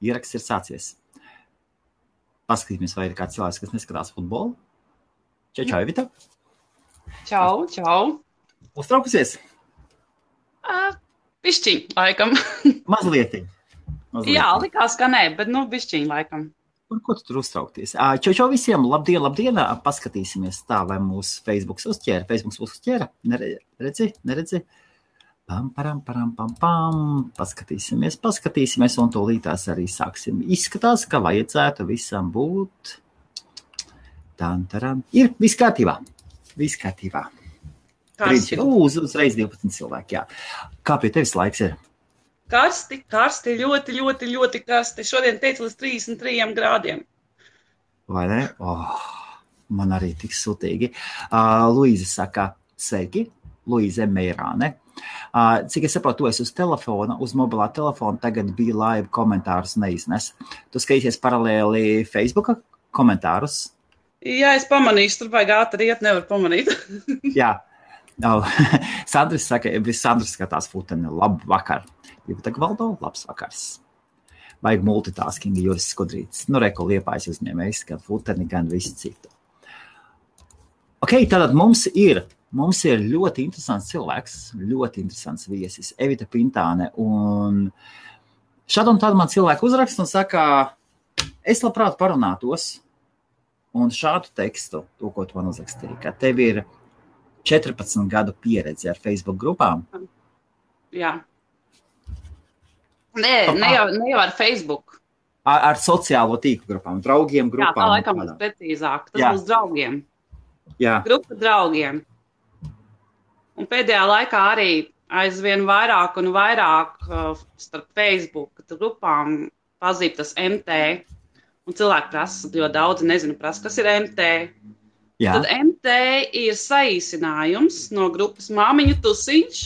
Ieraksts ir sācies. Paskatīsimies, vai ir kāds cilvēks, kas neskatās futbolu. Čau, Evita. Čau. Uztraukusies? Bišķiņ, laikam. Mazlietiņ. Jā, likās, ka nē, bet bišķiņ, laikam. Par ko tu tur uztraukties? Čau visiem, labdien. Paskatīsimies tā, vai mūsu Facebooks uzķēra. Neredzi? Pam. Paskatīsimies, un tūlītās arī sāksim. Izskatās, ka vajadzētu visam būt. Ir viss kārtībā. Uzreiz 12 cilvēki, jā. Kā pie tevis laiks ir? Karsti, ļoti karsti. Šodien teicu līdz 33 grādiem. Vai ne? Man arī tik sutīgi. Luīze saka, sveiki. Luīze Meirāne. Cik es saprotu, tu esi uz telefona, uz mobilā telefona, tagad bija live komentārus neiznes. Tu skatīsies paralēli Facebooka komentārus? Jā, es pamanīšu, tur vajag ātri iet, nevar pamanīt. Jā. Sandris saka, Sandris skatās futeni, labu vakar. Jurita Gvaldo, labs vakars. Vajag multitasking, Juris Skudrītis. Reko Liepājas uzņēmējs, gan futeni, gan visu citu. Ok, tātad mums ir ļoti interesants cilvēks, ļoti interesants viesis, Evita Pintāne. Un šādu un tādu man cilvēku uzrakst un saka, es labprāt parunātos un šādu tekstu, to, ko tu man uzrakstīji, ka tev ir 14 gadu pieredze ar Facebook grupām. Jā. Ne jau ar Facebook. Ar sociālo tīklu grupām, draugiem grupām. Jā, tā laikam būs precīzāk. Tas būs draugiem. Jā. Grupa draugiem. Un pēdējā laikā arī aizvien vairāk un vairāk starp Facebook grupām pazīst tas MT. Un cilvēki prasa, jo daudzi nezinu prasa, kas ir MT. Jā. Tad MT ir saīsinājums no grupas Māmiņu tusiņš.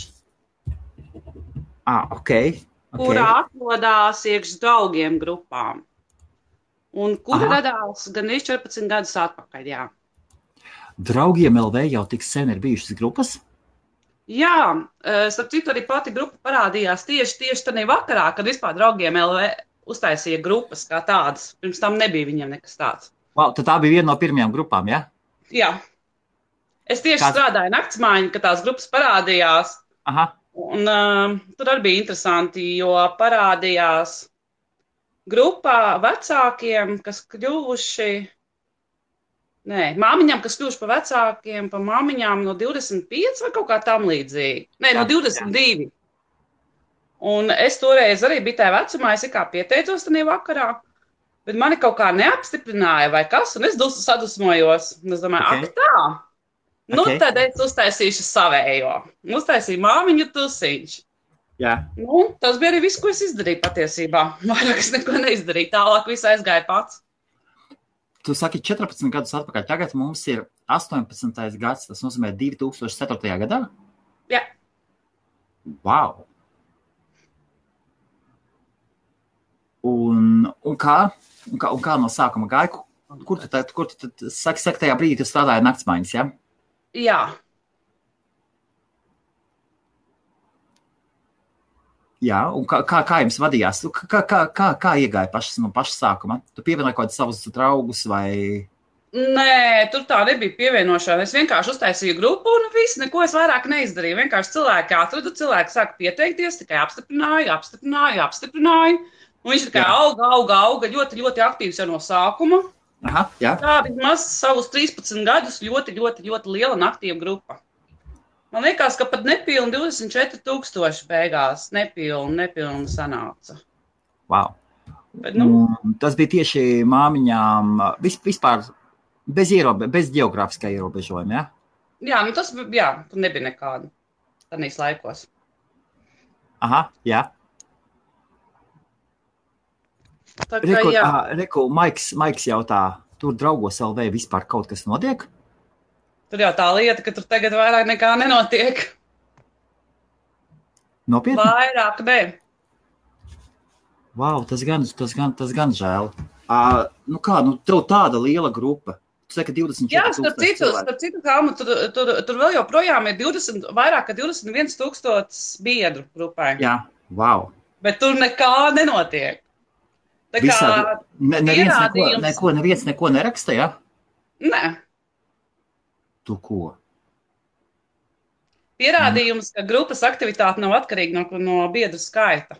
Okay. Kurā atrodās iekš draugiem grupām. Un kura radās gan 14 gadus atpakaļ, jā. Draugiem LV jau tik sen ir bijušas grupas? Jā, starp citu arī pati grupa parādījās tieši tādā vakarā, kad vispār draugiem LV uztaisīja grupas kā tādas. Pirms tam nebija viņiem nekas tāds. Wow, tad tā bija viena no pirmajām grupām, jā? Jā. Es tieši strādāju naktsmājiņu, kad tās grupas parādījās. Aha. Un tur arī bija interesanti, jo parādījās grupā vecākiem, kas kļuvuši, māmiņām, kas kļuvuši pa vecākiem, pa māmiņām no 25 vai kaut kā tam līdzīgi. No 22. Un es toreiz arī biju tajā vecumā, es kā pieteicos tādā vakarā, bet mani kaut kā neapstiprināja vai kas, un es sadusmojos. Un es domāju, tā. Tad es uztaisīšu savējo. Uztaisīju Māmiņu tusiņš. Jā. Tas bija arī viss, ko es izdarīju patiesībā. Vairāk es neko neizdarīju. Tālāk viss aizgāja pats. Tu saki 14 gadus atpakaļ. Tagad mums ir 18. gads. Tas nozīmē 2004. gadā? Jā. Wow. Un kā no sākuma gāja? Kur tu saki tajā brīdī, tu strādāji naktsmaiņas, jā? Jā. Jā, un kā jums vadījās? Kā iegāja no paša sākuma? Tu pievienoji kaut kādus savus draugus vai? Nē, tur tā nebija pievienošana. Es vienkārši uztaisīju grupu un viss, neko es vairāk neizdarīju. Vienkārši cilvēki atradu, cilvēki sāka pieteikties, tikai apstiprināju. Un viņš tikai auga, ļoti aktīvs jau no sākuma. Aha, jā. Tā vismaz savus 13 gadus ļoti liela un aktīva grupa. Man liekas, ka pat nepilni 24,000 beigās. Nepilni sanāca. Wow. Bet, tas bija tieši māmiņām vispār bez geogrāfiskā ierobežojuma, jā? Jā, tur nebija nekāda tādīs laikos. Aha, jā. Reku, Maiks jautā, tur draugos LV vispār kaut kas notiek? Tur jau tā lieta, ka tur tagad vairāk nekā nenotiek. Nopietni? Vairāk, ne. Wow, tas gan žēl. Tev tāda liela grupa. Tu saka 24 Jā, starp citu, Kalma, tur vēl joprojām ir vairāk kā 21,000 biedru grupai. Jā, wow. Bet tur nekā nenotiek. Tā kā neviens neko neraksta, ja? Nē. Tu ko? Pierādījums, ka grupas aktivitāte nav atkarīga no biedru skaita.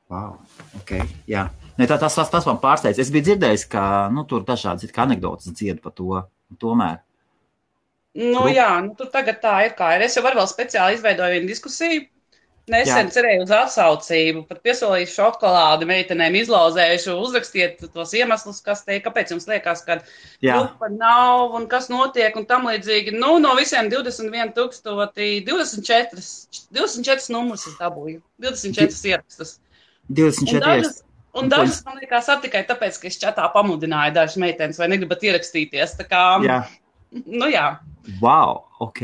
Wow, ok, jā. Ne, tas man pārsteidz. Es biju dzirdējis, ka tur dažādas anekdotas dzied par to, tomēr. Jā, tur tagad tā ir kā ir. Es jau vēl speciāli izveidoju vienu diskusiju. Nesen cerēju uz atsaucību, pat piesolīšu šokolādi meitenēm, izlauzējušu, uzrakstiet tos iemeslus, kāpēc jums liekas, ka grupa nav un kas notiek un tam līdzīgi. No visiem 21,000, 24 numurus es dabūju, 24 ierakstus. 24 ierakstus. Un dažas, man liekas, tikai tāpēc, ka es čatā pamudināju dažas meitenes, vai negribat ierakstīties. Tā kā, jā. Wow, ok.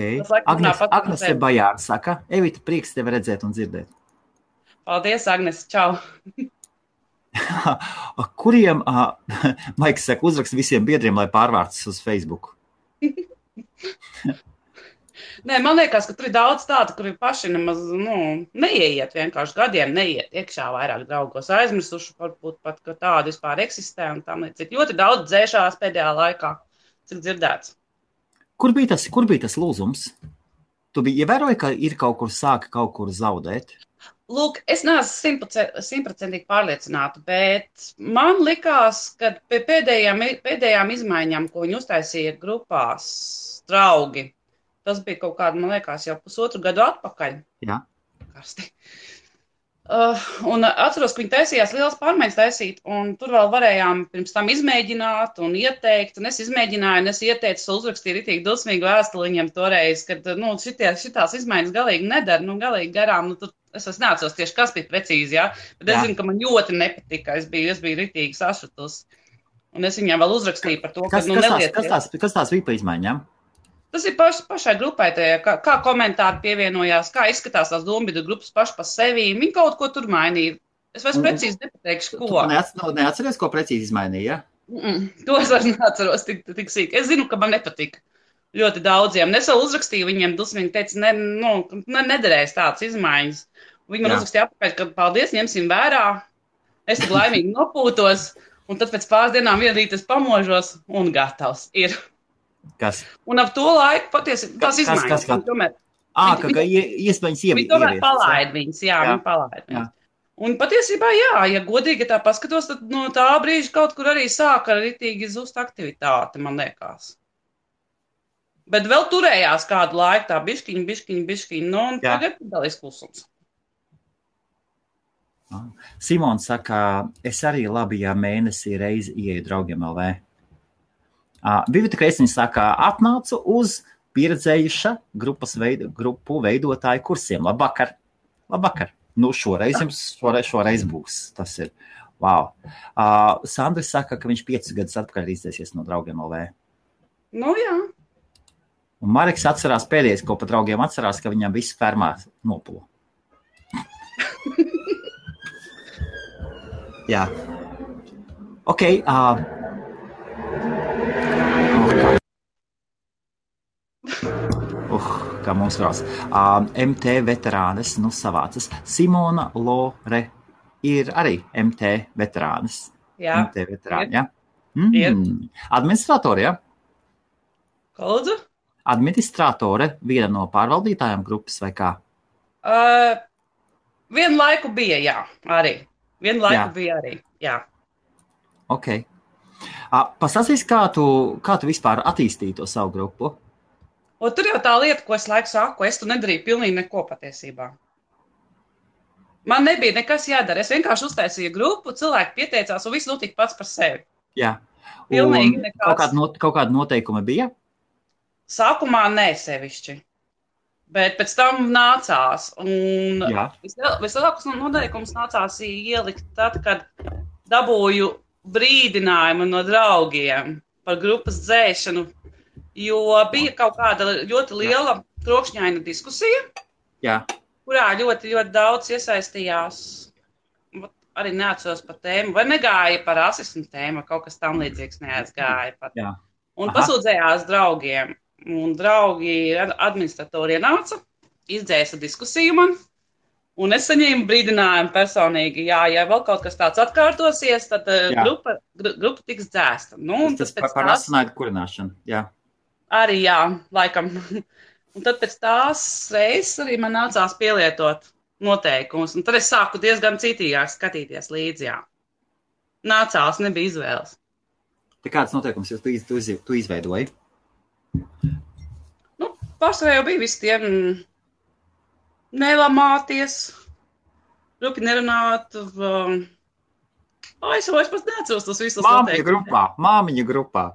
Agnese Bajāra saka, Evita, prieks tevi redzēt un dzirdēt. Paldies, Agnese, čau. Kuriem, Maiks saka, uzrakst visiem biedriem, lai pārvārtas uz Facebook? Nē, man liekas, ka tur ir daudz tādu, kuri paši nemaz, neieiet vienkārši gadiem, neiet iekšā vairāk draugos, aizmirsuši varbūt pat, ka tādi vispār eksistē un tam līdzīgi. Ļoti daudz dzēšās pēdējā laikā, cik dzirdēts. Kur bija tas lūzums? Tu biji ievēroji, ka ir sāka kaut kur zaudēt? Lūk, es neesmu 100% pārliecināta, bet man likās, ka pie pēdējām izmaiņām, ko viņi uztaisīja grupās, draugi, tas bija kaut kāda, man liekas, jau pusotru gadu atpakaļ. Jā. Karsti. Un atceros, ka viņi taisījās lielas pārmaiņas taisīt, un tur vēl varējām pirms tam izmēģināt un ieteikt, un es izmēģināju, un es ieteicu, uzrakstīju ritīgi dusmīgu vēstuli viņiem toreiz, kad, šitās izmaiņas galīgi nedara, galīgi garām, es neatceros tieši, kas bija precīzi, jā, bet es zinu, ka man ļoti nepatika, es biju ritīgi sašutus, un es viņiem vēl uzrakstīju par to, kas tās bija pa izmaiņām? Tas ir pašai grupai, kā komentāri pievienojās, kā izskatās tās dombiedru grupas paši pa sevi. Viņi kaut ko tur mainīja. Es vairs precīzi nepateikšu, ko. Tu neatceries, ko precīzi izmainīja? To es vairs neatceros tik sīk. Es zinu, ka man nepatika ļoti daudziem. Es vēl uzrakstīju viņiem dusmīgi, teica, nederēs tādas izmaiņas. Viņi man uzrakstīja apakaļ, ka paldies, ņemsim vērā. Es tik laimīgi nopūtos, un tad pēc pāris dienām vienu rītu es pamožos un gatavs ir. Kas? Un ap to laiku patiesi tās izmaiņas. Ka iespējams viņi tomēr palaid viņas, viņi palaid viņas. Un patiesībā, ja godīgi tā paskatos, tad no tā brīža kaut kur arī sāka ritīgi zust aktivitāte, man liekas. Bet vēl turējās kādu laiku tā biškiņ, un tagad dalīs klusums. Simons saka, es arī labi, ja mēnesī reizi ieeju draugiem LV. Vivita Kreisniņa saka, atnācu uz pieredzējuša grupu veidotāju kursiem. Labvakar. Šoreiz būs. Tas ir. Wow. Sandris saka, ka viņš 5 gadus atpakaļ izdzēsies no draugiem LV. Jā. Un Mareks atcerās pēdējais, ko pa draugiem atcerās, ka viņam viss fermā nopula. Jā. Ok. Kā mums krās. MT veterānes, savācas. Simona Lore ir arī MT veterānes. Jā. MT veterāni, jā? Administratore, jā? Lūdzu? Administratore, viena no pārvaldītājām grupas vai kā? Vienu laiku bija, jā, arī. Jā. Ok. Pastāstīs, kā tu vispār attīstīji to savu grupu? Tur jau tā lieta, ko es laiku saku, es tu nedarīju pilnīgi neko patiesībā. Man nebija nekas jādara. Es vienkārši uztaisīju grupu, cilvēki pieteicās un viss notika pats par sevi. Jā. Pilnīgi nekas. Kaut kāda noteikuma bija? Sākumā nē sevišķi. Bet pēc tam nācās. Un vislielākos noteikumus nācās ielikt tad, kad dabūju brīdinājumu no draugiem par grupas dzēšanu. Jo bija kaut kāda ļoti liela trokšņaina diskusija, kurā ļoti, ļoti daudz iesaistījās, arī neatceros par tēmu, vai negāja par rasismu tēmu, kaut kas tam līdzīgs neaizgāja pat. Un pasūdzējās draugiem, un draugi administratori ienāca, izdzēsa diskusiju man, Un es saņēmu brīdinājumu personīgi, ja vēl kaut kas tāds atkārtosies, tad grupa tiks dzēsta. Nu, tas par asinaidu kurināšanu, jā. Arī, jā, laikam. Un tad pēc tās reizes arī man nācās pielietot noteikumus. Un tad es sāku diezgan citīgāk skatīties līdzi, jā. Nācās, nebija izvēles. Te kāds noteikums tu izveidoji? Nu, pārsvarā jau bija visi tie nelamāties, rupi nerunāt. Es pats neatceros tos visus noteikumus. Māmiņa grupā.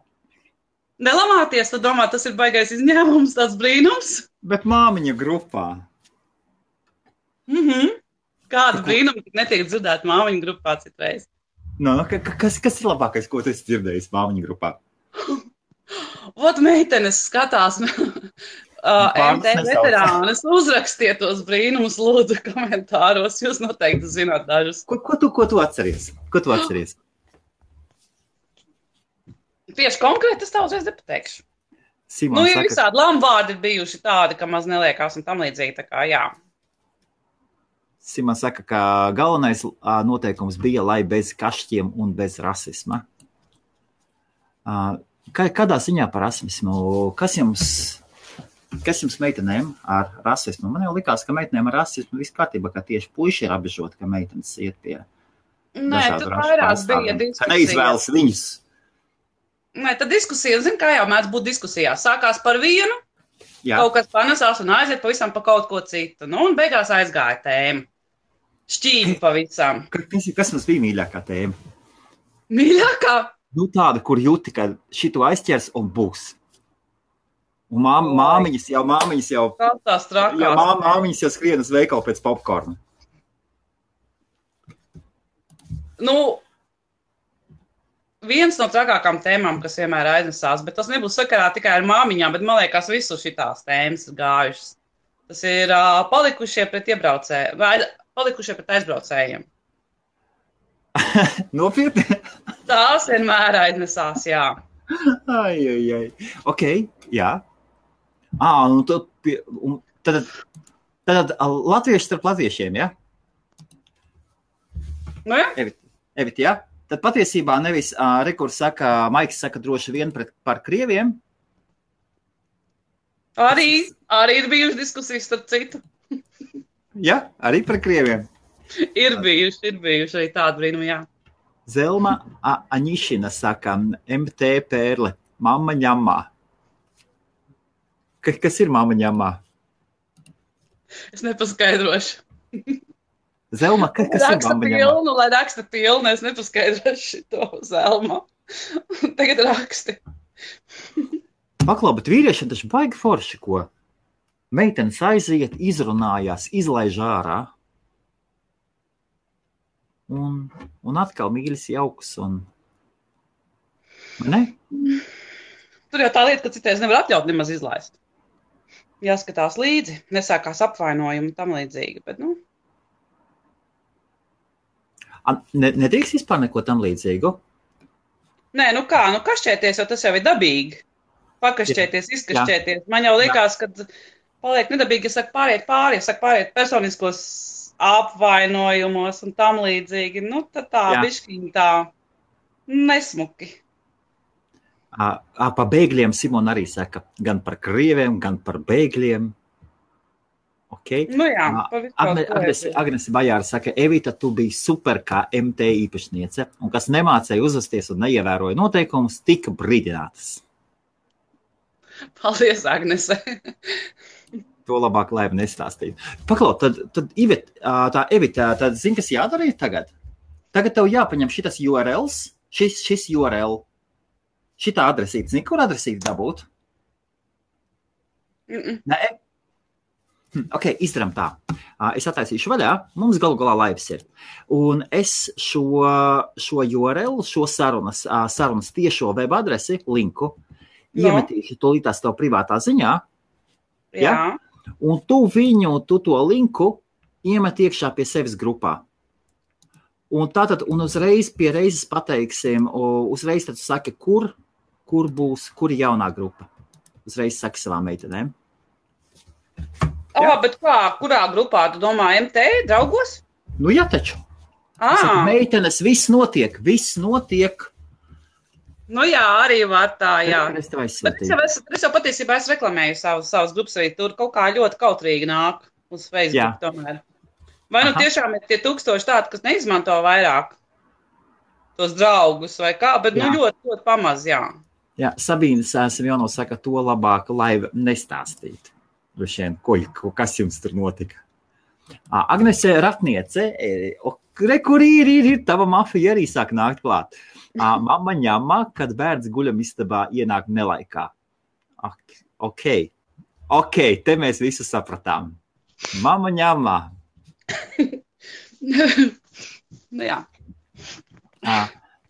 Nelamāties, tad domā, tas ir baigais izņēmums, tāds brīnums. Bet māmiņa grupā. Kāda brīnuma netiek dzirdēt māmiņa grupā citreiz? No, kas ir labākais, ko tu esi dzirdējis māmiņa grupā? Ot, meitenes skatās MT veterānas, uzrakstiet tos brīnumus, lūdzu, komentāros. Jūs noteikti zināt dažus. Ko tu atceries? Ko tu atceries? Tieši konkrēti es tā uzreiz nepateikšu. Simon ir visādi lamvārdi bijuši tādi, ka maz neliekās un tam līdzīgi, tā kā jā. Simon saka, ka galvenais noteikums bija, lai bez kašķiem un bez rasisma. Kādā ziņā par rasismu? Kas jums meitenēm ar rasismu? Man jau likās, ka meitenēm ar rasismu viss kārtībā, ka tieši puiši ir apbežoti, ka meitenes iet pie dažādu rašu pārstāvjiem. Ka neizvēlas viņus. Nē, tad diskusija, kā jau mēdz būt diskusijās. Sākās par vienu, kaut kas panesās un aiziet pavisam pa kaut ko citu. Nu, un beigās aizgāja tēma. Šķīvi pavisam. Kas mums bija mīļākā tēma? Mīļākā? Nu, tāda, kur jūti, ka šito aizķers un būs. Un māmiņas jau... Tās trakās. Jā, māmiņas jau skrien uz veikalu pēc popkorna. Nu... Viens no trakākām tēmām, kas vienmēr aiznesās, bet tas nebūs sakarā tikai ar māmiņām, bet man liekas, visu šitās tēmas ir gājušas. Tas ir palikušie pret aizbraucējiem. Nopietni? Tās vienmēr aiznesās, jā. Ai. Ok, jā. Nu tad latvieši starp latviešiem, jā? Nu, jā. Evit, jā? Tad patiesībā nevis Maiks saka droši vien par krieviem. Arī ir bijuši diskusijas starp citu. Jā, arī par krieviem. Ir bijuši arī tādi brīnumi, jā. Zelma Aņišina saka, MT Pērle, mamma ņamā. Kas ir mamma ņamā? Es nepaskaidrošu. Zelma, kas ir mamma ņamā? Lai raksta pilnu, es nepaskaidrošu šito Zelma. Tagad raksti. Paklau, bet vīriešiem taču baigi forši, ko? Meitenes aiziet, izrunājās, izlaiž ārā. Un atkal mīļas jauks un... Ne? Tur jau tā lieta, ka citreiz nevar atļaut nemaz izlaist. Jāskatās līdzi, nesākās apvainojumi un tam līdzīgi, bet, nu... Nedrīkst vispār neko tam līdzīgu? Nē, nu kā, kašķēties, jo tas jau ir dabīgi. Pakašķēties, izkašķēties. Man jau likās, ka paliek nedabīgi, ja saka pāriet personiskos apvainojumos un tam līdzīgi. Nu, tad tā bišķiņ tā nesmuki. Pa bēgļiem Simona arī saka, gan par krieviem, gan par bēgļiem. Okay. Nu jā, Agnese Bajāra saka, Evita, tu biji super kā MT īpašniece, un kas nemācēja uzvesties un neievēroja noteikumus, tika brīdinātas. Paldies, Agnese. To labāk, lai nestāstītu. Paklau, tad Evita, tad zini, kas jādara tagad? Tagad tev jāpaņem šitas URLs, šis URL, šitā adresīte. Zini, kur adresīte dabūt? Nē? Ok, izdaram tā. Es attaisīšu vaļā, mums galu galā laivs ir. Un es šo URL, šo sarunas tiešo web adresi, linku, iemetīšu tūlītās tev privātā ziņā. Jā. Un tu to linku iemet iekšā pie sevis grupā. Un tātad, uzreiz pie reizes pateiksim, uzreiz tad saki, kur ir jaunā grupa. Uzreiz saki savām meitenēm. Bet kā, kurā grupā, tu domā, MT, draugos? Nu, jā, taču. Meitenes, viss notiek. Nu jā, arī var tā, jā. Es tev Bet es jau patiesībā reklamēju savas grupas arī tur kaut kā ļoti kautrīgi nāk uz Facebook tomēr. Vai nu tiešām ir tie 1000 tādi, kas neizmanto vairāk tos draugus vai kā, bet nu ļoti, ļoti pamaz, jā. Jā, Sabīnes Simjono saka, to labāk laiva nestāstīt. Kas jums tur notika? Agnese Ratniece, kur ir tava mafija arī sāk nākt klāt. Mamma ņemā, kad bērns guļamistabā ienāk nelaikā. Ok, te mēs visu sapratām. Mamma ņemā. Jā.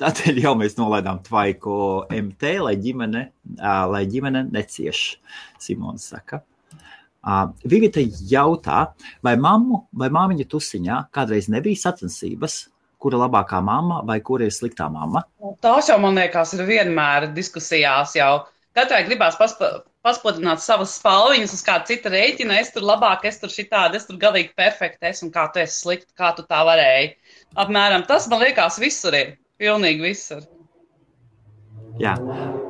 Tādēļ jau mēs nolaidām tvaiku MT, lai ģimene necieš, Simons saka. Vivita jautā, vai māmiņa tusiņā kādreiz nebija sacensības, kura labākā mamma vai kura ir sliktā mamma? Tās jau, man liekas, ir vienmēr diskusijās jau. Katrai gribās paspodināt savas spalviņas uz kādu citu rēķinu. Es tur labāk, es tur šitādi, es tur galīgi perfekti esmu, kā tu esi slikti, kā tu tā varēji. Apmēram tas, man liekas, visur ir. Pilnīgi visur. Jā.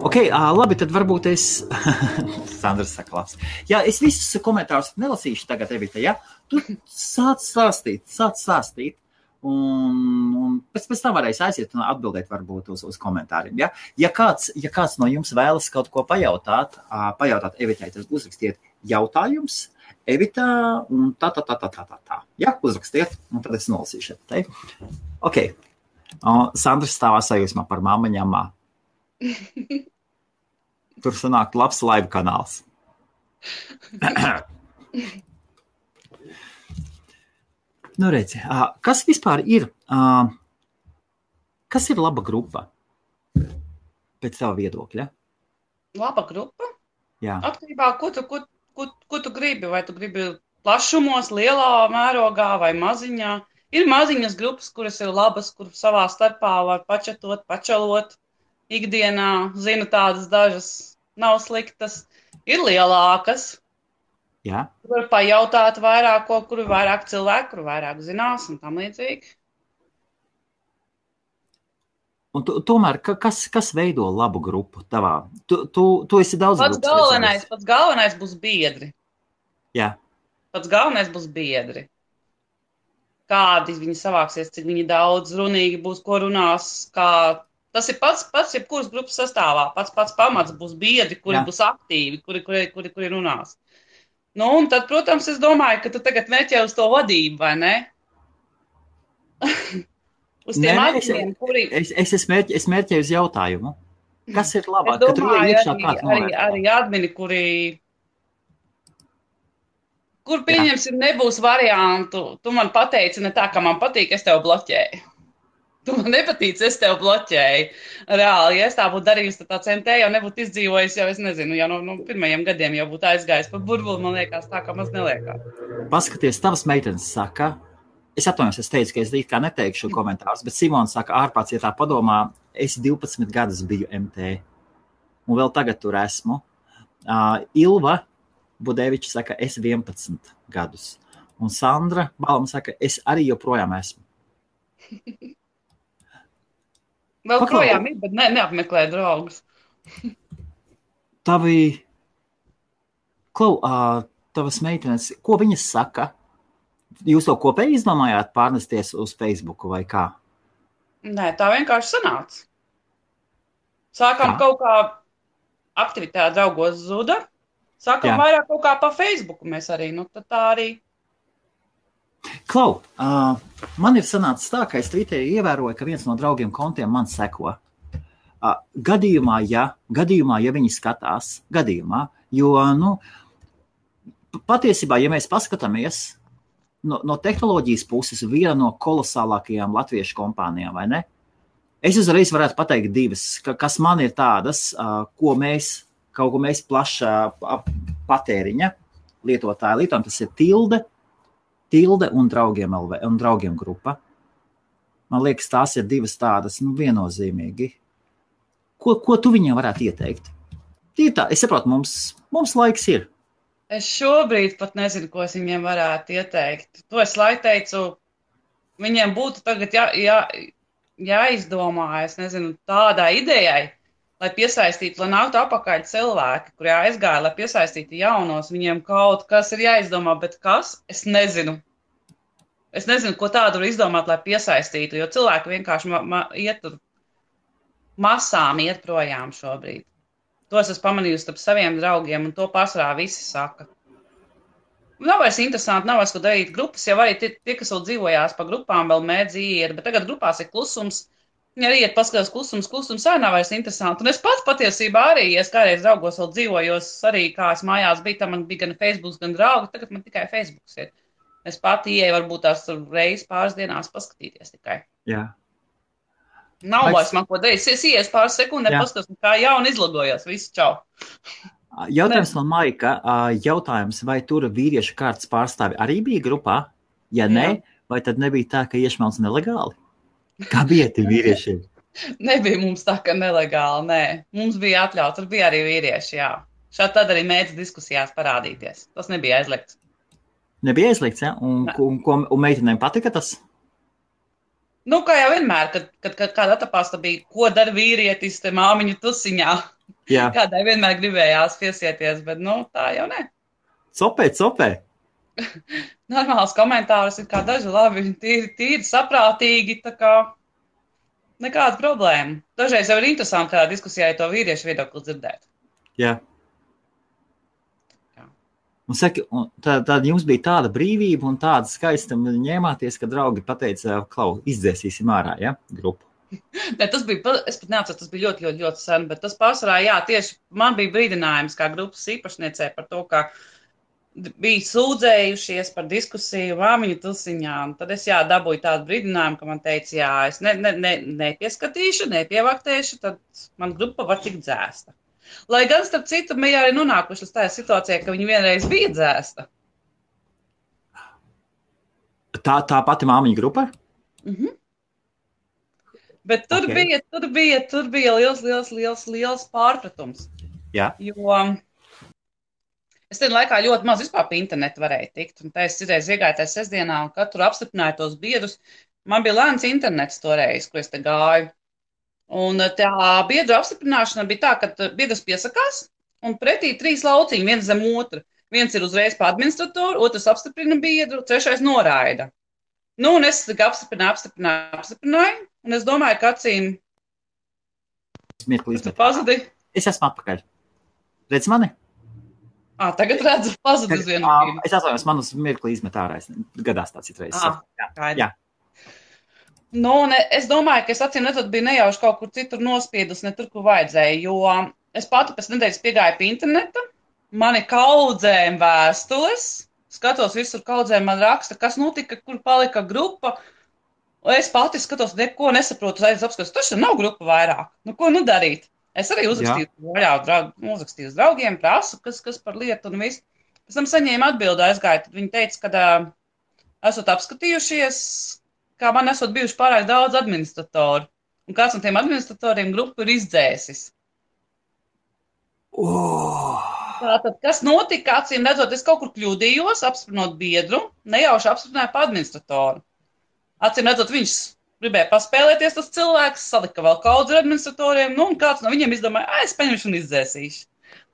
Ok, labi, tad varbūt es... Sandrs saka labs. Jā, es visus komentārus nelasīšu tagad, Evita, ja? Tu sāc stāstīt. Un pēc tam varēs aiziet un atbildēt varbūt uz komentāriem. Ja? Ja kāds no jums vēlas kaut ko pajautāt Evitai, tad uzrakstiet jautājums Evitā un tā. Ja? Uzrakstiet, un tad es nolasīšu. Ok. Sandrs stāvā sajūsmā par mammaņamā. Tur sanāk labs live kanāls. Nu, redzi, kas vispār ir, kas ir laba grupa pēc tava viedokļa? Laba grupa? Jā. Atkarībā, ko tu gribi, vai tu gribi plašumos, lielā mērogā vai maziņā. Ir maziņas grupas, kuras ir labas, kur savā starpā var pačatot, pačalot ikdienā. Zinu tādas dažas, nav sliktas. Ir lielākas. Jā. Var pajautāt vairāk, kuru vairāk cilvēku, kuru vairāk zinās un tam līdzīgi. Un tomēr, kas veido labu grupu tavā? Tu esi daudz grupas. Pats galvenais būs biedri. Jā. Pats galvenais būs biedri. Kādi viņi savāksies, cik viņi daudz runīgi būs, ko runās, kā... Tas ir pats jebkuras grupas sastāvā. Pats pamats būs biedri, kuri būs aktīvi, kuri runās. Nu, un tad, protams, es domāju, ka tu tagad meķē uz to vadību, vai ne? Uz tiem adminiem, kuri... Es mērķēju uz jautājumu. Kas ir labāk? Es domāju, arī admini, kur pieņemsim, nebūs variantu. Tu man pateici ne tā, ka man patīk, es tev bloķēju. Tu man nepatīc, es tev bloķēju. Reāli, ja es tā būtu darījusi, tad tāds MT jau nebūtu izdzīvojis, jau es nezinu, jau no pirmajiem gadiem jau būtu aizgājis pa burbuli, man liekas, tā kā maz neliekās. Paskaties, tavas meitenes saka, es atvainojos, es teicu, ka es it kā neteikšu komentārus, bet Simons saka, ārpāds, ja tā padomā, es 12 gadus biju MT, un vēl tagad tur esmu. Ilva Budeviča saka, es 11 gadus, un Sandra Balma saka, es arī joprojām esmu. Vēl projām ir, bet neapmeklē draugus. Tavas meitenes, ko viņas saka? Jūs to kopēji izdomājāt pārnesties uz Facebooku vai kā? Nē, tā vienkārši sanāca. Sākām kaut kā aktivitāte draugos zuda. Sākām vairāk kaut kā pa Facebooku mēs arī. Nu, tad tā arī... Klau, man ir sanācis tā, ka es Twitterī ievēroju, ka viens no draugiem kontiem man seko. Gadījumā, ja viņi skatās, jo, patiesībā, ja mēs paskatāmies no tehnoloģijas puses, viena no kolosālākajām latviešu kompānijām, vai ne? Es uzreiz varētu pateikt divas, kas man ir tādas, ko mēs plaša patēriņa lietotāji lietojam, tas ir Tilde un draugiem grupa. Man liekas, tās ir divas tādas, viennozīmīgi. Ko tu viņiem varētu ieteikt? Es saprotu, mums laiks ir. Es šobrīd pat nezinu, ko es viņiem varētu ieteikt. To es lai teicu, viņiem būtu tagad jāizdomā, es nezinu, tādai idejai, lai piesaistītu, lai nāktu apakaļ cilvēki, kuri aizgāja, lai piesaistītu jaunos, viņiem kaut kas ir jāizdomā, bet kas? Es nezinu. Es nezinu, ko tādu var izdomāt, lai piesaistītu, jo cilvēki vienkārši iet tur masām iet projām šobrīd. To es esmu pamanījusi starp saviem draugiem, un to pārsvarā visi saka. Nav vairs interesanti, nav vairs ko darīt. Grupas jau arī tie kas vēl dzīvojās pa grupām, vēl mēdz iet, bet tagad grupās ir klusums. Viņi arī iet paskatās klusums arī nav vairs interesanti. Un es pats patiesībā arī, ja es kādreiz draugos vēl dzīvojos, arī kā es mājās biju, tam man bija gan Facebooks, gan draugi, tagad man tikai Facebooks ir. Es pati ieeju varbūt tās reizi pāris dienās paskatīties tikai. Jā. Nav vairs man ko darīt. Es ies pāris sekundē, paskatos, kā jauni izlogojās. Visu čau. Jautājums no Maika. Jautājums, vai tur vīriešu kārtas pārstāvi arī bija grupā? Ja nē, vai tad nebija tā, ka iešmelts nelegāli? Kā bija tie vīriešiem? Nebija mums tā, ka nelegāli, nē. Mums bija atļauts, tur bija arī vīrieši, jā. Šādi tad arī mēdz diskusijās parādīties. Tas nebija aizliegts. Nebija aizliegts, ja? Un meitenēm patika tas? Nu, kā jau vienmēr, kad kāda atapās bija, ko dara vīrietis te māmiņu tusiņā. Jā. Kādai vienmēr gribējās piesieties, bet, nu, tā jau ne. Copē. Normāls komentārus ir kā daži labi, tīri saprātīgi, tā kā nekāda problēma. Dažreiz jau ir interesanti kādā diskusijā to vīriešu viedokli dzirdēt. Jā. Un saka, tad jums bija tāda brīvība un tāda skaista ņēmāties, ka draugi pateica, klau, izdzēsīsim ārā, ja, grupu. Ne, tas bija, es pat neatceru, tas bija ļoti, ļoti, ļoti sen, bet tas pārsvarā, jā, tieši man bija brīdinājums kā grupas īpašniecē par to, ka bija sūdzējušies par diskusiju māmiņu tusiņā, un tad es, dabūju tādu brīdinājumu, ka man teica, es nepieskatīšu, nepievaktēšu, tad man grupa var tikt dzēsta. Lai gan, starp citu, mēs arī nonākuši līdz tādā situācijā, ka viņi vienreiz bija dzēsta. Tā pati māmiņa grupa? Bet tur bija liels pārpratums. Jā. Jo es tajā laikā ļoti maz vispār pa internetu varēju tikt. Un tā es citreiz iegāju tajā sestdienā un katru apstiprināju tos biedrus. Man bija lēns internets toreiz, ko es te gāju. Un tā biedru apstiprināšana bija tā, ka biedrs piesakās un pretī 3 lauciņi, viens zem otra. Viens ir uzreiz pa administratoru, otrs apstiprina biedru, trešais noraida. Nu, un es apstiprināju, un es domāju, ka acīm... Tu pazudi? Es esmu atpakaļ. Redz mani? Tagad redzu, pazudi uz vienu brīdi. Es atvainojos, man uz mirkli izmet ārā. Gadās tā citreiz. Jā. Nu, es domāju, ka es acīm redzot biju nejauši kaut kur citur nospiedus, ne tur, kur vajadzēja, jo es pati pēc nedēļas piegāju pie interneta, mani kaudzēm vēstules, skatos visur kaudzēm man raksta, kas notika, kur palika grupa, un es pati skatos, neko nesaprotu, apskatos, taču nav grupa vairāk, nu ko nu darīt? Es arī uzrakstīju uz draugiem, prasu, kas par lietu un visu. Pēc tam saņēmu atbildi aizgāju, tad viņi teica, ka esot apskatījušies, kā man esot bijuši pārāk daudz administratoru. Un kāds no tiem administratoriem grupu ir izdzēsis. Tātad, kas notika, acīm redzot, es kaut kur kļūdījos, apstiprinot biedru, nejauši apstiprināju pa administratoru. Acīm redzot, viņš gribēja paspēlēties tas cilvēks, salika vēl kaudzi ar administratoriem, nu, un kāds no viņiem izdomāja, es paņemšu un izdzēsīšu.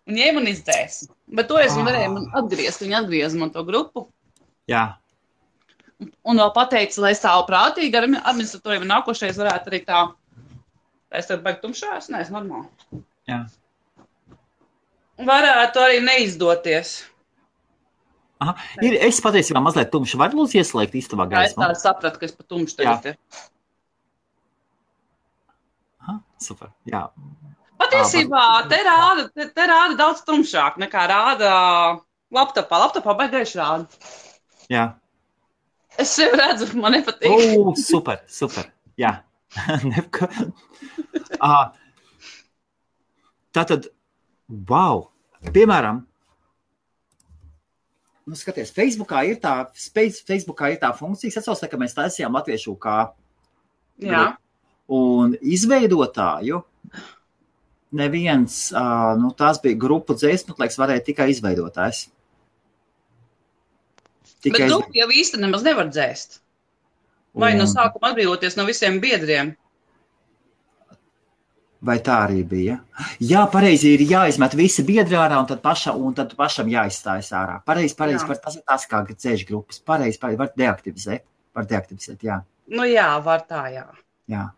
Un ņēmu un izdzēsu. Bet to es varēju man atgriezt, viņi atgrieza man to grupu. Jā. Un vēl pateica, lai stāvu prātīgi ar administratoriem un nākošais varētu arī tā. Es tev baigi tumšās? Nē, es normāli. Jā. Varētu arī neizdoties. Aha. Es patiesībā mazliet tumšu. Var lūdzu ieslēgt istabā gaismu? Jā, es tā sapratu, ka es pa tumšu tagad ir. Aha, super, jā. Patiesībā te rāda daudz tumšāk nekā rāda laptopā. Laptopā baigi gaiši rāda. Jā. Es sev redzu, man nepatīk. Super, jā. Tātad, wow, piemēram, nu skaties, Facebookā ir tā funkcija, es atceros, ka mēs taisījām latviešu kā un izveidotāju, neviens, tās bija grupu dzēsmetlēks, varēja tikai izveidotājs. Bet grupu jau īsti nemaz nevar dzēst. Vai no sākuma atbrīvoties no visiem biedriem? Vai tā arī bija? Jā, pareizi ir jāizmet visi biedri ārā un tad pašam jāizstājas ārā. Pareizi, tas kā dzēš grupas. Pareizi, var deaktivizēt, jā. Nu jā, var tā, jā. Jā.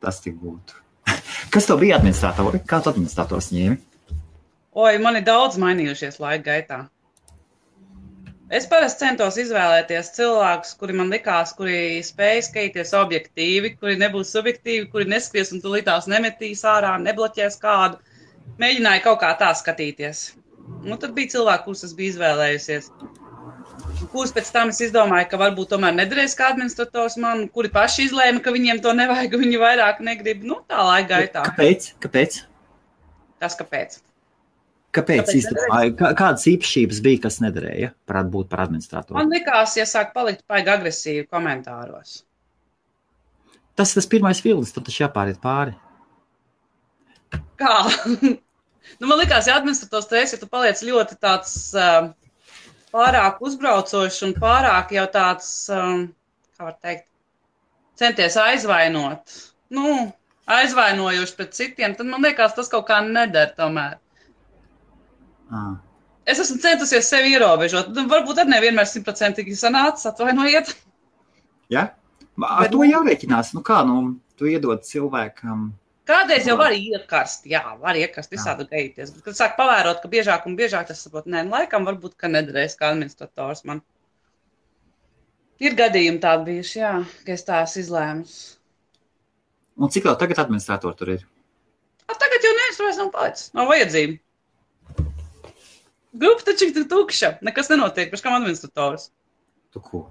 Tas tik būtu. Kas to bija administratori? Kā tu administrators ņēmi? Oi, man ir daudz mainījušies laika gaitā. Es parasti centos izvēlēties cilvēkus, kuri man likās, kuri spēj skatīties objektīvi, kuri nebūs subjektīvi, kuri neskries un tulītās nemetīs ārā, nebloķēs kādu. Mēģināju kaut kā tā skatīties. Nu, tad bija cilvēki, kurus es biju izvēlējusies. Kurus pēc tam es izdomāju, ka varbūt tomēr nederēs kā administrators man, kuri paši izlēma, ka viņiem to nevajag, viņi vairāk negrib. Nu, tā laika gaitā. Kāpēc? Tas kāpēc? Kāpēc izdomāju? Kādas īpašības bija, kas nederēja būt par administratoru? Man likās, ja sāk palikt paigi agresīvi komentāros. Tas pirmais vilnis, tad taču jāpāriet pāri. Kā? Nu, man likās, ja administrators stress, ja tu paliec ļoti tāds pārāk uzbraucošs un pārāk jau tāds, kā var teikt, centies aizvainot. Nu, aizvainojoši pret citiem, tad man liekas, tas kaut kā neder tomēr. Es esmu centusies sevi ierobežot. Varbūt arī nevienmēr 100% sanācis, atvainojiet. Ja? Ar to jārēķinās. Nu kā, tu iedod cilvēkam... Kādreiz jau var iekarst, var iekarst visādi gaities. Bet, kad sāk pavērot, ka biežāk un biežāk tas saprot, laikam varbūt, ka nederēs kā administrators man. Ir gadījumi tādi bijuši, ka es tās izlēmus. Un cik vēl tagad administratori tur ir? Tagad jau neviens vairs nav palicis, nav vajadzība. Grupa taču ir tukša, nekas nenotiek, pēc kam administrators. Tu ko?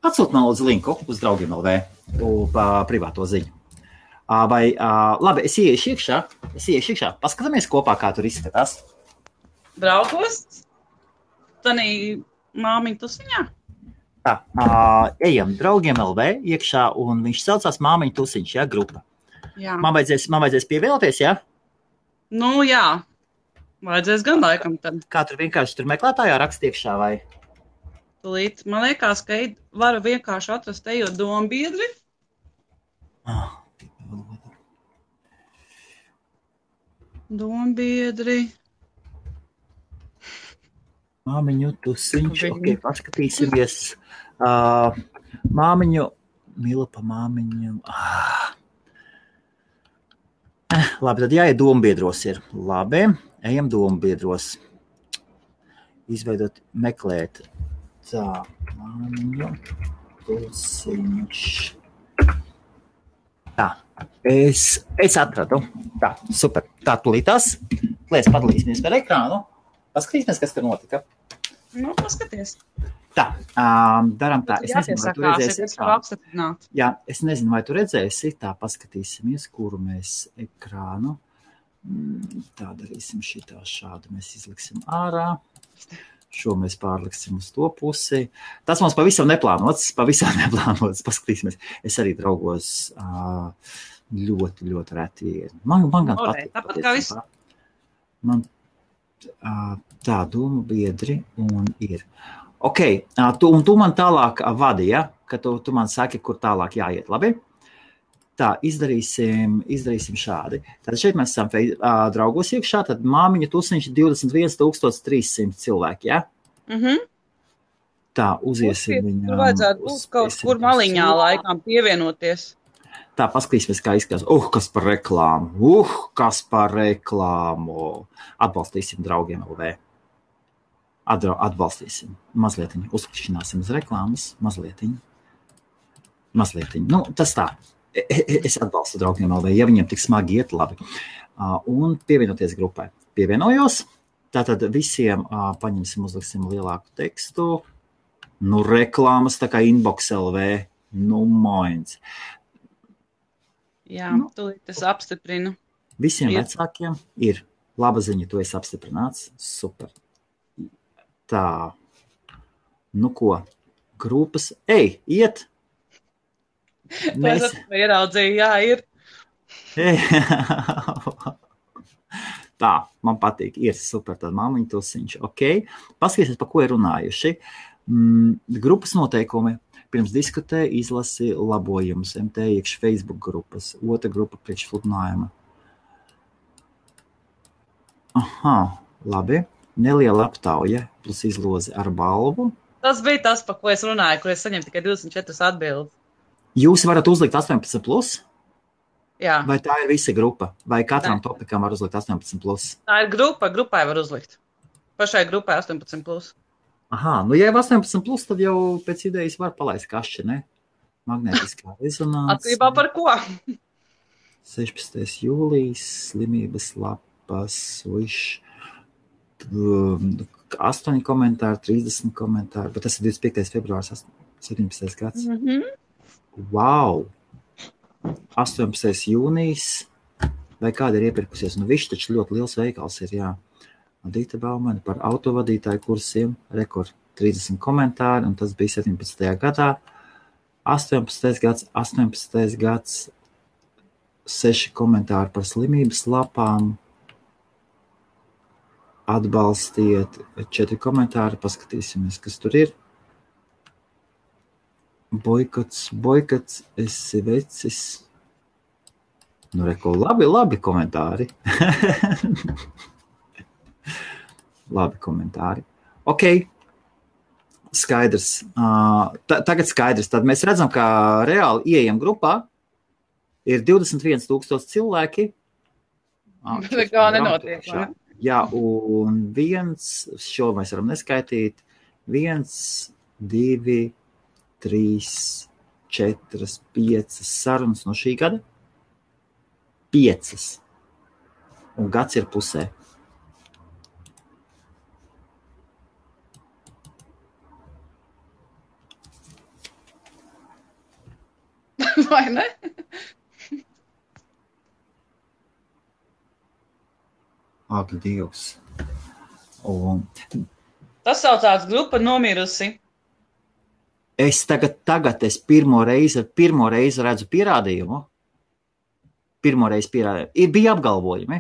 Atsūt man lūdzu linku uz draugiem LV, privāto ziņu. Labi, es ieiešu iekšā, paskatāmies kopā, kā tur izskatās. Draugos? Tanī māmiņu tusiņā? Tā, ejam draugiem LV iekšā, un viņš saucās māmiņu tusiņš, grupa. Jā. Man vajadzēs pievienoties, Nu, jā. Vajadzēs gan laikam tad. Kā tur vienkārši meklētājā rakst iekšā, vai? Tulīt, man liekas, ka varu vienkārši atrast ejot dombiedri. Dombiedri. Māmiņu tusiņš, paskatīsimies. Māmiņu, mīla pa māmiņu. Labi, tad jāiet dombiedros ir. Labi, ejam dombiedros. Izveidot, meklēt. Tā, māmiņu tusiņš. Tā, es atradu. Tā, super. Tā, tulītās. Lēc padalīsimies par ekrānu. Paskatīsimies, kas tur notika. Nu, paskaties. Tā, daram tā. Es nezinu, vai tu redzēsi. Jā, es nezinu, vai tu redzēsi. Tā, paskatīsimies, kuru mēs ekrānu. Tā darīsim šitā šādu. Mēs izliksim ārā. Šo mēs pārliksim uz to pusi. Tas mums pavisam neplānots. Paskatīsimies. Es arī draugos ļoti, ļoti reti. Man gan patīk. Tāpat kā viss. Man tā doma biedri un ir. Ok, un tu man tālāk vadi, ja? Ka tu man saki, kur tālāk jāiet, labi? Tā, izdarīsim šādi. Tad šeit mēs esam draugos iekšā, tad māmiņa tusiņš 21 300 cilvēki, ja? Tā, uziesim viņām. Tur vajadzētu būt kaut kur maliņā laikām pievienoties. Tā, paskatīsimies, kā izskatās. Kas par reklāmu. Atbalstīsim draugiem LV. Atbalstīsim. Mazlietiņu. Uzklikšķināsim uz reklāmas. Mazlietiņu. Nu, tas tā. Es atbalstu draugiem LV. Ja viņiem tik smagi iet, labi. Un pievienoties grupai. Pievienojos. Tātad visiem paņemsim, uzliksim lielāku tekstu. Nu, reklāmas tā kā inbox LV. Nu, moins. Jā, tūlīt es apstiprinu. Visiem vecākiem ir laba ziņa, tu esi apstiprināts. Super. Tā. Nu ko? Grupas. Ej, iet! Es ieraudzīju, jā, ir. Tā, man patīk, ir super, tad māmiņa tusiņš, ok. Paskatīsies, pa ko ir runājuši. Grupas noteikumi. Pirms diskutē, izlasi labojumus, MT iekš Facebook grupas, otra grupa priekš sludinājuma. Aha, labi. Neliela aptauja plus izloze ar balvu. Tas bija tas, pa ko es runāju, kur es saņemu tikai 24 atbildes. Jūs varat uzlikt 18+? Jā. Vai tā ir visa grupa? Vai katram topikam var uzlikt 18+? Tā ir grupa, grupai var uzlikt. Pašai grupai 18+. Aha, nu ja ir 18+, tad jau pēc idejas var palaist kašķi, ne? Magnētiskā rezonanse. Atkarībā par ko? 16. jūlijas, slimības lapas, 8 komentāri, 30 komentāri, bet tas ir 25. februārs, 17. gads. Wow! 18. jūnijas, vai kāda ir iepirkusies? Nu, višķi taču ļoti liels veikals ir, jā. Dīta Baumane par autovadītāju kursiem, rekord 30 komentāri, un tas bija 17. gadā. 18. gads, 6 komentāri par slimības lapām, atbalstiet, 4 komentāri, paskatīsimies, kas tur ir. Boikots, esi vecis. Nu, reko, labi komentāri. Labi komentāri. Ok, skaidrs. Tagad skaidrs. Tad mēs redzam, ka reāli ieejam grupā. Ir 21,000 cilvēki. Nekā nenotiek, vai? Jā, un šo mēs varam neskaitīt. 1, 2, 3, 4, 5 sarunas no šī gada. 5. Un gads ir pusē. Vai ne? Ak, Dievs. Un Tas saucās grupa nomirusi. es tagad pirmo reizi redzu pierādījumu. Bija apgalvojumi,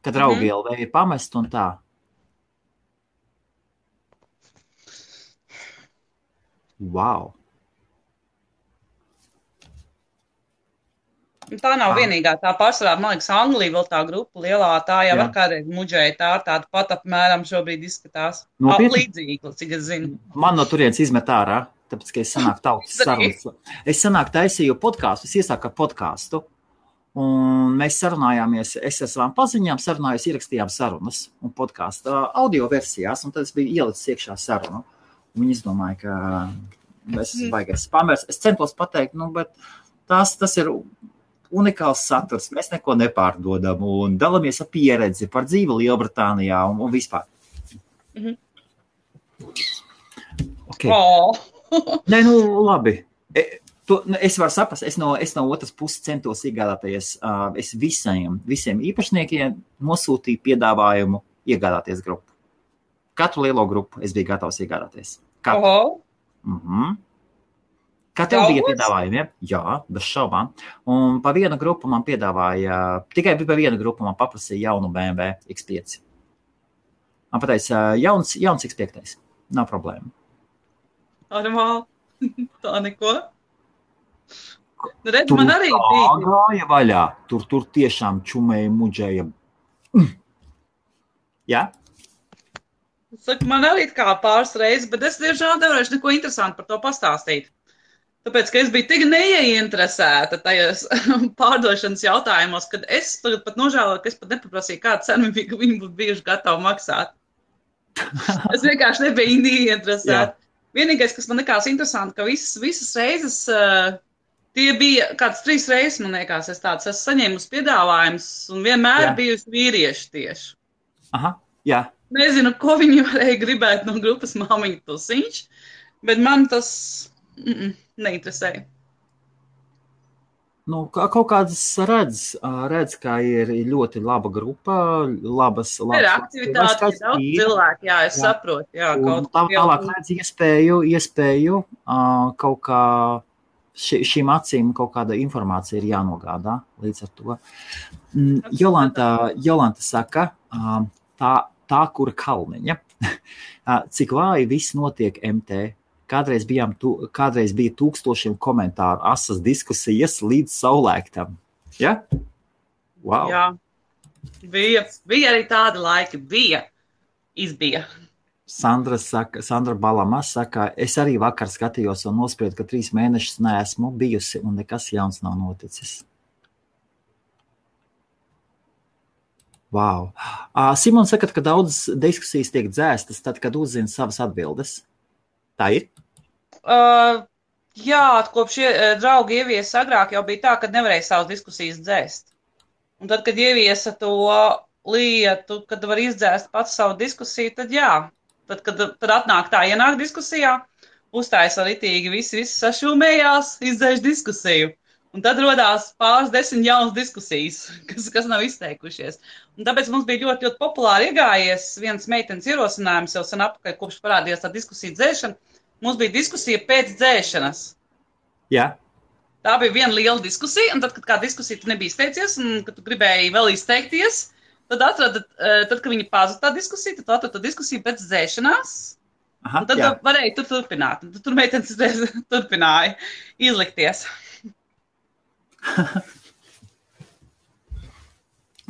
ka draugi LV ir pamest un tā. Wow. Tā nav vienīgā, tā pārsvarā, man liekas, Anglija vēl tā grupa lielā, tā jau var kādreiz muģēja, tā ar tādu pat apmēram šobrīd izskatās. Līdzīgi, cik es zinu. Man no turienes izmet ārā, tāpēc, ka es sanāku tautas sarunas. Es sanāku taisīju podkāstu, es iesāku ar podkāstu, un mēs sarunājāmies, es ar savām paziņām sarunājos, ierakstījām sarunas un podkāstu audio versijās, un tad es biju ielicis iekšā sarunu. Un viņi izdomāja, ka es baigais spamers. Es centos pateikt, bet tas ir unikāls saturs, mēs neko nepārdodam un dalamies ar pieredzi par dzīvi Lielbritānijā un vispār. Okay. Nē, labi. Es varu saprast, es no otras puses centos iegādāties, es visiem īpašniekiem nosūtīju piedāvājumu iegādāties grupu. Katru lielo grupu es biju gatavs iegādāties. Katru. Kā tev bija piedāvājumi? Ja? Jā, bez šaubām. Un pa vienu grupu man piedāvāja, tikai pa vienu grupu man paprasīja jaunu BMW X5. Man pateica, jauns X5. Nav problēma. Normāli. Tā neko. Redz, man arī bija. Tur gāja vaļā. Tur tiešām čumēja, muģēja. Jā? Saku, man arī kā pāris reizes, bet es diemžēl nevarēšu neko interesantu par to pastāstīt. Tāpēc, ka es biju tik neieinteresēta tajos pārdošanas jautājumos, kad es tagad pat nožēloju, ka es pat nepaprasīju, kādu cenu viņi būtu bijuši gatavi maksāt. Es vienkārši nebiju neieinteresēta. Vienīgais, kas man likās interesanti, ka visas reizes, tie bija kāds 3 reizes, man liekas, es saņēmu piedāvājumus un vienmēr bijusi vīrieši tieši. Aha, jā. Nezinu, ko viņi varēja gribēt no grupas Māmiņa Tusiņš, bet man tas neinteresēja. Kaut kādas redz, ka ir ļoti laba grupa, labas ir aktivitāte, ir daudz cilvēku, jā, es saprotu, jā. Tālāk redz iespēju kaut kā šīm acīm kaut kāda informācija ir jānogādā līdz ar to. Jolanta saka, tā kura kalniņa, cik vāji viss notiek MT. Kādreiz bija 1000 komentāru, asas diskusijas līdz saulēktam. Ja? Wow. Jā, bija arī tādi laiki, izbija. Sandra Balama saka, es arī vakar skatījos un nospriedu, ka 3 mēnešus neesmu bijusi un nekas jauns nav noticis. Wow. Simons saka, ka daudzas diskusijas tiek dzēstas tad, kad uzzina savas atbildes. Tā ir? Jā, kopš draugi ieviesa agrāk jau bija tā, ka nevarēja savas diskusijas dzēst. Un tad, kad ieviesa to lietu, kad var izdzēst pats savu diskusiju, tad jā. Tad ienāk diskusijā, uzstājas ritīgi, visi sašūmējās, izdzēš diskusiju. Un tad rodās pāris 10 jaunas diskusijas, kas nav izteikušies. Un tāpēc mums bija ļoti, ļoti populāri iegājies viens meitenes ierosinājums jau sen apakaļ, kopš parādījās tā diskusija dzēšana. Mums bija diskusija pēc dzēšanas. Jā. Tā bija viena liela diskusija, un tad, kad kā diskusija tu nebija izteicies, un kad tu gribēji vēl izteikties, tad kad viņi pazuda tā diskusija, tad atrada diskusiju pēc dzēšanās. Aha, un tad varēja tur turpināt. Un tur meitenes turpināja izlikties.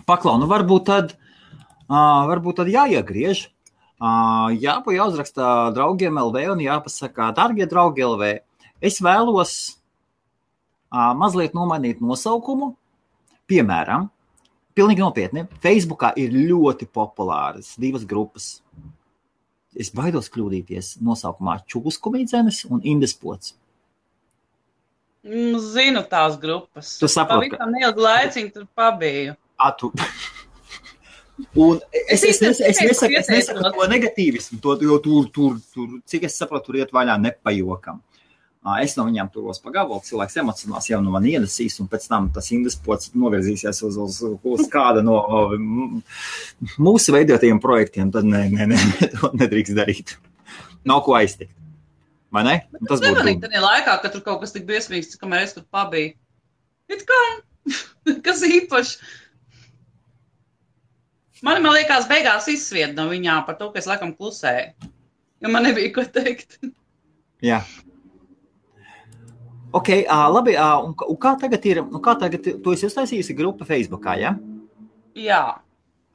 Paklau, nu varbūt tad jāiegriež. Jāuzraksta draugiem LV un jāpasaka, dargie draugi LV, es vēlos mazliet nomainīt nosaukumu. Piemēram, pilnīgi nopietni, Facebookā ir ļoti populāras 2 grupas. Es baidos kļūdīties nosaukumā Čūskumīdzenes un Indespots. Zinu tās grupas. Tu saproti, ka... Pavisam neilgu laiciņu tur pabiju. Un es nesaku to negatīvismu, jo tur, cik es saprotu, tur iet vaļā nepajokam. Es no viņām turos pa gabalu, cilvēks emocionāls jau no man iedasīs, un pēc tam tas Indespots novirzīsies uz kāda no mūsu veidotajiem projektiem, tad to nedrīkst darīt. Nav ko aiztikt. Vai ne? Tas nemanīt tādā laikā, ka tur kaut kas tik briesmīgs, kamēr es tur pabiju. It kā, kas īpaši. Man liekas, beigās izsvied no viņām par to, ka es laikam klusēju. Jo man nebija ko teikt. Jā. Ok, labi. Un kā tagad ir? Tu esi uztaisījusi grupu Facebookā, ja? Jā.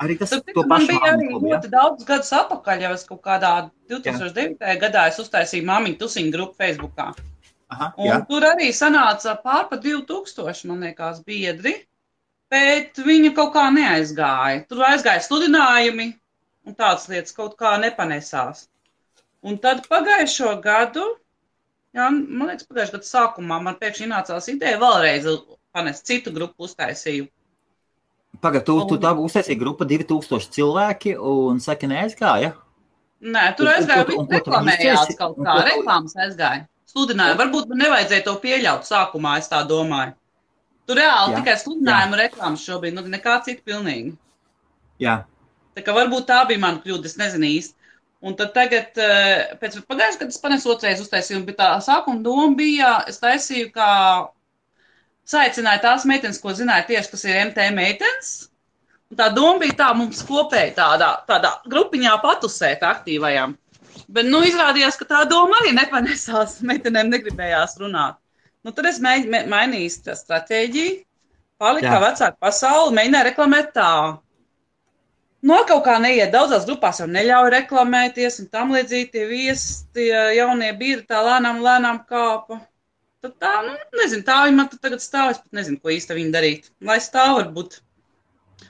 Arī tas to pašu man bija arī ļoti daudz gadus atpakaļ, jau es kaut kādā 2009. gadā es uztaisīju māmiņu tusiņu grupu Facebookā. Aha, un tur arī sanāca pārpa 2000, man liekas, biedri. Bet viņa kaut kā neaizgāja. Tur aizgāja sludinājumi un tādas lietas kaut kā nepanesās. Un tad pagājušo gadu, man liekas, pagājušo gadu sākumā man pēkšņi nācās ideja vēlreiz panest citu grupu uztaisīju. Pagad, tu tā uztaisīji grupa 2000 cilvēki un saki neaizgāja? Nē, tur aizgāja, reklamējās kaut kā, reklāmas aizgāja. Sludināja, varbūt man nevajadzēja to pieļaut sākumā, es tā domāju. Tur reāli tikai sludinājumu reklāmas šobrīd, nekā cita pilnīgi. Jā. Tā kā varbūt tā bija mana kļūda, es nezinu īsti. Un tad tagad, pēc pagājušajā, kad es panesu otrais uztaisījumu, bet tā sākuma doma bija, es taisīju, kā saicināju tās meitenes, ko zināju tieši, kas ir MT meitenes. Un tā doma bija tā, mums kopēji tādā grupiņā patusēt aktīvajām. Bet, izrādījās, ka tā doma arī nepanesās, meitenēm negribējās runāt. Tad es mainīju stratēģiju, palika vecāka pasauli, mēģināju reklamēt tā. Kaut kā neiet, daudzās grupās jau neļauj reklamēties un tam līdzīgi tie viesi, tie jaunie biedri tā lēnām kāpa. Tad tā, nezinu, tā viņi man tagad stāv, es pat nezinu, ko īsti viņi darīt. Lai stāv varbūt.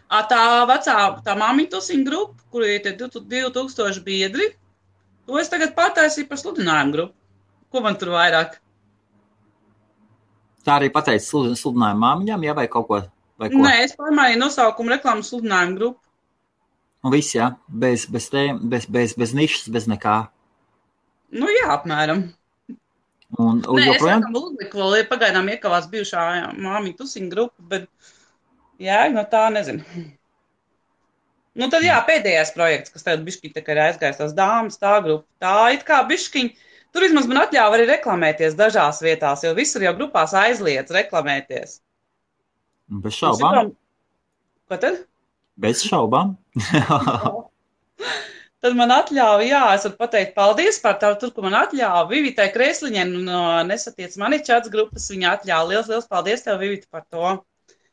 Tā māmiņu tusiņu grupa, kur ir tie 2000 biedri, to es tagad pataisīju par sludinājumu grupu. Ko man tur vairāk? Tā arī pateica sludinājumu māmiņām, vai kaut ko? Nē, es pārmaiņu nosaukumu reklāmu sludinājumu grupu. Un viss, jā? Bez nišas, bez nekā? Jā, apmēram. Nē, joprojām? Es laikam uzliku vēl, pagaidām iekavās bijušā māmiņu tusiņu grupa, bet tā nezinu. Tad pēdējais projekts, kas tagad bišķiņ tā kā ir aizgājis tās dāmas, tā grupa, tā it kā bišķiņ Tur vismaz man atļāva arī reklamēties dažās vietās, jo visur jau grupās aizliedz reklamēties. Bez šaubām. Ko tad? Bez šaubām. Tad man atļāva, jā, es varu pateikt paldies par tavu, tur, ko man atļāva. Vivitai Kresliņai no Nesatiec mani čats grupas, viņa atļāva. Liels paldies tev, Vivita, par to.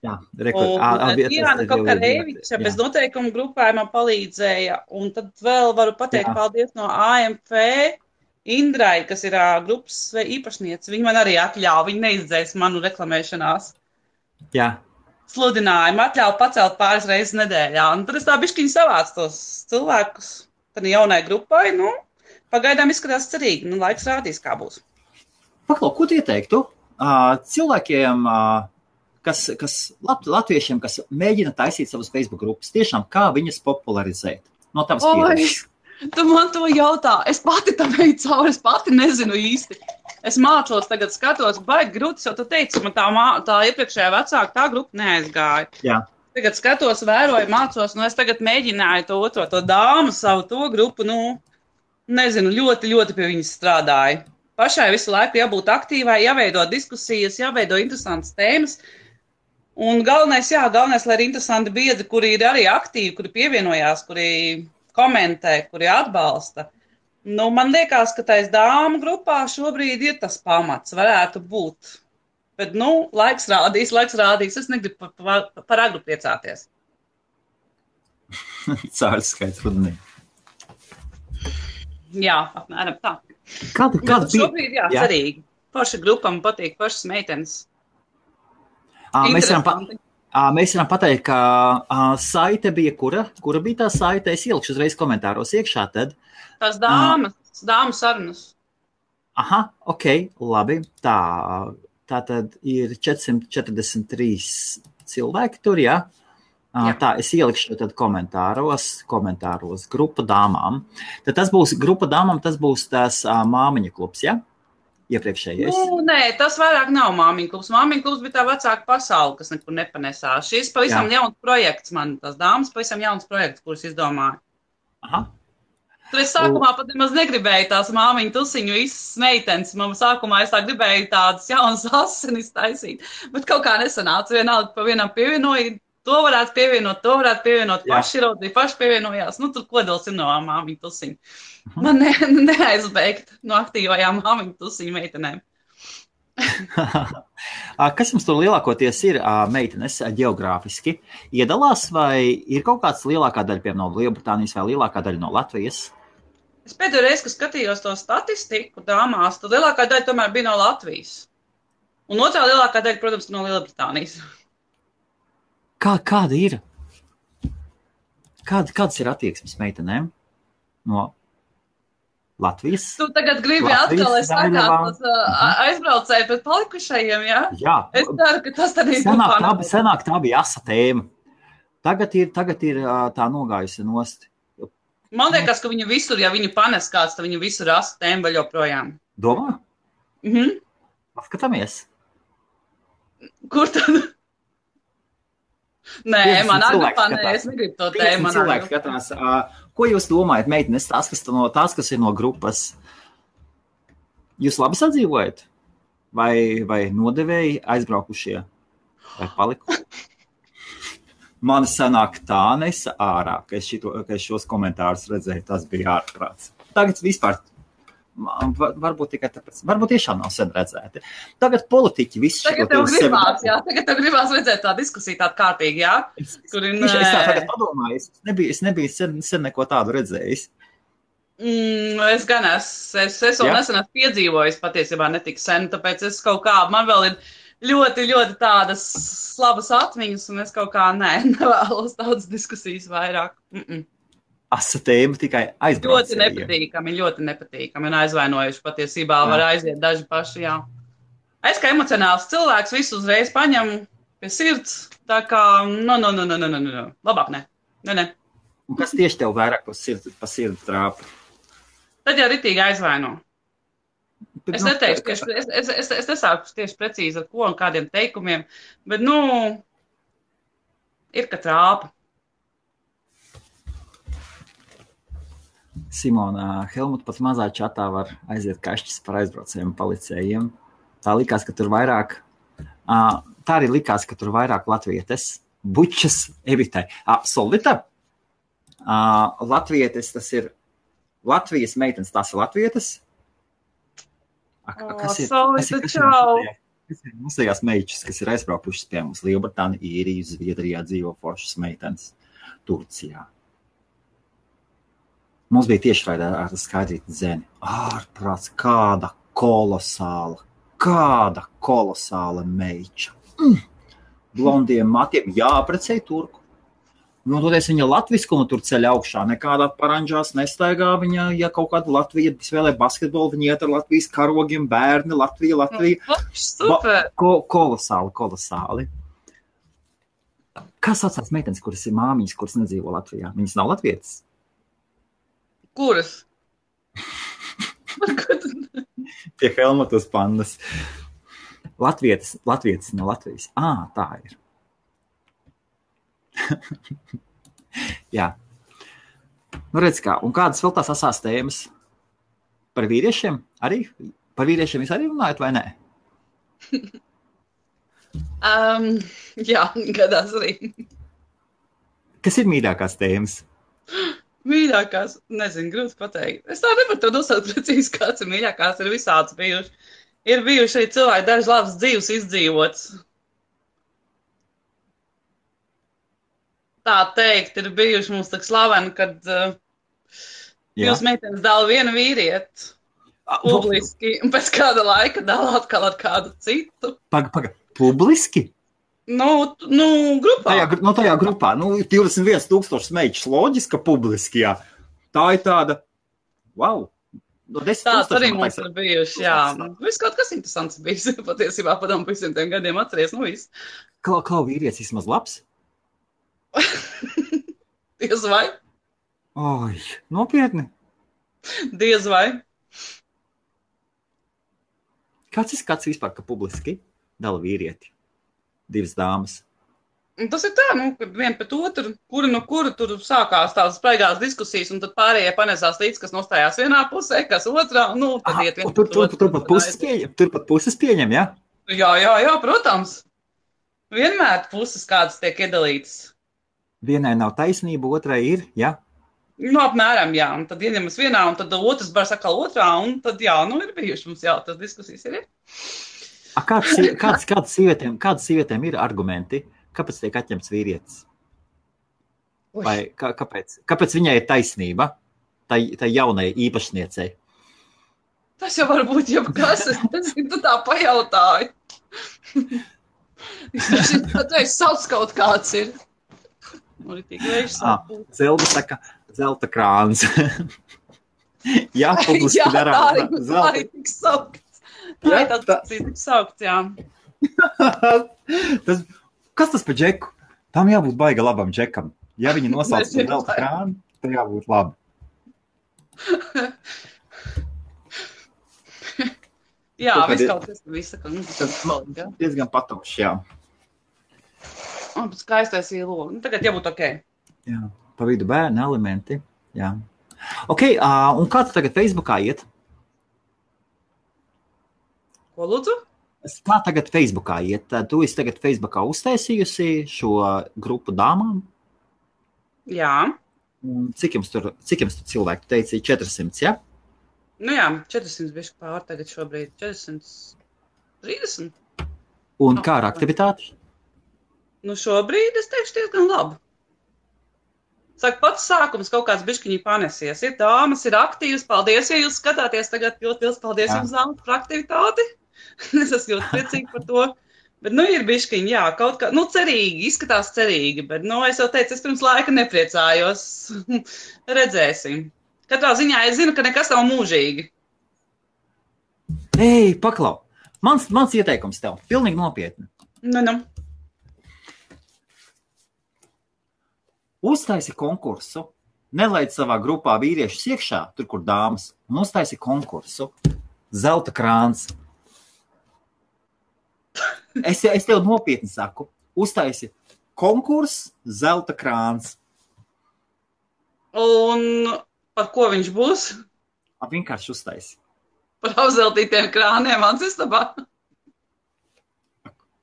Jā, Diana Kokareviča bez noteikumu grupā man palīdzēja. Un tad vēl varu pateikt paldies no AMF Indrai, kas ir grupas īpašniece. Viņa man arī atļāva, viņa neizdzēs manu reklamēšanās. Jā. Sludinājumu atļauju pacelt pāris reizes nedēļā. Un tad es tā bišķiņi savācu tos cilvēkus. Tad jaunai grupai, pagaidām izskatās cerīgi. Laiks rādīs, kā būs. Paklau, ko tu ieteiktu cilvēkiem, kas latviešiem, kas mēģina taisīt savas Facebook grupas, tiešām kā viņas popularizēt? No tavas pieredzes. Tu man to jautā. Es pati tam eju cauri, es pati nezinu īsti. Es mācos tagad skatos, baigi grūti, jo tu teici, man tā iepriekšējā vecāka tā grupa neaizgāja. Jā. Tagad skatos, vēroju, mācos, es tagad mēģināju to dāmu, savu to grupu, nezinu, ļoti, ļoti pie viņas strādāju. Pašai visu laiku jābūt aktīvai, jāveido diskusijas, jāveido interesantas tēmas. Un galvenais, lai ir interesanti biedri, kuri ir arī aktīvi, kuri pievienojās, kuri komentē, kuri atbalsta. Man liekas, ka tais dāmu grupā šobrīd ir tas pamats, varētu būt. Bet, laiks rādīs. Es negribu par agru priecāties. Cārs skaits rudenī. Jā, apmēram tā. Kāda bija? Šobrīd, cerīgi. Paša grupa man patīk, pašas meitenes. Mēs varam pateikt, ka saite bija kura? Kura bija tā saite? Es ielikšu uzreiz komentāros iekšā tad. Tās dāmu sarunas. Aha, ok, labi. Tā tad ir 443 cilvēki tur, jā? Tā, es ielikšu tad komentāros grupa dāmām. Tad tas būs grupa dāmām, tas būs tās māmiņa klubs, jā? Iepriekšējais. Nē, tas vairāk nav māmiņa klubs. Māmiņa klubs bija tā vecāka pasaule, kas nekur nepanesās. Šis pavisam jauns projekts man, tās dāmas pavisam jauns projekts, kurus izdomāju. Aha. Tur es sākumā pat nemaz negribēju tās māmiņu tusiņu visas meitenes. Sākumā es tā gribēju tādas jaunas asinis taisīt, bet kaut kā nesanāca. Vienalga pa vienam pievienoja, to varētu pievienot, paši raudzīja, paši pievienojās. Tur kodols ir no māmiņu tusiņu. Man neaizbeigt no aktīvajām māmiņu tusiņu meitenēm. Kas jums tur lielākoties ir meitenes geogrāfiski? Iedalās vai ir kaut kāds lielākā daļa, piemēram, no Lielbritānijas vai lielākā daļa no Latvijas? Es pēdējo reizi, kad skatījos to statistiku dāmās, tad lielākā daļa tomēr bija no Latvijas. Un otrā lielākā daļa, protams, no Lielbritānijas. Kāda ir? Kādas ir attieksmes meitenēm no Latvijas? Tu tagad gribi atkal, es sakāt, aizbraucēju pret palikušajiem, jā? Jā. Es ceru, ka tas tad ir grupā. Senāk tā bija asa tēma. Tagad ir tā nogājusi nost. Man liekas, ka viņu visur, ja viņu panes kāds, tad viņu visur asa tēma vēl joprojām. Domā? Paskatāmies. Kur tad? Nē, man agrupā nē, es negribu to tēmu. Cilvēki skatās. Ko jūs domājat, meitenes, tās, kas ir no grupas? Jūs labi sadzīvojat? Vai nodevēji aizbraukušie? Vai paliku? Man sanāk tā nesa ārā, ka es šos komentārus redzēju, tas bija ārprāts. Tagad vispār, varbūt tikai tāpēc, varbūt tiešām nav sen redzēti. Tagad politiķi visi šo Tagad tev gribās redzēt tā diskusija tāda kārtīgi, jā? Es tā tagad padomāju, es nebiju sen neko tādu redzējis. Es gan es vēl nesen esmu piedzīvojis patiesībā netik sen, tāpēc es kaut kā, man vēl ir ļoti, ļoti tādas labas atmiņas, un es kaut kā nevēlos tādas diskusijas vairāk. Asa tēma tikai aizbraucējiem. Ļoti nepatīkami, un aizvainojuši patiesībā var aiziet daži paši, jā. Es kā emocionāls cilvēks visu uzreiz paņemu pie sirds, tā kā, labāk ne. Un kas tieši tev vairāk pa sirdi trāpa? Tad jau ritīgi aizvaino. Es neteikšu, es nesāku tieši precīzi ar ko un kādiem teikumiem, bet, ir, ka trāpa. Simona, Helmut pat mazā čatā var aiziet kašķis par aizbraucējiem policējiem. Tā likās, ka tur vairāk, tā arī likās, ka tur vairāk latvietes, bučas, evitai. Solvita, latvietes, tas ir Latvijas meitenes, tās ir latvietes? Kas ir? Solvita, čau! Kas ir mūsējās meičas, kas ir aizbraukušas pie mums? Lielbritānija, Īrija, Zviedrijā dzīvo foršas meitenes, Turcijā. Mums bija tiešraidē ar Skaidrīti Zeni. Ārprāts, kāda kolosāla meiča. Blondiem matiem jāaprecēja turku. Nu, toties viņa latviskumu tur ceļ augšā. Nekādā paranžās nestaigā viņa, ja kaut kāda Latvija spēlē basketbolu, viņa iet ar Latvijas karogiem, bērni, Latvija. Super! Kolosāli. Kā saucās meitenes, kuras ir māmiņas, kuras nedzīvo Latvijā? Viņas nav latvietas? Kuras? Pie Helmutas pandas. Latvietas no Latvijas. Tā ir. Jā. Nu, redz kā. Un kādas vēl tās asās tēmas? Par vīriešiem arī? Par vīriešiem jūs arī runājat vai nē? Jā, gadās arī. Kas ir mīļākās tēmas? Mīļākās, nezinu, grūti pateikt. Es tā nevaru to nosaukt precīzi, kāds ir mīļākās, ir visāds bijuši. Ir bijuši arī cilvēki daži labs dzīves izdzīvots. Tā teikt, ir bijuši mums tak slaveni, kad jūs meitenes dala vienu vīrieti publiski, un pēc kāda laika dala atkal ar kādu citu. Paga, publiski? Nu, grupā. Tajā grupā. 21,000 meičus loģiski, ka publiski, jā. Tā ir tāda, wow. Tāds arī mums ir bijuši, jā. Viss kaut kas interesants bijis, patiesībā padomu visiem tiem gadiem atceries, viss. Klau vīrietis vismaz labs? Diez vai? Oi, nopietni? Diez vai? Kāds ir skats vispār, ka publiski dala vīrieti? Divas dāmas. Tas ir tā, kad vien pēc otru, kuri no kura tur sākās tādas spraigās diskusijas, un tad pārējie panesās līdz, kas nostājās vienā pusē, kas otrā, tad iet viens Turpat puses pieņem, jā? Jā, protams. Vienmēr puses kādas tiek iedalītas. Vienai nav taisnība, otrai ir, jā? Apmēram, jā. Un tad ieņemas vienā, un tad otrs bar sakal otrā, un tad, ir bijuši mums, tas diskusijas ir. Kādas sievietēm ir argumenti, kāpēc tiek atņemts vīrietis? Vai kāpēc viņai ir taisnība, tai jaunai īpašniecei? Tas jau var būt jebkas, tu tā pajautāji. Es sauc kaut kāds ir. Zelda saka, zelta krāns. Jā, publiski darām. Tā ir tik saukts. Tā ir tik saukts, jā. Kas tas pa džeku? Tam jābūt baiga labam džekam. Ja viņi nosauc par zelta krānu, tad jābūt labi. Jā, viss kaut kas visa. Diezgan patoši, jā. Skaistais īlogu. Tagad jābūt ok. Jā, pa vidu bērni elementi. Jā. Ok, un kā tu tagad Facebookā iet? Ko lūdzu? Kā tagad Facebookā iet? Tu esi tagad Facebookā uztaisījusi šo grupu dāmām? Jā. Un cik jums tur cilvēku? Tu teici 400, jā? Jā, 400 bišķi pār tagad šobrīd. 430. Un kā ar aktivitāti? Šobrīd es teikšu diezgan labi. Saka, pats sākums kaut kāds bišķiņi panesies. Ir dāmas, ir aktīvas. Paldies, ja jūs skatāties tagad. Ļoti liels paldies jums, dāmas, par aktivitāti. Es esmu ļoti priecīgi par to. Bet, ir bišķiņi, jā, kaut kā, cerīgi, izskatās cerīgi. Bet, es jau teicu, es pirms laika nepriecājos. Redzēsim. Katrā ziņā es zinu, ka nekas nav mūžīgi. Ei, paklau. Mans ieteikums tev. Pilnīgi nopietni. Uztaisi konkursu, nelaid savā grupā vīriešus iekšā, tur, kur dāmas, un uztaisi konkursu. Zelta krāns. Es tev nopietni saku, uztaisi konkursu, zelta krāns. Un Par ko viņš būs? Vienkārši uztais. Par apzeltītiem krāniem mans istabā.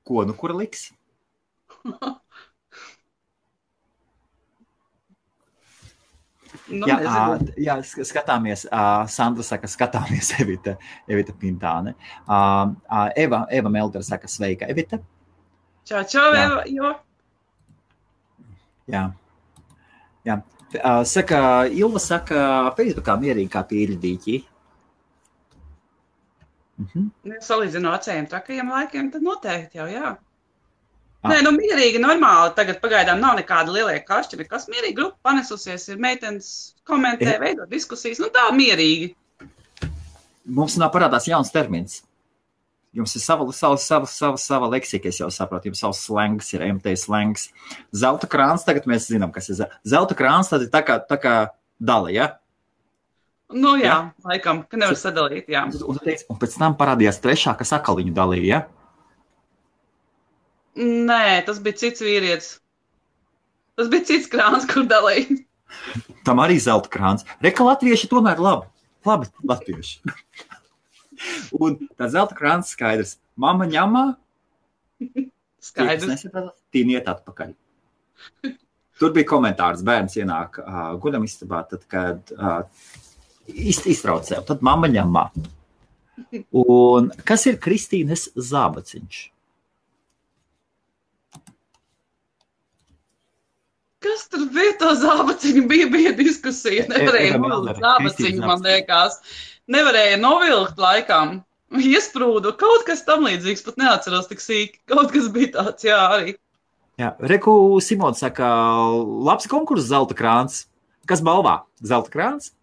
Ko, nu kur liks? Nu, jā, skatāmies. Sandra saka, skatāmies Evita Pintāne. Eva Meldera saka, sveika, Evita. Čau, Eva, jo. Jā. Saka, Ilva saka, Facebookā mierīgi kā pīļdīķi. Ja salīdzinu acējiem trakajiem laikiem, tad noteikti jau, jā. Nē, nu mierīgi, normāli. Tagad pagaidām nav nekāda lielie kašķi, nekas mierīgi. Grupa panesusies, ir meitenes komentē, veido diskusijas. Nu tā mierīgi. Mums nav parādās jauns termins. Jums ir sava leksika, es jau saprotu. Jums savs slengs ir MT slengs. Zelta krāns, tagad mēs zinām, kas ir zelta krāns, tad ir tā kā dala, ja? Nu jā, laikam, ka nevar sadalīt, jā. Un pēc tam parādījās trešā, kas akaliņu dalīja, ja? Nē, tas bija cits vīrietis. Tas bija cits krāns, kur dalīja. Tam arī zelta krāns. Reka latvieši tomēr labi latvieši. Un tā zelta krāns skaidrs. Mama ņemā. Skaidrs. Tīniet atpakaļ. Tur bija komentārs. Bērns ienāk guļam istabā, tad, kad iztrauc sev. Tad mama ņemā. Un kas ir Kristīnes zābaciņš? Kas tur bija to zābaciņu? Bija diskusija. Nevarēja novilkt zābaciņu, man liekas. Nevarēja novilkt laikam. Iesprūdu. Kaut kas tam līdzīgs, pat neatceros tik sīki. Kaut kas bija tāds, jā, arī. Jā, Reku Simons saka, labs konkurss zelta krāns. Kas balvā? Zelta krāns?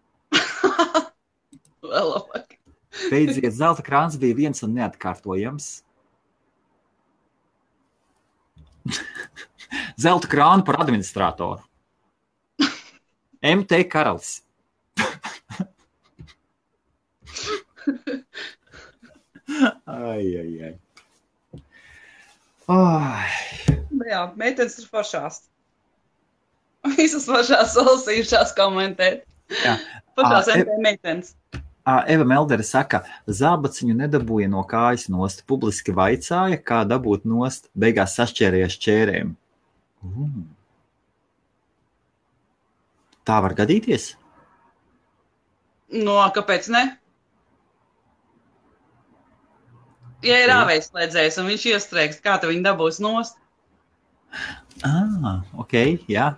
Vēl labāk. Beidziet, zelta krāns bija viens un neatkārtojams. Zelta krānu par administratoru. MT Karalis. Ai. Jā, meitenes ir foršās. Visas foršās salasījušās komentēt. Jā. Foršās MT meitenes. Eva Meldere saka, zābaciņu nedabūja no kājas nost, publiski vaicāja, kā dabūt nost, beigās sašķērējies čērēm. Tā var gadīties? No, kāpēc ne? Ja ir āvējslēdzējs un viņš iestrēgst, kā tu viņu dabūs nost? Ok, jā.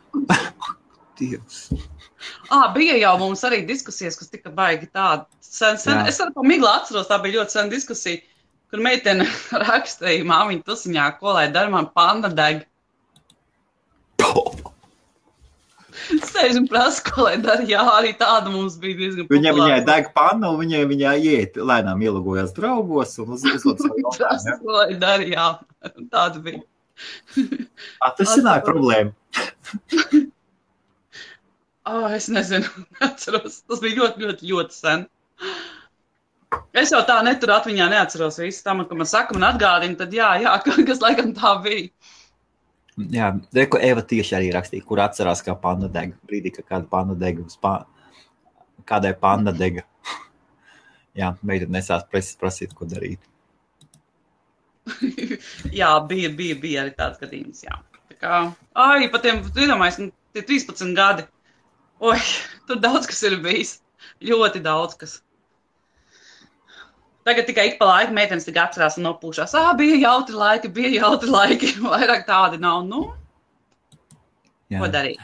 Dievs. Bija jau mums arī diskusijas, kas tika baigi tāda. Sen. Es arī pa miglu atceros, tā bija ļoti sen diskusija, kur meitene rakstīja māmiņu tusiņā, ko lai dara, man panda deg. Sēž un prasa, ko lai dara. Jā, arī tāda mums bija diezgan populāra. Viņai deg panna un viņai iet, lēnām ielogojās draugos un uzlūdz savu prasa, ko lai dara, jā. Tāda bija. Atrisināja problēmu. Es nezinu, neatceros. Tas bija ļoti sen. Es jau tā neturu atmiņā neatceros visu tam, ka man saka, man atgādina, tad jā, kas laikam tā bija. Jā, Reku Eva tieši arī rakstīja, kur atcerās, kā panda dega. Brīdī, ka kāda panda dega uz kādai panda dega. Jā, meita nesās prasīt, ko darīt. Jā, bija arī tāds gadījums, jā. Tā kā, pa tiem, iedomājies, tie 13 gadi. Oi, tur daudz kas ir bijis. Ļoti daudz kas. Tagad tikai ik pa laiku meitenes tik atcerās un nopūšās. Bija jautri laiki. Vairāk tādi nav. Nu, jā. Ko darīt?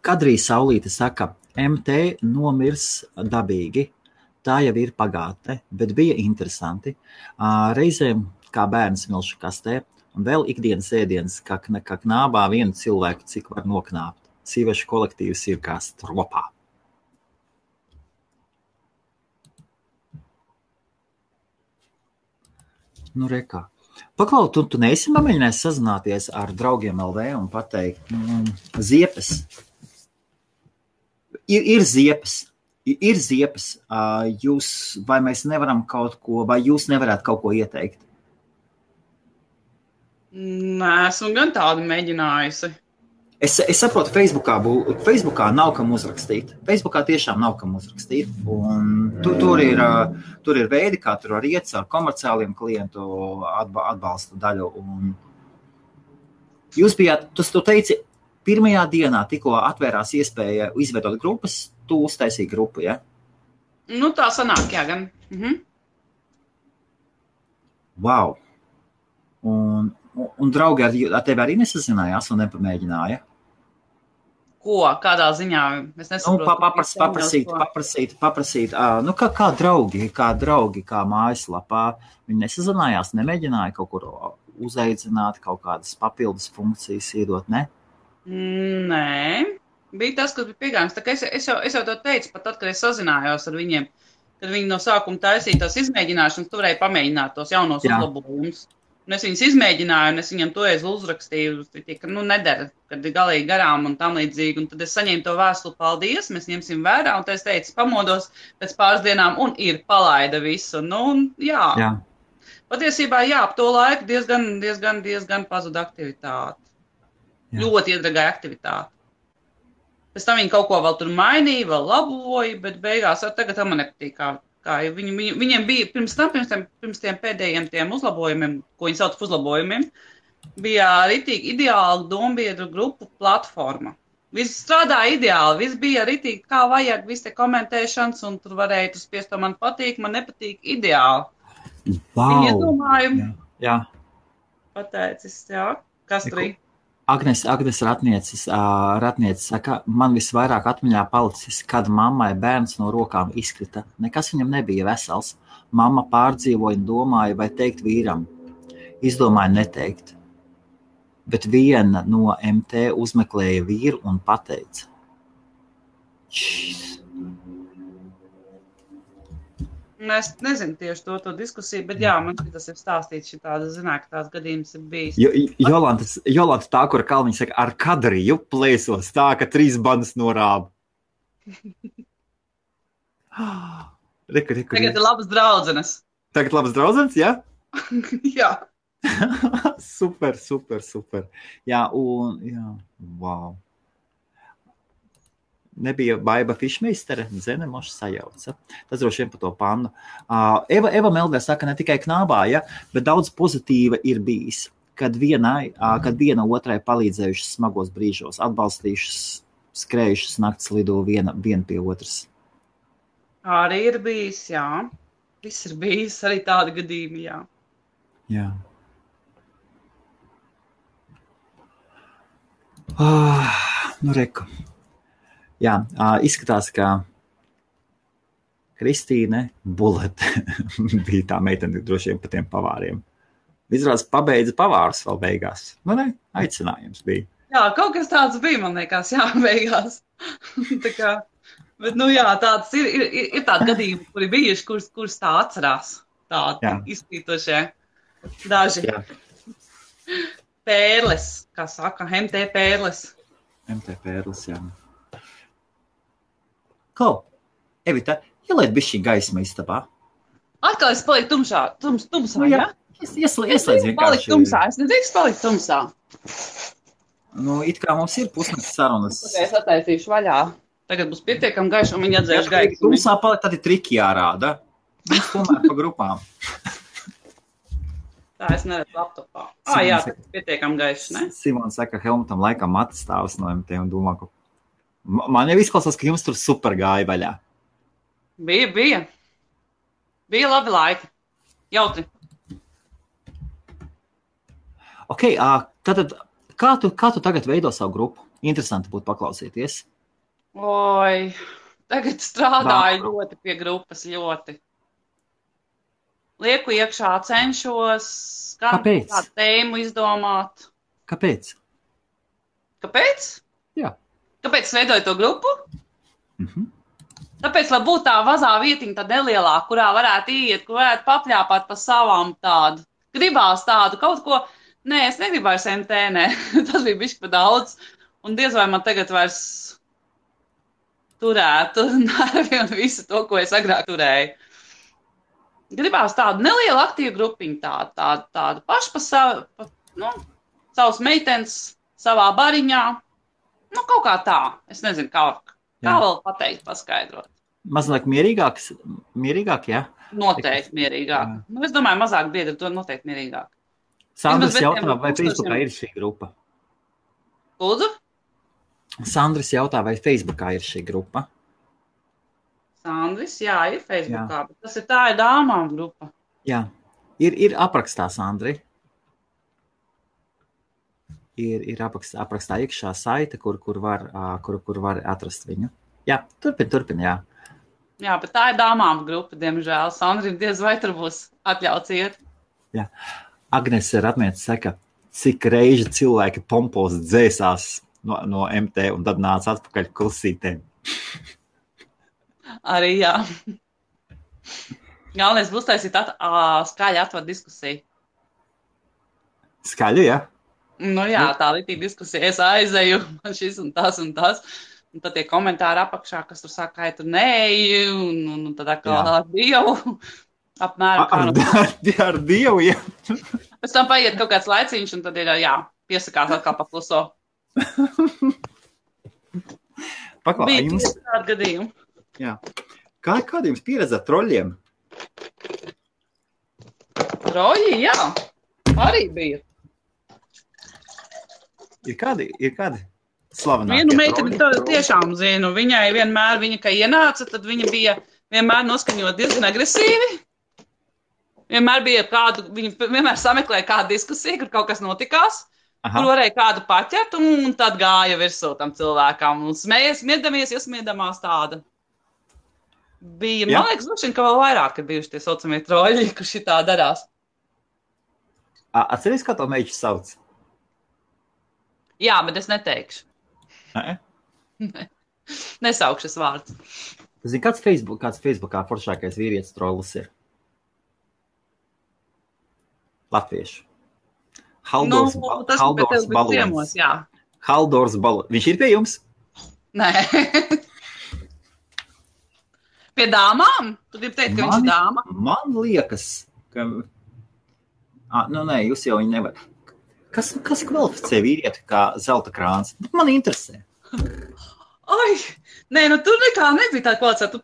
Kadrī Saulīte saka, MT nomirs dabīgi. Tā jau ir pagātne, bet bija interesanti. Reizēm kā bērns milšu kastē. Un vēl ikdienas ēdienas, kā knābā vienu cilvēku, cik var noknāpt. Sīvešu kolektīvs ir kā stropā. Nu, rekā. Paklau, tu neesi mēģinājis sazināties ar draugiem LV un pateikt, ziepes. Ir ziepes. Ir ziepes. Vai mēs nevaram kaut ko, vai jūs nevarētu kaut ko ieteikt? Nē, esmu gan tādu mēģinājusi. Es saprotu, Facebookā nav kam uzrakstīt. Facebookā tiešām nav kam uzrakstīt. Tur ir veidi, kā tur var iet ar komerciāliem klientu atbalsta daļu. Un jūs bijāt, tu teici, pirmajā dienā tikko atvērās iespēja izveidot grupas, tu uztaisīji grupu, ja? Nu, tā sanāk, jā, gan. Wow! Un draugi ar tevi arī nesazinājās un nepamēģināja? Ko? Kādā ziņā? Es nesaprotu. Paprasīt. Nu, kā draugi, kā mājaslapā. Viņi nesazinājās, nemēģināja kaut kur uzaicināt, kaut kādas papildus funkcijas iedot, ne? Nē. Bija tas, kas bija pieejams. Tā kā es jau to teicu, pat tad, kad es sazinājos ar viņiem, kad viņi no sākuma taisīja tās izmēģināšanas, tu varēji pamēģināt tos jaunos uzlabojumus. Un es viņus izmēģināju, un es viņam toreiz uzrakstīju, ka nedara, kad ir galīgi garām un tam līdzīgi. Un tad es saņēmu to vēstuli, paldies, mēs ņemsim vērā. Un tad es teicu, pamodos pēc pāris dienām un palaida visu. Nu, jā. Patiesībā, ap to laiku diezgan pazuda aktivitāte. Jā. Ļoti iedragāja aktivitāte. Pēc tam viņi kaut ko vēl tur mainīja, vēl laboja, bet beigās tagad man nepatīk, kā viņiem bija pirms tiem pēdējiem tiem uzlabojumiem, ko viņi sauc par uzlabojumiem, bija ritīgi ideāla dombiedru grupu platforma. Viss strādāja ideāli, viss bija ritīgi, kā vajag, viss te komentēšanas, un tur varēja tu spiest, to man patīk, man nepatīk ideāli. Wow. Viņi iedomāju. Jā. Pateicis, kas tur ir? Agnes Ratnieces saka, man visvairāk atmiņā palicis, kad mammai bērns no rokām izkrita. Nekas viņam nebija vesels. Mamma pārdzīvoja un domāja, vai teikt vīram. Izdomāja neteikt. Bet viena no MT uzmeklēja vīru un pateica. Es nezinu tieši to diskusiju, bet man tas ir stāstīts, ka tās gadījums ir bijis. Jolanta tā, kura Kalniņa saka, ar kadriju plēsos tā, ka 3 bandas norāba. Tagad ir labas draudzenes. Tagad labas draudzenes, ja? Jā. Super. Jā, wow. Nebija Baiba Fišmeistere, Zenemoša sajauca. Tas droši vien par to pannu. Eva Meldē saka, ne tikai knābā, bet daudz pozitīva ir bijis, kad viena otrai palīdzējušas smagos brīžos, atbalstījušas, skrējušas nakts lido viena pie otras. Arī ir bijis, jā. Viss ir bijis, arī tādi gadījumi, jā. Jā. Nu, reku. Jā, izskatās, ka Kristīne Bulete bija tā meitene droši vien pa tiem pavāriem. Izrādās pabeidza pavārus vēl beigās. Nu, ne, aicinājums bija. Jā, kaut kas tāds bija, man liekas, beigās. Tā kā, bet, tāds ir tādi gadījumi, kuri bijuši, kurus tā atcerās. Tādi izplītošie daži. Jā. Pērles, kā saka, MT pērles. MT pērles, jā. Evita, ieliet bišķi gaisma istabā. Atkal es paliku tumsā, jā? Ieslēdz vienkārši. Paliku tumsā, es nedrīkst palikt tumsā. Nu, it kā mums ir pusnakts sarunas. Es attaisīšu vaļā. Tagad būs pietiekami gaiši, un viņi atzēš gaismu. Tumsā palikt, tad ir triki jārāda. Mums tomēr pa grupām. Tā es neredzu laptopā. Jā, tas ir pietiekami gaiši, ne? Simons saka, Helmutam laikam matas stāvs no MT un domā, ka man jau izklausās, ka jums tur super gāja vaļā. Bija. Bija labi laiki. Jautri. Ok, tātad, kā tu tagad veido savu grupu? Interesanti būtu paklausīties. Oi, tagad strādāju ļoti pie grupas, ļoti. Lieku iekšā, cenšos kādu tēmu izdomāt. Kāpēc? Kāpēc? Jā. Kāpēc es veidoju to grupu? Tāpēc, lai būtu tā vazā vietiņa tā nelielāka, kurā varētu iet, kur varētu papļāpāt pa savām tādu. Gribās tādu kaut ko. Nē, es negribēju MT, nē. Tas bija bišķi pa daudz. Un diez vai man tagad vairs turētu nervi un visu to, ko es agrāk turēju. Gribās tādu nelielu aktīvu grupiņu, tādu pašu pa savas meitenes savā bariņā. Nu, kaut kā tā. Es nezinu, kā vēl pateikt, paskaidrot. Mazliet mierīgāk, jā? Noteikti mierīgāk. Jā. Nu, es domāju, mazāk biedri, to noteikti mierīgāk. Sandrs jautā, vai Facebookā ir šī grupa? Lūdzu? Sandrs jautā, vai Facebookā ir šī grupa? Sandris, jā, ir Facebookā, bet tas ir dāmām grupa. Jā, ir aprakstā, Sandri. Ir aprakstā iekšā saite, kur var atrast viņu. Jā, turpin, jā. Jā, bet tā ir dāmām grupa, diemžēl. Sandrim diez vai tur būs atļauts iet. Jā. Agnese Ratmēts saka, cik reiži cilvēki pompos dzēsās no MT un tad nāca atpakaļ klusītēm. Arī, jā. Galvenais būs taisīt skaļi atvar diskusiju. Skaļi, jā? Nu jā, tā līdzīga diskusija. Es aizeju, man šis un tas. Un tad tie komentāri apakšā, kas tur saka, ka tu neeji, un tad atkal ar Dievu. Apmēram. Ar Dievu, jā. Pēc tam paiet kaut kāds laiciņš, un tad ir, piesakās atkal pakluso. Bija jums tādi gadījumi. Jā. Kāda jums pieredze ar troļļiem? Troļļi, jā. Arī bija. Ir kādi slavenākie Vienu meiteni tiešām zinu. Viņai vienmēr, kā ienāca, tad viņa bija vienmēr noskaņot diezgan agresīvi. Viņa vienmēr sameklēja kādu diskusiju, kur kaut kas notikās. Kur varēja kādu paķert, un tad gāja virsū tam cilvēkam. Un smiedamies, iesmiedamās tāda. Bija, man liekas, ka vēl vairāk ir bijuši tie saucamie troļļi, kur šitā darās. Atceries, kā to meiķi sauc? Jā, bet es neteikšu. Nesaukšu es vārdu. Zini, kāds Facebookā foršākais vīrietis trollis ir? Latviešu. Haldors Balons. Haldors Balons. Viņš ir pie jums? Nē. Pie dāmām? Tu gribi teikt, ka viņš ir dāma? Man liekas, ka... Nē, jūs jau viņu nevar. Kas kvalificē vīrieti kā zelta krāns? Man interesē. Ai, nē, tur nekā nebija tā kvalificēta.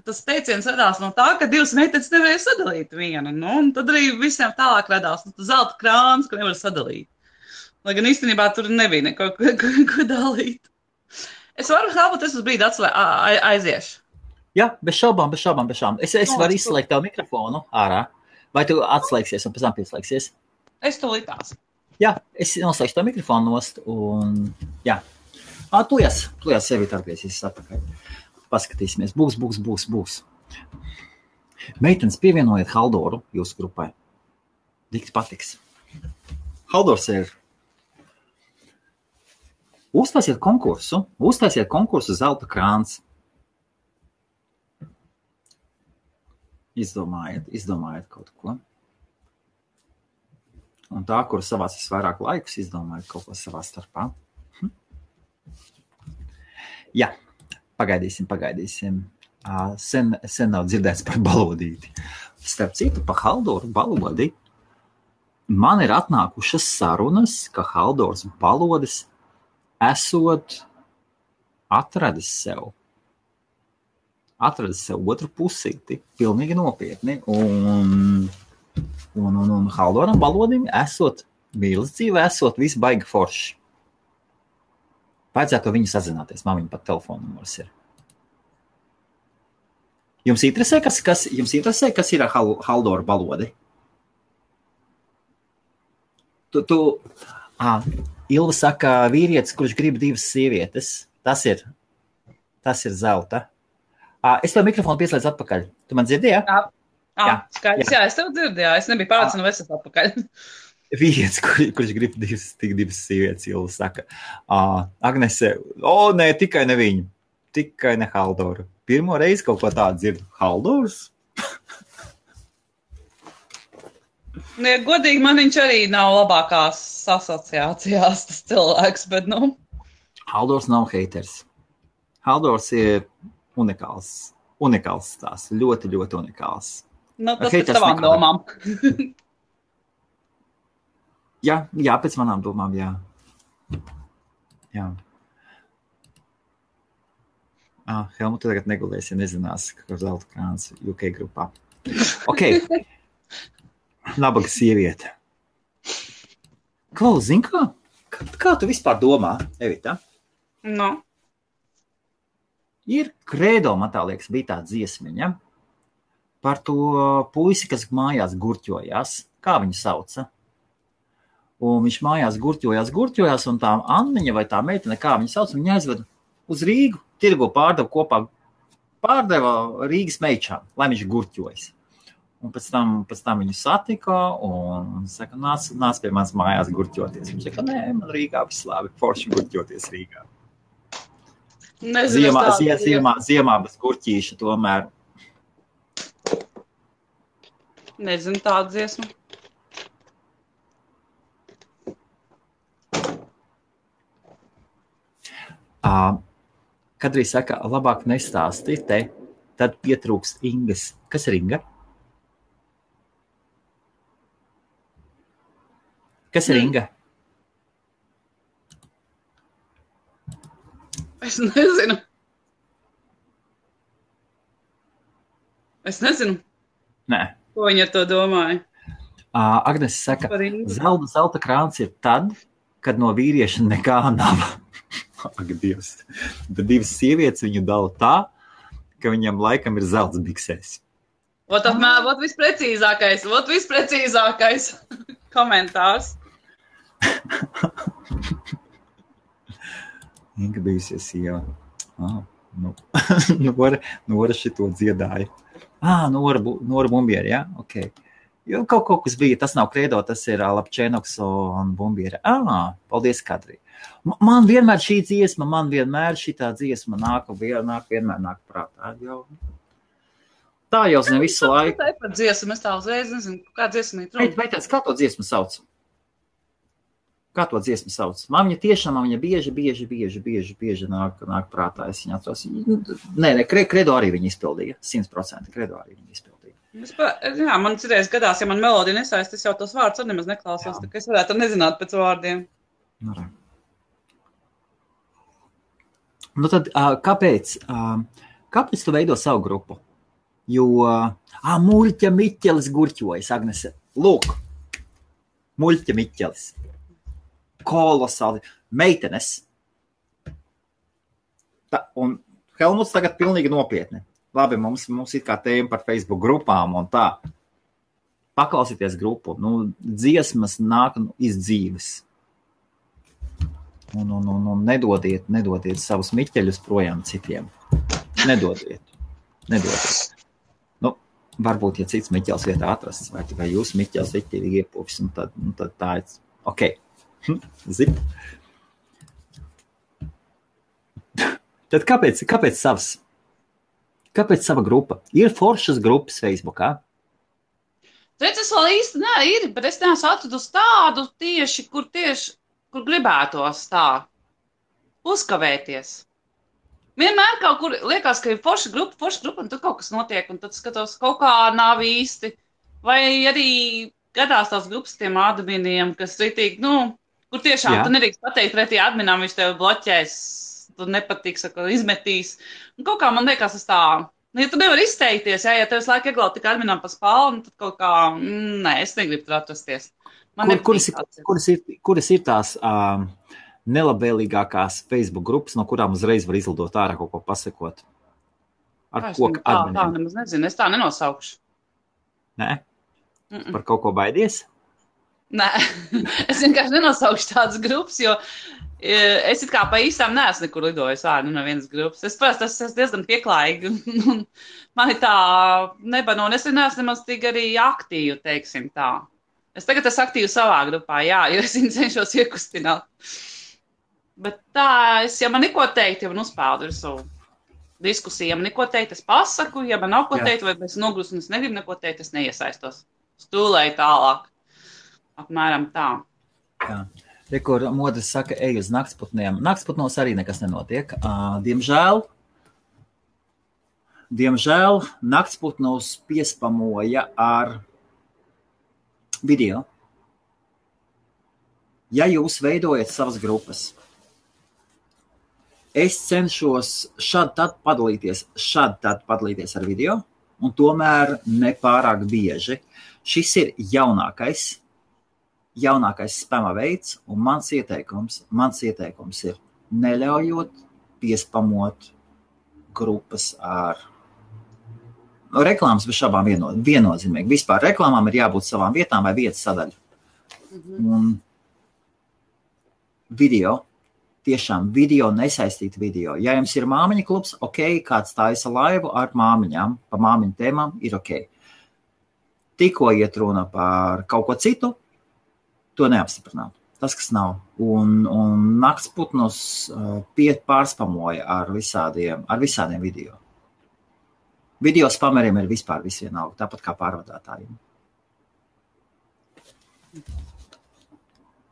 Tas teiciens radās no tā, ka divas meitenes nevarēja sadalīt vienu. Un tad arī visiem tālāk radās zelta krāns, ko nevar sadalīt. Lai gan īstenībā tur nebija neko ko dalīt. Es varu helpot, es uz brīdi aiziešu. Jā, bez šaubām. Es varu izslēgt tavu mikrofonu ārā. Vai tu atslēgsies un pēc tam pieslēgsies? Es to likās. Jā, es noslēgšu tavu mikrofonu nost un jā. Tu sevi tarpiesies atpakaļ. Paskatīsimies. Būs. Meitenes pievienojiet Haldoru jūsu grupai. Dikti patiks. Haldors ir. Uztaisiet konkursu zelta krāns. Izdomājiet kaut ko. Un tā, kur savās visvairāk laikus, izdomājiet kaut ko savā starpā. Jā, pagaidīsim. Sen nav dzirdēts par balodīti. Starp citu, pa Haldoru balodi man ir atnākušas sarunas, ka Haldors balodis esot atradis sev otru pusīti, pilnīgi nopietni, un Haldoram balodim esot mīlestība, esot viss baigi forši. Vajadzētu viņu sazināties, man viņa pat telefona numurs ir. Jums interesē, kas ir Haldora balodi? Ilva saka, vīrietis, kurš grib divas sievietes, tas ir zelta. Es tev mikrofonu pieslēdzu atpakaļ. Tu man dzirdi, jā? Jā, skaidrs, jā, es tev dzirdu, jā. Es nebiju pārliecināta, vai es esmu atpakaļ. Vīrietis, kurš grib divas sievietes, Ilva saka. Agnese, nē, tikai ne viņu. Tikai ne Haldoru. Pirmo reizi kaut ko tādu dzirdu. Haldors? Ja, godīgi, man viņš arī nav labākās asociācijās tas cilvēks, bet, Haldors nav haters. Haldors ir unikāls tās. Ļoti, ļoti unikāls. Tas pēc tavām domām. Jā, pēc manām domām, jā. Helmut, tu tagad negulēsi, ja nezinās, ka zelta krāns UK grupā. Ok. Nabaga sieviete. Klaus, zini kā? Kā tu vispār domā, Evita? No. Ir Credo, man tā liekas, bija tā dziesmiņa par to puisi, kas mājās gurķojās. Kā viņu sauca? Un viņš mājās gurķojās, un tā Anniņa vai tā meitene, kā viņu sauc, viņa aizveda uz Rīgu, tirgo pārdeva Rīgas meičām, lai viņš gurķojas. Un pēc tam viņu satika un saka, nāc pie manas mājās gurķoties. Viņš saka, nē, man Rīgā viss labi, forši gurķoties Rīgā. Ziemā bez gurķīša tomēr. Nezinu tādu dziesmu. Kad arī saka, labāk nestāsti te, tad pietrūkst Ingas. Kas ir Inga? Kas ir Inga? Es nezinu. Nē. Ko viņa to domāja? Agnes saka, zelta krāns ir tad, kad no vīrieša nekā nav. Ak, Dievs. Tad divas sievietes viņu dala tā, ka viņam laikam ir zelts biksēs. Vot visprecīzākais komentārs. Inga bijusies sieva. Nora šito dziedāja. Nora Bumbieri, jā? Ok. Jo kaut kas bija, tas nav Credo, tas ir Lapčēnoks un Bumbieri. Paldies, Kadri. Man vienmēr šī dziesma, šitā dziesma vienmēr nāk prātā. Tā jau zinu visu laiku. Tā ir par dziesmu, es tā uzreiz nezinu, kā dziesma ir. Kā to dziesmu sauc? Man viņa tiešām, bieži nāk prātā, es viņu atceros. Nē, Credo arī viņa izpildīja, 100% Credo arī viņa izpildīja. Jā, man citreiz gadās, ja man melodija nesaist, es jau tos vārdus arī nemaz neklausos, tā ka es varētu nezināt pēc vārdiem. Nu tad, kāpēc tu veido savu grupu? Jo, Muļķa Miķelis gurķojas, Agnese. Lūk, Muļķa Miķelis. Kolosāli. Meitenes. Un Helmuts tagad pilnīgi nopietni. Labi, mums ir kā tēma par Facebook grupām un tā. Paklausieties grupu. Dziesmas nāk iz dzīves. Nedodiet savus miķeļus projām citiem. Nedodiet. Varbūt, ja cits miķels vietā atrasts, vai jūs miķels veķtīgi iepūvis, tad tā ir. Ok. Zip. Tad kāpēc savs? Kāpēc sava grupa? Ir foršas grupas Facebookā? Es vēl īsti ir, bet es neesmu atradusi tādu tieši, kur gribētos tā uzkavēties. Vienmēr kaut kur liekas, ka ir forša grupa, un tad kaut kas notiek, un tad skatos, kaut kā nav īsti. Vai arī gadās tās grupas tiem adminiem, kas ritīgi, kur tiešām tu nedrīkst pateikt pretī adminām, viņš tev bloķēs, tu nepatiks, izmetīs. Un kaut kā man liekas, tas tā, ja tu nevari izteikties, ja tev visu laiku ieglaubt tik adminām pa spalvu, tad kaut kā, es negribu tur atrasties. Kuras ir tās nelabvēlīgākās Facebook grupas, no kurām uzreiz var izlidot ārā kaut ko pasakot? Ar ko adminiem? Tā nemaz nezinu, es tā nenosaukšu. Nē? Par kaut ko baidies? Nē, es vienkārši nenosaukšu tādas grupas, jo es it kā pa īstām neesmu nekur lidojis ārā no vienas grupas. Es esmu diezgan pieklājīgi, un man ir tā nebano, un es neesmu nemaz tik arī aktīvi, teiksim tā. Es tagad esmu aktīvi savā grupā, jā, jo es viņu cenšos iekustināt. Bet tā, ja man neko teikt, ja man uzpeldu visu diskusiju, ja man neko teikt, es pasaku, ja man nav ko teikt, vai es nogrūstu un es negribu neko teikt, es neiesaistos. Stūlēju tālāk. Apmēram tā. Jā. Kur modrs saka, ej uz naktsputniem. Naktsputnos arī nekas nenotiek. Diemžēl naktsputnos piespamoja ar video. Ja jūs veidojat savas grupas, Es cenšos šādi tad padalīties ar video, un tomēr nepārāk bieži. Šis ir jaunākais spama veids, un mans ieteikums ir neļaujot piespamot grupas ar reklāmas bez šabām viennozīmīgi. Vispār reklāmām ir jābūt savām vietām vai vietas sadaļu. Un tiešām video, nesaistīt video. Ja jums ir māmiņa klubs, ok, kāds taisa laivu ar māmiņām, pa māmiņu tēmām, ir ok. Tikko iet runa par kaut ko citu, to neapstiprināt. Tas, kas nav. Un naktsputnus pārspamoja ar visādiem video. Video spameriem ir vispār visvienalga, tāpat kā pārvadātājiem.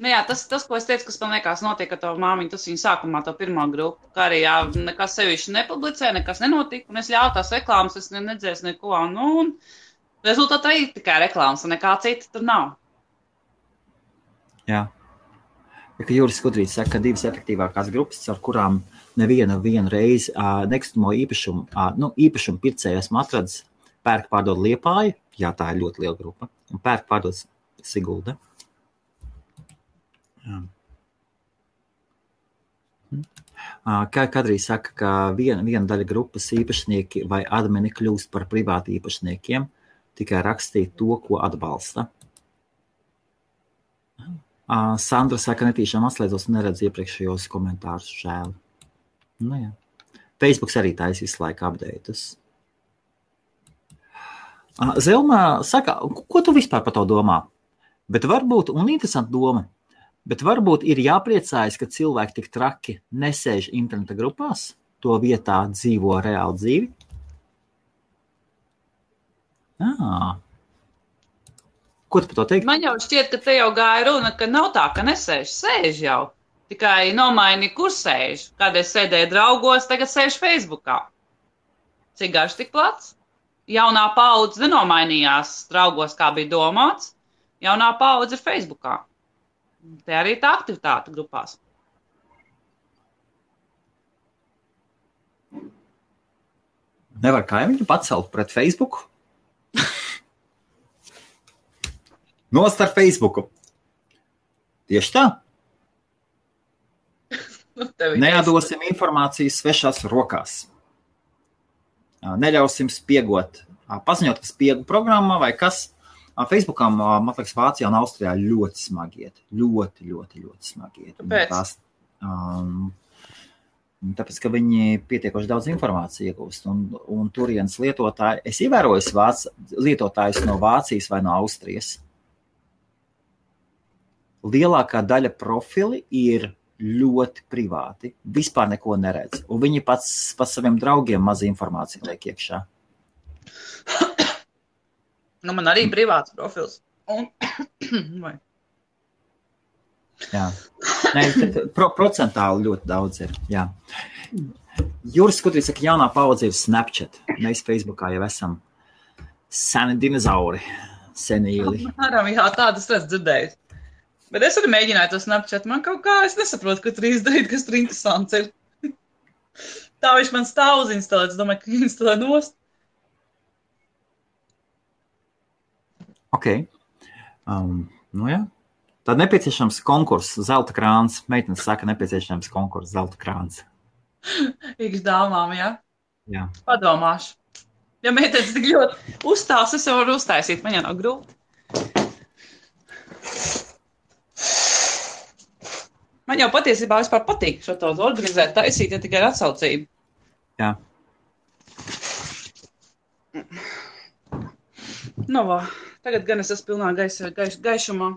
Nu jā, tas, ko es teicu, kas man liekas notiek ar to māmiņu, tas viņa sākumā to pirmo grupu, kā arī jā, nekas sevišķi nepublicē, nekas nenotika, un es ļauju tās reklāmas, es nedzēs neko, un rezultātā ir tikai reklāmas, un nekā cita tur nav. Jā. Ja, ka Juris Skudrīts saka, ka divas efektīvākās grupas, ar kurām nevienu reizi nekustamo īpašumu pircēju esmu atradis, pērk pārdod Liepāja, jā, tā ir ļoti liela grupa, un pērk pārdod Sigulda. Kadrī saka, ka viena daļa grupas īpašnieki vai admini kļūst par privāti īpašniekiem, tikai rakstīt to, ko atbalsta. Sandra saka, netīšām atslēdzos un neredz iepriekšējos komentārus, žēl. Nu jā. Facebooks arī taisa visu laiku updates. Zelma saka, ko tu vispār par to domā? Bet varbūt, un interesanta doma, bet varbūt ir jāpriecājas, ka cilvēki tik traki nesēž interneta grupās, to vietā dzīvo reāli dzīvi. Ko tu par to teikt? Man jau šķiet, ka te jau gāja runa, ka nav tā, ka nesēž, sēž jau. Tikai nomaini, kur sēž. Kādreiz sēdēja draugos, tagad sēž Facebookā. Cik garš, tik plats? Jaunā paudze nenomainījās draugos, kā bija domāts. Jaunā paudze ir Facebookā. Te arī tā aktivitāte grupās. Nevar kaimiņu pacelt pret Facebooku? Nost ar Facebooku. Tieši tā. Neatdosim informāciju svešās rokās. Neļausim spiegot. Paziņot, ka spiegu programmā vai kas. Facebookam, man liekas, Vācijā un Austrijā ļoti smagi iet. Ļoti smagi iet. Kāpēc? Tāpēc, ka viņi pietiekoši daudz informāciju iegūst. Un turienes lietotāji, es ievēroju lietotājus no Vācijas vai no Austrijas. Lielākā daļa profili ir ļoti privāti. Vispār neko neredz. Un viņi pats saviem draugiem maz informāciju liek iekšā. Nu, man arī privāts profils. Jā. Procentāli ļoti daudz ir. Jā. Juris Skudrīts saka, jaunā paudze ir Snapchat. Mēs Facebookā jau esam seni dinozauri. Senīli. Jā, tādas es dzirdēju. Bet es arī mēģināju to Snapchat. Man kaut kā, es nesaprotu, ko tur izdarīt, kas tur interesants ir. Tā viņš man stāv uzinstalēt. Es domāju, ka instalē nost. Ok. Nu jā. Tad nepieciešams konkurss, zelta krāns. Meitenes saka, nepieciešams konkurss, zelta krāns. Iks dāmām, jā? Jā. Padomāšu. Ja meitenes tik ļoti uzstās, es jau varu uztaisīt. Man jau nav grūti. Man jau patiesībā vispār patīk šo to organizēt, taisīt, ja tikai ar atsaucību. Jā. Nu, vā. Tagad gan es esmu pilnā gaišumā.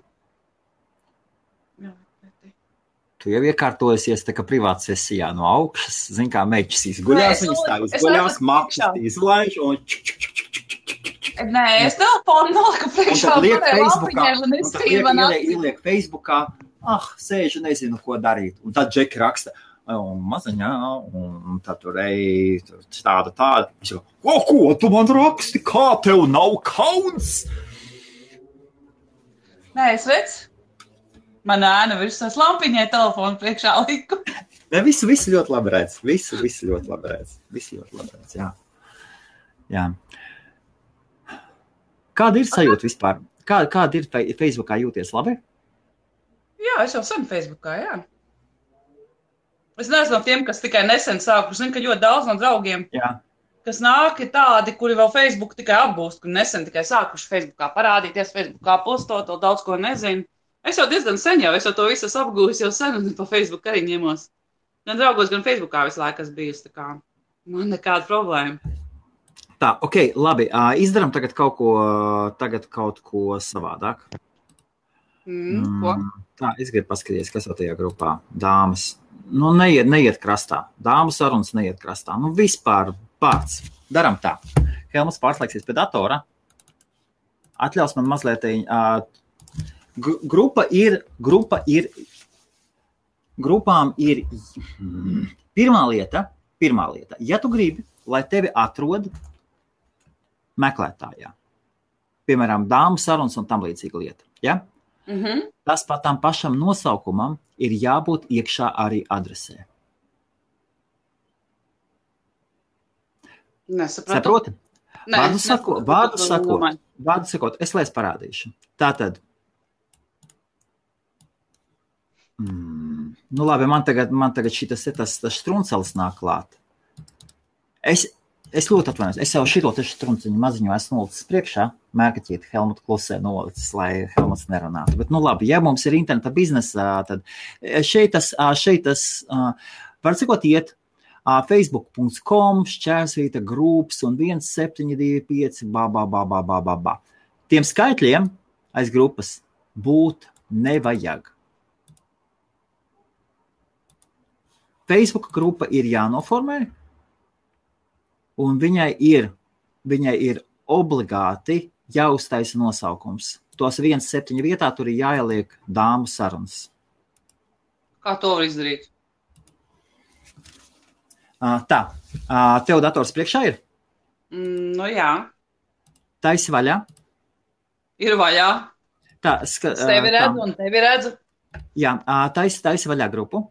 Jā. Tu jau iekārtojusies tā kā privāta sesijā no augšas. Zin kā meķis izguļās, viņas tā izguļās, makšas izlaiž un Nē, es telefonu noliku priekšā. Ieliek Facebookā. Sēžu, nezinu, ko darīt. Un tad Džeki raksta, maziņā, un tad tur tāda. Viņš saka, ko tu man raksti? Kā tev nav kauns? Nē, es redzu. Man ēna virs tās lampiņai telefonu priekšā liku. Ne, visu ļoti labi redz. Visu ļoti labi redz. Jā. Jā. Kāda ir sajūta vispār? Kāda ir Facebookā jūties labi? Jā, es jau sen Facebookā, jā. Es neesmu no tiem, kas tikai nesen sāku. Zinu, ka ļoti daudz no draugiem, kas nāk, ir tādi, kuri vēl Facebook tikai apgūst, kuri nesen tikai sākuši Facebookā parādīties, Facebookā postot, vēl daudz ko nezinu. Es jau diezgan sen jau, es jau to visu apgūstu jau sen, un pa Facebook arī ņemos. Gan draugos, gan Facebookā visu laiku esmu bijusi, tā kā man nekāda problēma. Tā, ok, labi, izdaram tagad kaut ko savādāk. Ko? Tā, es gribu paskatīties, kas jau tajā grupā. Dāmas, nu neiet krastā. Dāmu sarunas neiet krastā. Nu vispār pats. Daram tā. Helmuts pārslēgsies pie datora. Atļaus man mazliet... Grupām ir pirmā lieta, ja tu gribi, lai tevi atrod meklētājā, piemēram, dāmu sarunas un tam līdzīga lieta, ja? Tas pat tam pašam nosaukumam ir jābūt iekšā arī adresē. Nesapratu. Vārdu sakot, es lai parādīšu. Tātad, nu labi, man tagad šitas struncelis nāk klāt. Es ļoti atvainojos. Es jau šito strunciņu maziņu esmu nolicis priekšā. Mērkaķīti Helmuta klusē nolicis, lai Helmuts nerunātu. Bet, nu labi, ja mums ir interneta biznesā, tad šeit tas var cikot iet facebook.com/Šķērsvīta groups un 1725 ba. Tiem skaitļiem aiz grupas būt nevajag. Facebook grupa ir jānoformē, un viņai ir obligāti jāuztaisa nosaukums. Tos 1.7 vietā tur ir jāieliek dāmu sarunas. Kā to var izdarīt? Tā, tev dators priekšā ir? Nu jā. Taisi vaļā? Ir vaļā. Tā, tevi redzu un tevi redzu. Jā, taisi vaļā grupu.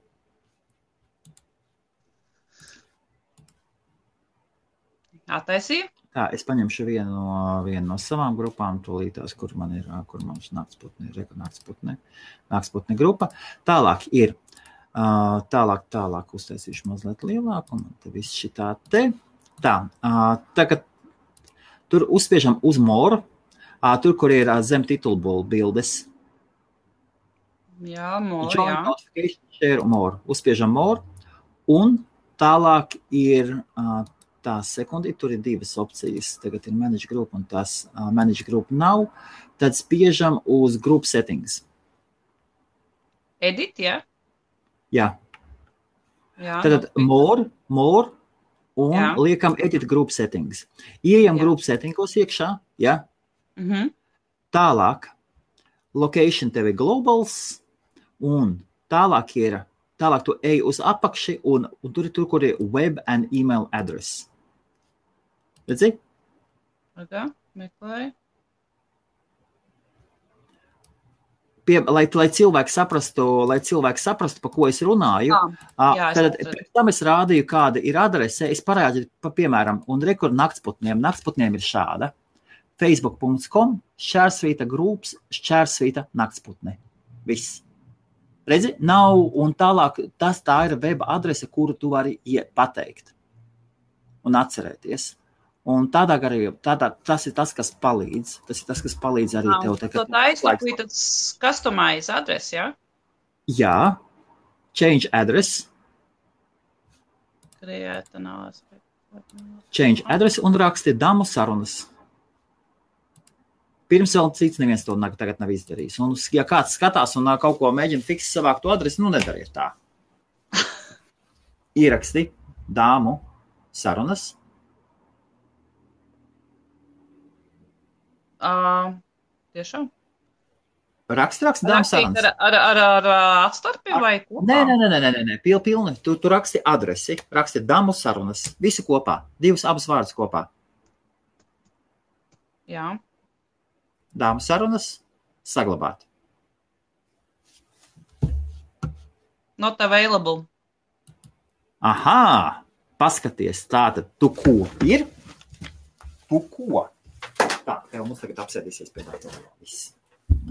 Attaisīju? Tā, es paņemšu vienu no savām grupām, tūlītās, kur mums Nāksputne grupa. Tālāk ir, tālāk uztaisīšu mazliet lielāku, un te viss šitā te. Tā, tagad tur uzspiežam uz more, tur, kur ir zem titulbulu bildes. Jā, more, Join notification, share, more. Uzspiežam more, un tālāk ir... Tā sekundi, tur ir divas opcijas. Tagad ir manage group un tas manage group nav. Tad spiežam uz group settings. Edit, jā? Jā. Tad more un liekam edit group settings. Ieejam group settingos iekšā, jā? Tālāk location tev ir globals un tālāk tu ej uz apakši un tur, kur ir web and email address. Redzi? Meklēju. Lai cilvēki saprastu, pa ko es runāju, tad pēc tam es rādīju, kāda ir adrese, es parādīju, piemēram, un rekur Naktsputniem ir šāda. facebook.com/Šķērsvīta groups /Šķērsvīta Naktsputne. Viss. Redzi, nav, un tālāk tā ir web adrese, kuru tu vari pateikt un atcerēties. Un tas ir tas, kas palīdz. Tas ir tas, kas palīdz arī tev. Tā ir tas customize adrese, jā? Jā. Change address. Change address un raksti damu sarunas. Pirms vēl cits neviens to tagad nav izdarījis. Un, ja kāds skatās un kaut ko mēģina fiksēt savāk to adresi, nu nedariet tā. Ieraksti dāmu sarunas. Tiešām? Raksti dāmu sarunas. Ar atstarpiem vai kopā? Nē, pilni. Tu raksti adresi, raksti dāmu sarunas. Visu kopā. Abas vārdus kopā. Jā. Dāmu sarunas saglabāt. Not available. Aha! Paskaties, tātad tu ko ir? Tu ko? Tā, tev mums tagad apsēdīsies pie tā. Viss.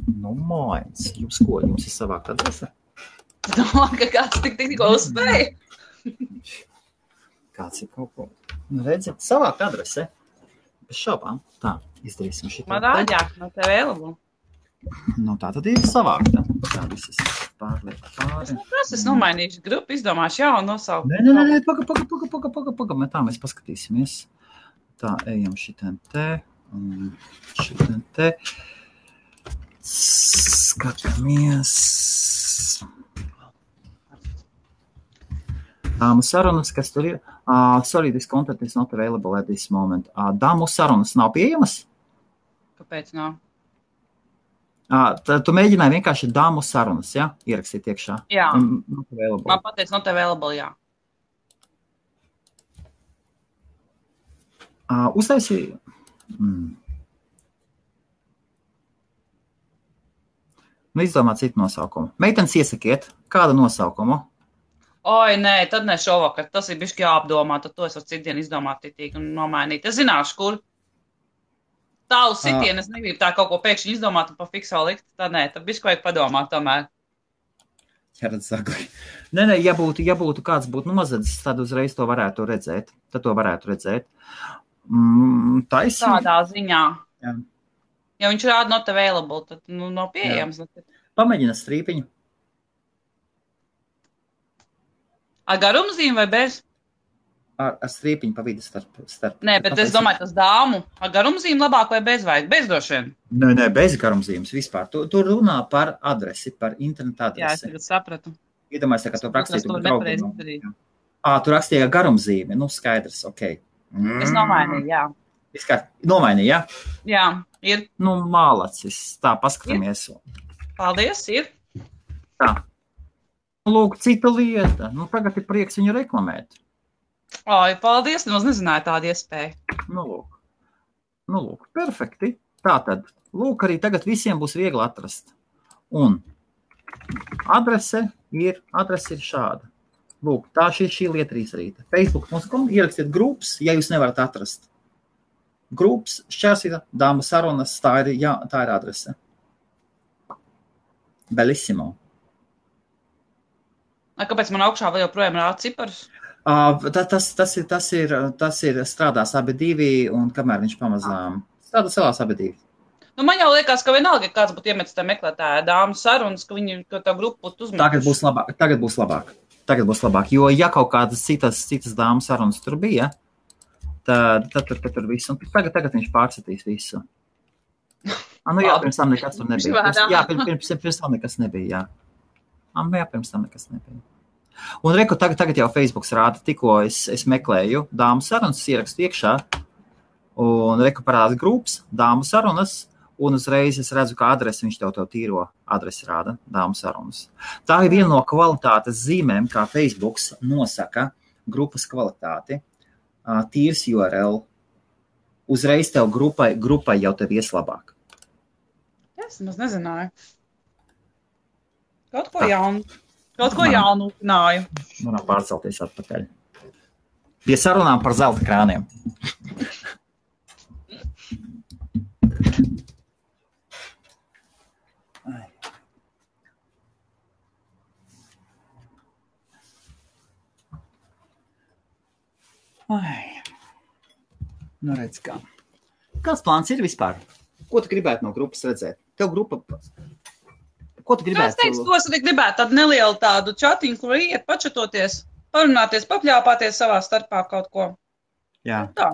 Nu, mājas. Jums ko? Jums ir savākt adrese? Domāju, ka kāds tikko uzspēja. Kāds ir kaut ko? Nu, redzi, savākt adrese. Bez šaubām. Tā, izdarīsim šitā. Man āģāk, no tev vēlabu. Nu, tā tad ir savākta. Tā visas pārliek pāri. Es nomainīšu grupu, izdomāšu jaunu nosaukumu. Nē, paga, tā mēs paskatīsimies. Tā, ejam šitien te, un šitien te. Skatāmies. Dāmu sarunas, kas tur ir? Sorry, this content is not available at this moment. Dāmu sarunas nav pieejamas? Kāpēc nav? Tu mēģināji vienkārši dāmu sarunas, ja? Ierakstīt iekšā. Jā. Not available. Man pateic not available, jā. Uztaisīju. Nu, izdomā citu nosaukumu. Meitenes iesakiet, kādu nosaukumu? Oi, nē, tad ne šovakar. Tas ir bišķi jāapdomā, tad to es varu citdien izdomāt titīgi un nomainīt. Es zināšu, kur. Tālu sitienu, es negribu tā kaut ko pēkšņi izdomāt un pa fiksā likt. Tad nē, tad bišķi vajag padomāt tomēr. Jā, redz sagli. Nē, ja būtu kāds būtu nozadzis, tad uzreiz to varētu redzēt. Tad to varētu redzēt. Taisnība. Tādā ziņā. Jā. Ja viņš rāda not available, tad nav pieejams. Pamēģina strīpiņu. Ar garumzīm vai bez? Ar strīpiņu pa vidu starp. Nē, bet es domāju, tas dāmu. Ar garumzīm labāk vai bez vajag? Bez droši vien. Nē, bez garumzīmes vispār. Tu runā par adresi, par internetu adresi. Jā, es tagad sapratu. Iedomājies, ka tu rakstītu par draugiem. Tu rakstīji ar garumzīmi. Nu, skaidrs, ok. Es nomainīju, jā. Nomainīji, jā? Jā, ir. Nu, mālacis. Tā, paskatāmies. Paldies, ir. Tā. Lūk, cita lieta. Nu, tagad ir prieks viņu reklamēt. Oi, paldies, nemaz nezināju tādu iespēju. Nu, lūk, perfekti. Tātad, lūk, arī tagad visiem būs viegli atrast. Un adrese ir šāda. Lūk, tā šī lieta ir izdarīta. Facebook.com ierakstiet grupas, ja jūs nevarat atrast. Grupas, šķērsīta, dāma sarunas, tā ir adrese. Bellissimo. Kāpēc man augšā vēl joprojām rāda ciparus? Tas ir strādās abi divi, un kamēr viņš pamazām strādā salās abi divi. Nu, man jau liekas, ka vienalga, ja kāds būtu iemetis tā meklētāja dāmu sarunas, ka tā grupa būtu uzmanījuši. Tagad būs labāk, jo ja kaut kādas citas dāmu sarunas tur bija, tad tur viss, un tagad viņš pārsatīs visu. Jā, pirms tam nekas tur nebija. Jā, pirms tam nekas nebija, jā. Jā, pirms tam nekas nebija. Un reku, tagad jau Facebooks rāda, tikko es meklēju dāmu sarunas, ierakstu iekšā, un reku parāda grupas, dāmu sarunas, un uzreiz es redzu, ka adresi viņš tev tīro adresi rāda, dāmu sarunas. Tā ir viena no kvalitātes zīmēm, kā Facebooks nosaka grupas kvalitāti, tīrs URL, uzreiz tev grupai jau tev ies labāk. Es maz nezināju. Kaut ko jaunu uzzināju. Varam pārcelties atpakaļ. Pie sarunām par zelta krāniem. Nu redz kā. Kāds plāns ir vispār? Ko tu gribētu no grupas redzēt? Tev grupa... Ko tu gribētu? Es teicu, ko es gribētu tādu nelielu tādu čatiņu, kur iet pačatoties, parunāties, papļāpāties savā starpā kaut ko. Jā. Tā.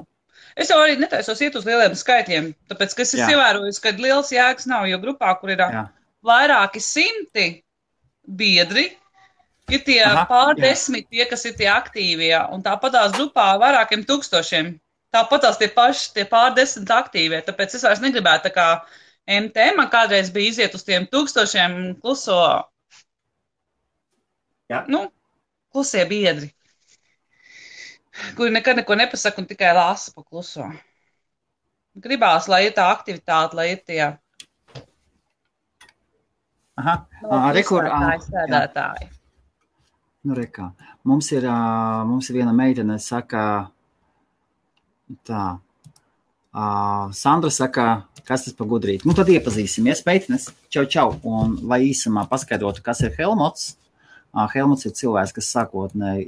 Es jau arī netaisos iet uz lieliem skaitļiem, tāpēc, ka es ievēroju, ka liels jēgas nav, jo grupā, kur ir vairāki simti biedri, ir tie pārdesmit tie, kas ir tie aktīvie, un tāpatās grupā vairākiem tūkstošiem. Tāpatās tie pārdesmit aktīvie, tāpēc es vairs negribētu tā kā MT, man kādreiz bija iziet uz tiem tūkstošiem kluso, klusie biedri, kuri nekad neko nepasaka un tikai lasa pa kluso. Gribās, lai ir tā aktivitāte, lai ir tie sēdētāji. Nu, rekā. Mums ir viena meitene, saka tā. Sandra saka, kas tas par gudrīti. Nu, tad iepazīsimies, meitenes. Čau. Un, lai īsumā paskaidrotu, kas ir Helmuts. Helmuts ir cilvēks, kas sākotnēji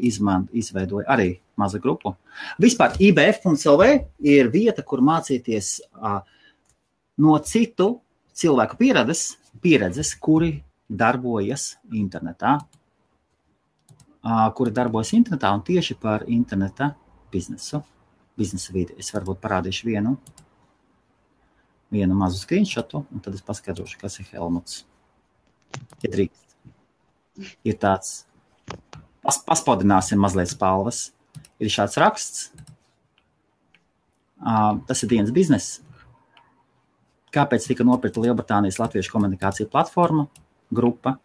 izveidoja arī mazu grupu. Vispār IBF.lv ir vieta, kur mācīties no citu cilvēku pieredzes, kuri darbojas internetā. Un tieši par interneta biznesa vidi. Es varbūt parādīšu vienu mazu screenshotu, un tad es paskaidrošu, kas ir Helmuts. Ja drīkst. Ir tāds, paspodināsim mazliet spalvas. Ir šāds raksts. Tas ir dienas bizness. Kāpēc tika nopirkta Lielbritānijas latviešu komunikācija platforma, grupa?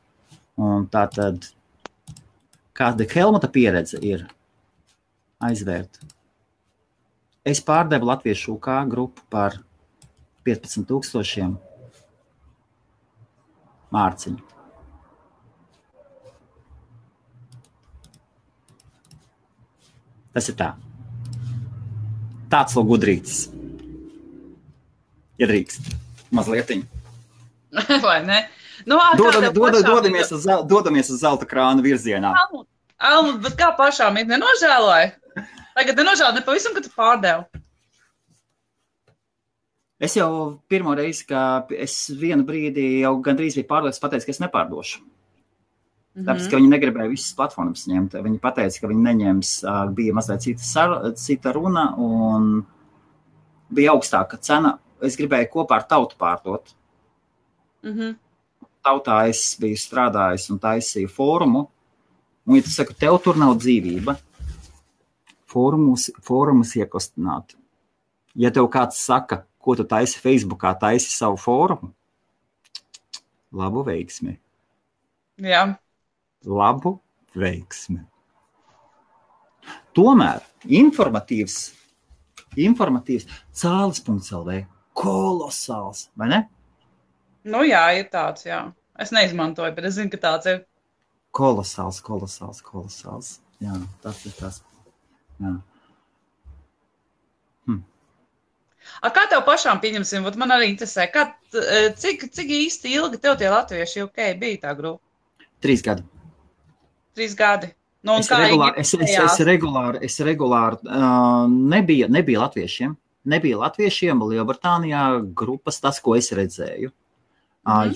Un tātad, kāda Helmuta pieredze ir aizvērt? Es pārdevu latviešu UK grupu par 15,000 mārciņu. Tas ir tā. Tāds vēl gudrītis. Ja drīkst. Mazlietiņ. Vai ne? Nu, dodamies uz zelta krāna virzienā. Almut, bet kā pašām it nenožēloja? Tagad nenožēloja, pavisam, ka tu pārdevu. Es jau pirmo reizi, ka es vienu brīdi jau gandrīz biju pārliecināts, pateicu, ka es nepārdošu. Tāpēc, ka viņi negribēja visas platformas ņemt. Viņi pateica, ka viņi neņems, bija mazliet cita runa un bija augstāka cena. Es gribēju kopā ar Tautu pārdot. Tautā es biju strādājis un taisīju fórumu. Un, ja tu saka, tev tur nav dzīvība, fórumus iekustināt. Ja tev kāds saka, ko tu taisi Facebookā, taisi savu fórumu, labu veiksmi. Jā. Labu veiksmi. Tomēr informatīvs Cālis.lv kolosāls, vai ne? Nu jā, ir tāds, jā. Es neizmantoju, bet es zinu, ka tāds ir. Kolosāls. Jā, tas ir tas. Jā. Kā tev pašām pieņemsim? Man arī interesē, cik īsti ilgi tev tie latvieši UK bija tā grupa? 3 gadi. 3 gadi. Nu, Es regulāri nebija latviešiem. Nebija latviešiem Lielbritānijā grupas, tas, ko es redzēju.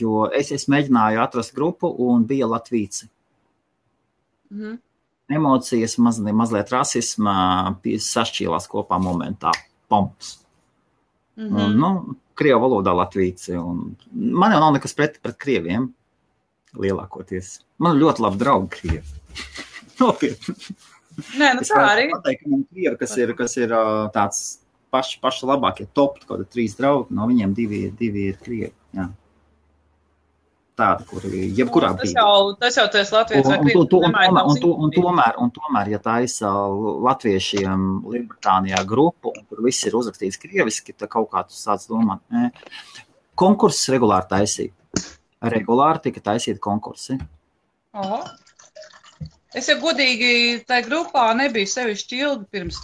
Jo es mēģināju atrast grupu un bija latvīci. Emocijas, mazliet rasisma sašķīlās kopā momentā. Pomps. Un, krievu valodā latvīci. Man jau nav nekas pret krieviem. Lielākoties. Man ļoti labi draugi krievi. Nopietni. Nē, nu tā arī. Es pateicu, ka man krievi, kas ir tāds paši labākie top, kaut 3 draugi, no viņiem 2 ir krievi. Jā. Tādi, kuri jebkurā brīdī. Tas jau tu esi Latvijas vai krievi. Un tomēr, ja taisa latviešiem Lielbritānijā grupu, un tur viss ir uzrakstīts krieviski, tad kaut kā tu sāc domāt. Konkurss regulāri taisīja. Regulāri tika taisīti konkursi. Es jau godīgi tajā grupā nebiju sevišķi ilgi pirms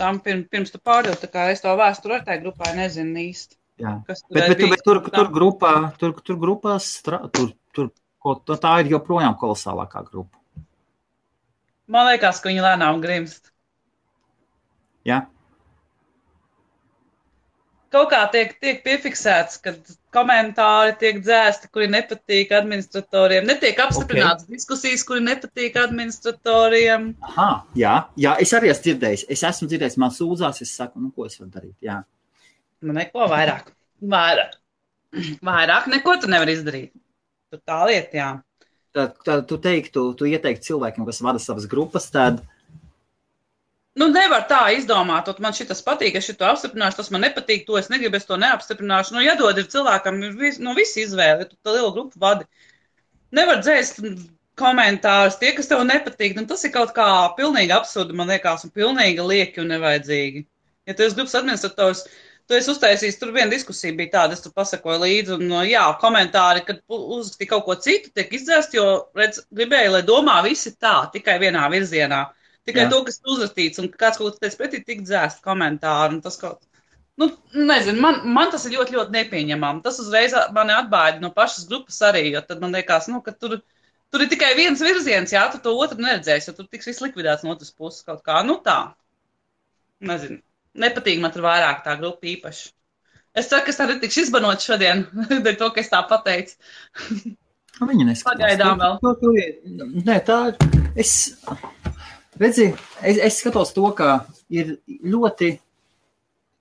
tu pārdevi, tā kā es to vēsturi ar tajā grupā nezinu īsti. Jā, bet tur grupās, tā ir joprojām kolosālākā grupa. Man liekas, ka viņi lēnām grimst. Jā. Kaut kā tiek piefiksēts, kad komentāri tiek dzēsti, kuri nepatīk administratoriem. Netiek apstiprināts diskusijas, kuri nepatīk administratoriem. Jā, es arī esmu dzirdējis. Es esmu dzirdējis, man sūdzās, es saku, ko es varu darīt, jā. Nu, neko vairāk. Vairāk neko tu nevar izdarīt. Tu tā lieta, jā. Tad tu ieteiktu cilvēkiem, kas vada savas grupas, tad... Nu, nevar tā izdomāt, man šitas patīk, es šito apstiprināšu, tas man nepatīk, to es negribu, es to neapstiprināšu. Nu, jādod ir cilvēkam, visi izvēle, tu tā lielu grupu vadi. Nevar dzēst komentārus, tie, kas tev nepatīk, nu, tas ir kaut kā pilnīgi absurdi, man liekas, un pilnīgi lieki un nevajadzīgi. Ja tu esi grupas administrators, Tu esi uztaisījis, tur viena diskusija bija tāda, es tur pasakoju līdzi, un jā, komentāri, kad uzrakstīja kaut ko citu, tiek izdzēst, jo, redz, gribēju, lai domā visi tā, tikai vienā virzienā. Tikai to, kas uzrakstīts, un kāds kaut kas teica pretī, tik dzēst komentāri, un tas kaut, nu, nezinu, man tas ir ļoti, ļoti nepieņemam. Tas uzreiz mani atbaida no pašas grupas arī, jo tad man liekas, nu, ka tur ir tikai viens virziens, jā, tu to otru neredzēsi, jo tur tiks viss likvidēts no otras puses kaut kā, nu tā, nezinu. Nepatīk man tur vairāk tā grupa īpaši. Es ceru, ka es tā netikšu izbanot šodien, dēļ to, ka es tā pateicu. Viņa neskatās. Pagaidām vēl. Nē, tā es skatos to, ka ir ļoti,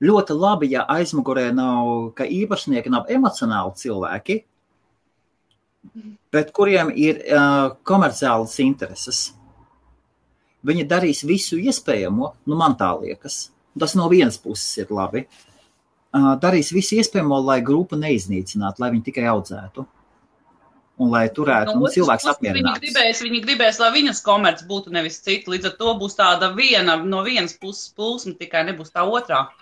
ļoti labi, ja aizmugurē nav, ka īpašnieki nav emocionāli cilvēki, bet kuriem ir komerciālas intereses. Viņi darīs visu iespējamo, nu man tā liekas. Tas no vienas puses ir labi. Darīs visu iespējamo, lai grupu neiznīcinātu, lai viņi tikai audzētu. Un lai turētu cilvēks apmierināts. Viņi gribēs, lai viņas komerci būtu nevis citi. Līdz ar to būs tāda no vienas puses plūsma, tikai nebūs tā otrā.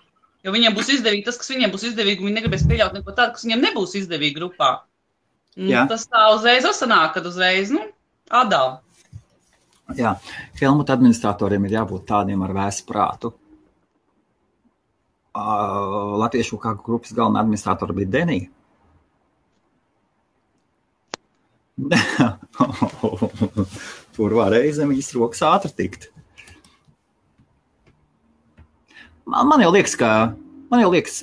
Jo viņiem būs izdevīgi tas, kas viņiem būs izdevīgi, un viņi negribēs pieļaut neko tādu, kas viņiem nebūs izdevīgi grupā. Tas tā uzreiz sanāk, kad uzreiz, atdala. Jā, Helmuta administratoriem ir jābūt tādiem ar vēsu prātu. Latviešu kā grupas galvenā administratora bija Denija. Tur varēja zem viņas rokas ātri tikt. Man jau liekas,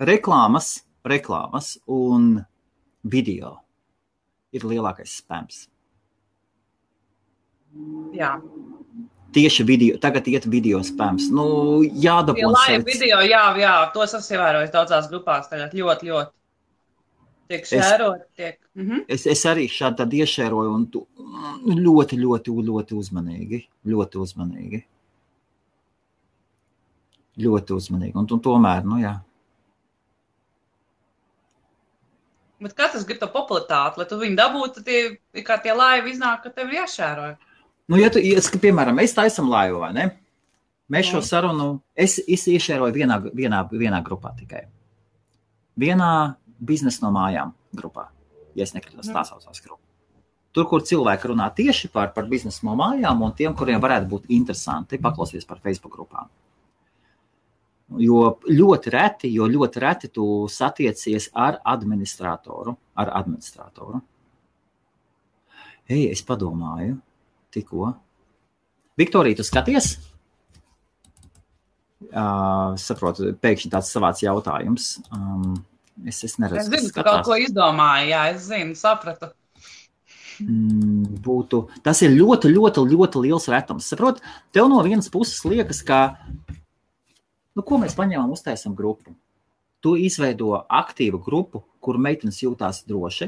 reklāmas un video ir lielākais spams. Jā. Tieši video, tagad iet video spams. Nu, jādabū. Live video, jā, tos esmu ievērojis daudzās grupās tagad ļoti, ļoti. Tiek šērot, tiek. Es arī šādi tad iešēroju un ļoti, ļoti, ļoti uzmanīgi. Ļoti uzmanīgi. Ļoti uzmanīgi. Un tomēr, jā. Bet katrs grib to popularitāti, lai tu viņu dabūtu, tad kā tie laivi iznāk, ka tev ir jāšēroja. Nu, ja piemēram, mēs taisam laivu, vai ne? Mēs šo sarunu, es iešēroju vienā grupā tikai. Vienā biznesa no mājām grupā, ja es nekritos, tā saucās grupa. Tur, kur cilvēki runā tieši par biznesa no mājām un tiem, kuriem varētu būt interesanti paklausīties par Facebook grupām. Jo ļoti reti tu satiecies ar administratoru. Es padomāju. Tikko. Viktorija, tu skaties? Saprotu, pēkšņi tāds savāds jautājums. Es neredzu, es zinu, ka kaut ko izdomāju, jā, es zinu, sapratu. Tas ir ļoti, ļoti, ļoti liels retums. Saprot, tev no vienas puses liekas, ka, ko mēs paņēmām, uztaisam grupu. Tu izveido aktīvu grupu, kur meitenes jūtās droši.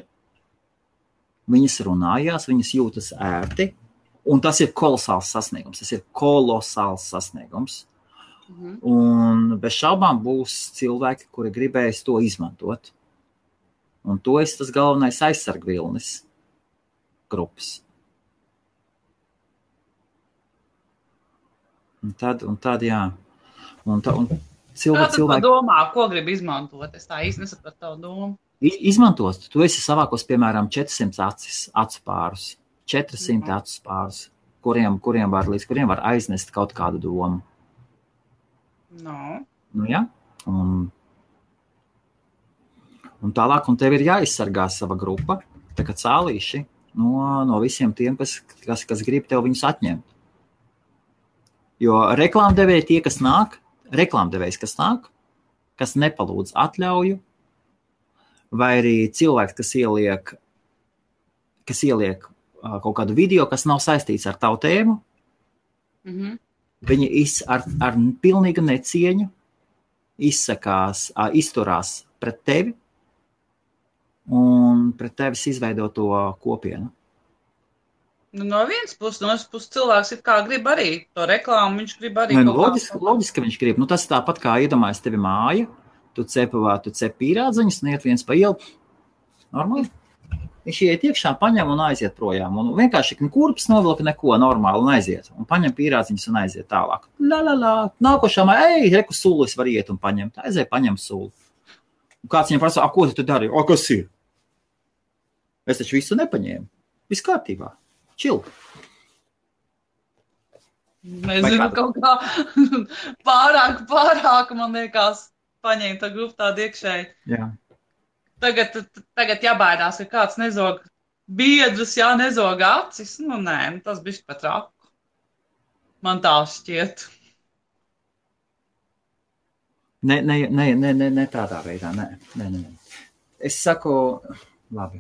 Viņas runājās, viņas jūtas ērti. Un tas ir kolosāls sasniegums. Un bez šaubām būs cilvēki, kuri gribēs to izmantot. Un to ir tas galvenais aizsargvilnis grupas. Un tad jā. Cilvēki domā, ko grib izmantot? Es tā īsti nesapratu tavu domu. Izmantos. Tu esi savākos, piemēram, 400 acu pārus. 400 acu pārus, kuriem var aiznest kaut kādu domu. Nu, jā. Un tālāk, un tev ir jāizsargā sava grupa, tā kā cālīši, no visiem tiem, kas grib tev viņus atņemt. Jo reklāmdevēji tie, kas nāk, kas nepalūdz atļauju, vai arī cilvēks, kas ieliek kaut kādu video, kas nav saistīts ar tavu tēmu, viņi ar pilnīgu necieņu izturās pret tevi un pret tevis izveidoto kopienu. No vienas puses cilvēks it kā grib arī to reklāmu, viņš grib arī loģiski, ka viņš grib. Tas tāpat kā iedomājas tevi māja, tu cep pīrādziņus un iet viens pa ielu. Normāli. Viņš iet iekšā, paņem un aiziet projām. Un vienkārši kurpes novilka neko normāli un aiziet. Un paņem pīrādziņus un aiziet tālāk. Nākošā māja, reku sulis var iet un paņemt. Aiziet, paņem suli. Un kāds viņam prasa, ko tu dari? Kas ir? Es taču visu nepaņēmu. Viss kārtībā. Čil. Nezinu, kaut kā pārāk, man liekas, paņēma tā grupu tādu iekšēji. Jā. Tagad jābaidās, ka kāds nezog biedrus, nezog acis. Nē, tas bišķi pat raku. Man tā šķiet. Ne tādā veidā, nē. Es saku, labi.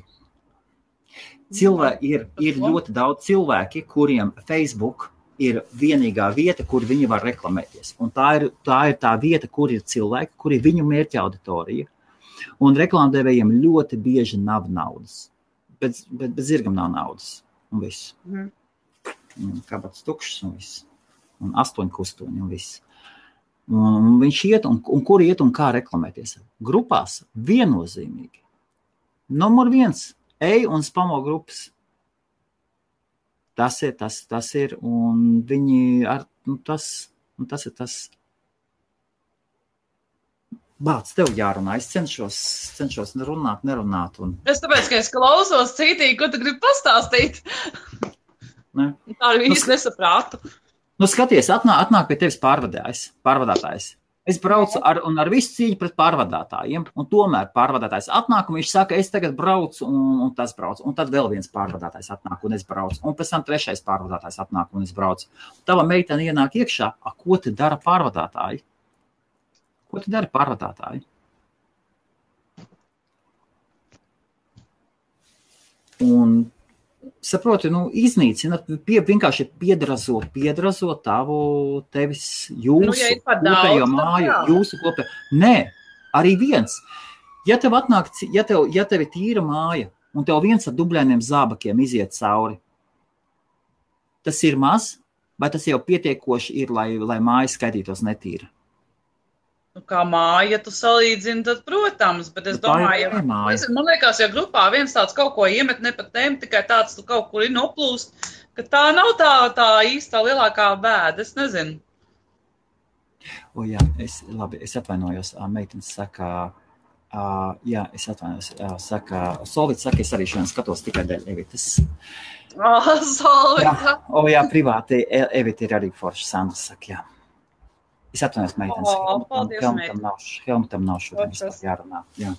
Ir ļoti daudz cilvēki, kuriem Facebook ir vienīgā vieta, kur viņi var reklamēties. Un tā ir tā vieta, kur ir cilvēki, kur ir viņu mērķa auditorija. Un reklāmdevējiem ļoti bieži nav naudas. Bet zirgam nav naudas. Un viss. Kabats tukšs un viss. Un 8 kustoņi un viss. Un viņš iet un kur iet un kā reklamēties. Grupās viennozīmīgi. Numur 1. Ej un spamo grupas. Tas ir. Un viņi tas ir tas. Bāc, tev jārunā. Es cenšos nerunāt. Es tāpēc, ka es klausos citīgi, ko tu gribi pastāstīt. Ne? Tā arī īsti nesaprātu. Skaties, atnāk pie tevis pārvadātājs. Es braucu ar visu cīņu pret pārvadātājiem, un tomēr pārvadātājs atnāk, un viņš saka, es tagad braucu, un tas brauc. Un tad vēl viens pārvadātājs atnāk, un es braucu. Un pēc tam 3. pārvadātājs atnāk, un es braucu. Tava meitene ienāk iekšā, ko te dara pārvadātāji? Ko tu dari pārvadātāji? Un, saproti, iznīcināt, vienkārši piedrazot tevis jūsu kopējo māju, jūsu kopējo. Nē, arī viens. Ja tev ir tīra māja, un tev viens ar dubļainiem zābakiem iziet cauri, tas ir maz, vai tas jau pietiekoši ir, lai māja skaitītos netīra? Kā māja, tu salīdzini, tad, protams, bet es domāju, man liekas, ja grupā viens tāds kaut ko iemet ne pat tēm, tikai tāds tu kaut kur ir noplūst, ka tā nav tā īstā lielākā bēda, es nezinu. Jā, es atvainojos, meitenes saka, Solvits saka, es arī šodien skatos tikai dēļ Evitas. Solvits. Jā, privāti, Evita ir arī forša, Sandra saka, jā. Es atvainojos, meitenes. Helmutam nav šodien vispār jārunā. Jā.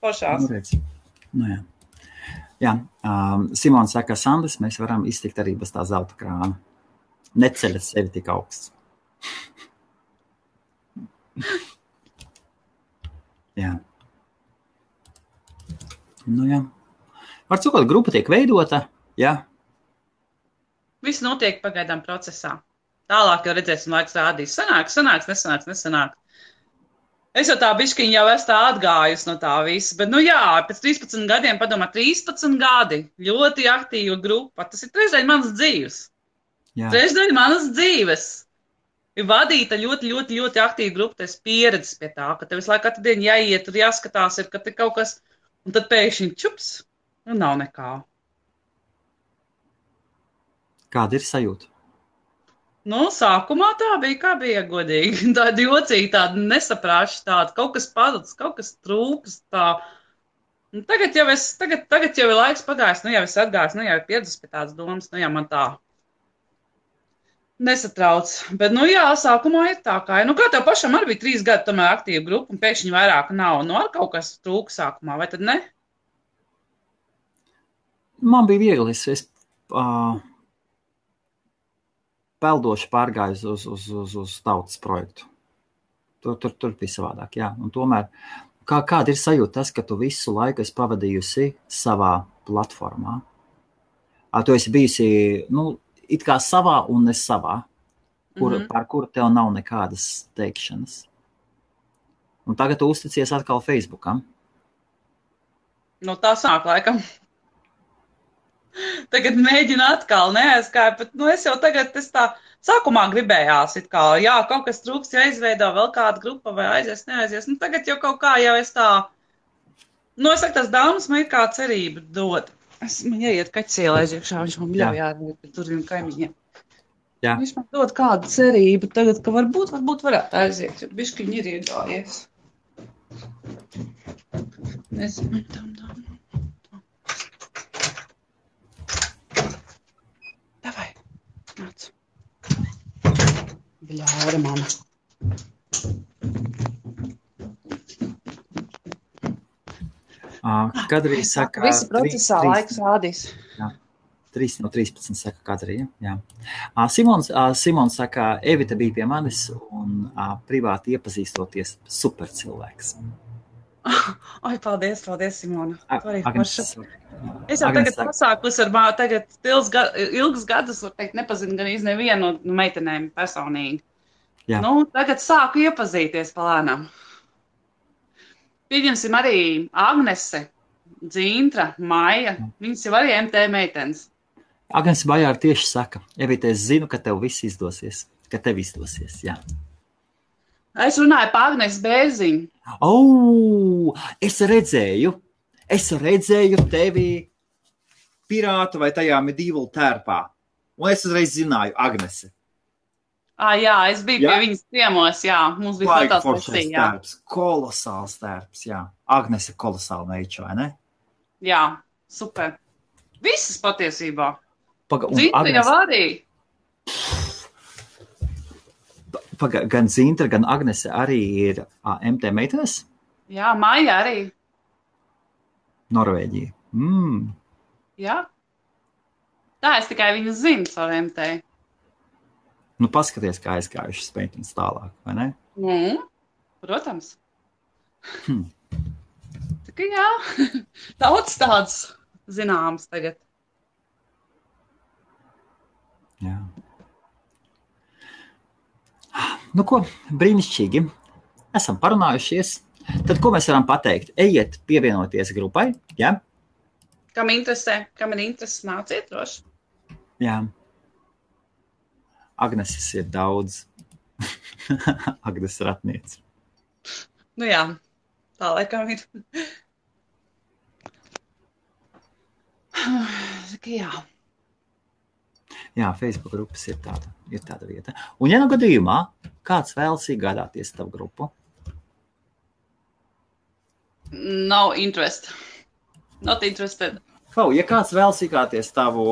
Pošās. Jā. Jā. Simona saka, Sandrs, mēs varam iztikt arī bez tā zelta krāna. Neceļas sevi tik augsts. Jā. Jā. Var cikot, grupa tiek veidota, jā. Viss notiek pagaidām procesā. Tālāk jau redzēsim, laiks rādīs. Sanāks, nesanāks. Es jau tā bišķiņ jau esmu tā atgājusi no tā visa. Bet, pēc 13 gadiem, padomā, 13 gadi. Ļoti aktīva grupa. Tas ir trešdaļa manas dzīves. Jā. Trešdaļa manas dzīves. Ir vadīta ļoti aktīva grupa. Tas pieredzes pie tā, ka tev visu laiku katru dienu jāiet, tur jāskatās, ka te kaut kas, un tad pēkšņi čups, un nav nekā. Kāda ir sajūta? Sākumā tā bija, kā bija godīgi. Tāda jocīga, tāda nesaprāša, tāda kaut kas pazudis, kaut kas trūks. Tā. Tagad jau ir laiks pagājis, jau es atgājis, jau ir pieredzis pie tādas domas, man tā nesatrauc. Bet, sākumā ir tā kā, kā tev pašam arī bija 3 gadi tomēr aktīva grupa, un pēkšņi vairāk nav. Ar kaut kas trūks sākumā, vai tad ne? Man bija viegli, es peldoši pārgāju uz tautas projektu. Tur bija savādāk, jā. Un tomēr, kāda ir sajūta tas, ka tu visu laiku esi pavadījusi savā platformā? Tu esi bijusi, it kā savā un ne savā, par kuru tev nav nekādas teikšanas. Un tagad tu uzticies atkal Facebookam. Tā sāk laikam. Tagad mēģinu atkal neaizkāju, bet es jau tagad, Sākumā gribējās, it kā, jā, kaut kas trūks, jāizveido vēl kāda grupa vai aizies, neaizies. Nu, tagad jau kaut kā jau es tā, nu, es saku, tas dāmas man ir kā cerība dod. Man jāiet kaķielēs iekšā, viņš man bļauj ārā, tur vien kaimiņiem. Jā. Viņš man dod kādu cerību tagad, ka varbūt varētu aiziet, jo bišķiņi ir iegājies. Nezinu, tam. Davai, nāc. Bļaura, mama. Kadrī saka... Visi procesā laiks rādīs. Jā. 3 no 13 saka Kadrija. Jā. Simons saka, Evita bija pie manis un privāti iepazīstoties super cilvēks. Ai, paldies, Simona. Agnes, es jau tagad pasākus ar tagad ilgus gadus, var teikt, nepazinu gan nevienu no meitenēm personīgi. Jā. Nu, tagad sāku iepazīties palēnām. Pieņemsim arī Agnese, Dzintra, Maija. Viņas jau arī MT meitenes. Agnes Bajāra tieši saka, Evita, es zinu, ka tev viss izdosies, ka tev izdosies, jā. Es runāju par Agnes Bērziņu. Es redzēju tevi pirātu vai tajā medieval tērpā, un es uzreiz zināju Agnese. Jā, es biju pie viņas ciemos, jā, mums bija fotosesija, jā. Kolosāls tērps, jā. Agnese kolosāla meiča, vai ne? Jā, super. Visas patiesībā. Zintra jau arī. Gan Zintra, gan Agnese arī ir MT meitenes? Jā, Maija arī. Norvēģija. Jā. Tā es tikai viņu zinu savu MT. Nu, paskaties, kā aizgājušas meitenes tālāk, vai ne? Protams. Tā kā jā, daudz tāds zināms tagad. Jā. Nu ko, brīnišķīgi. Esam parunājušies. Tad ko mēs varam pateikt? Ejiet pievienoties grupai, jā? Kam ir intereses, nāciet droši. Jā. Agneses ir daudz. Agnes Ratniece. Nu jā, tā laikam ir. Jā. Jā, Facebook grupas ir tāda vieta. Un ja nu gadījumā kāds vēlas iegādāties tavu grupu? No interest. Not interested. Ja kāds vēlas iegādāties tavu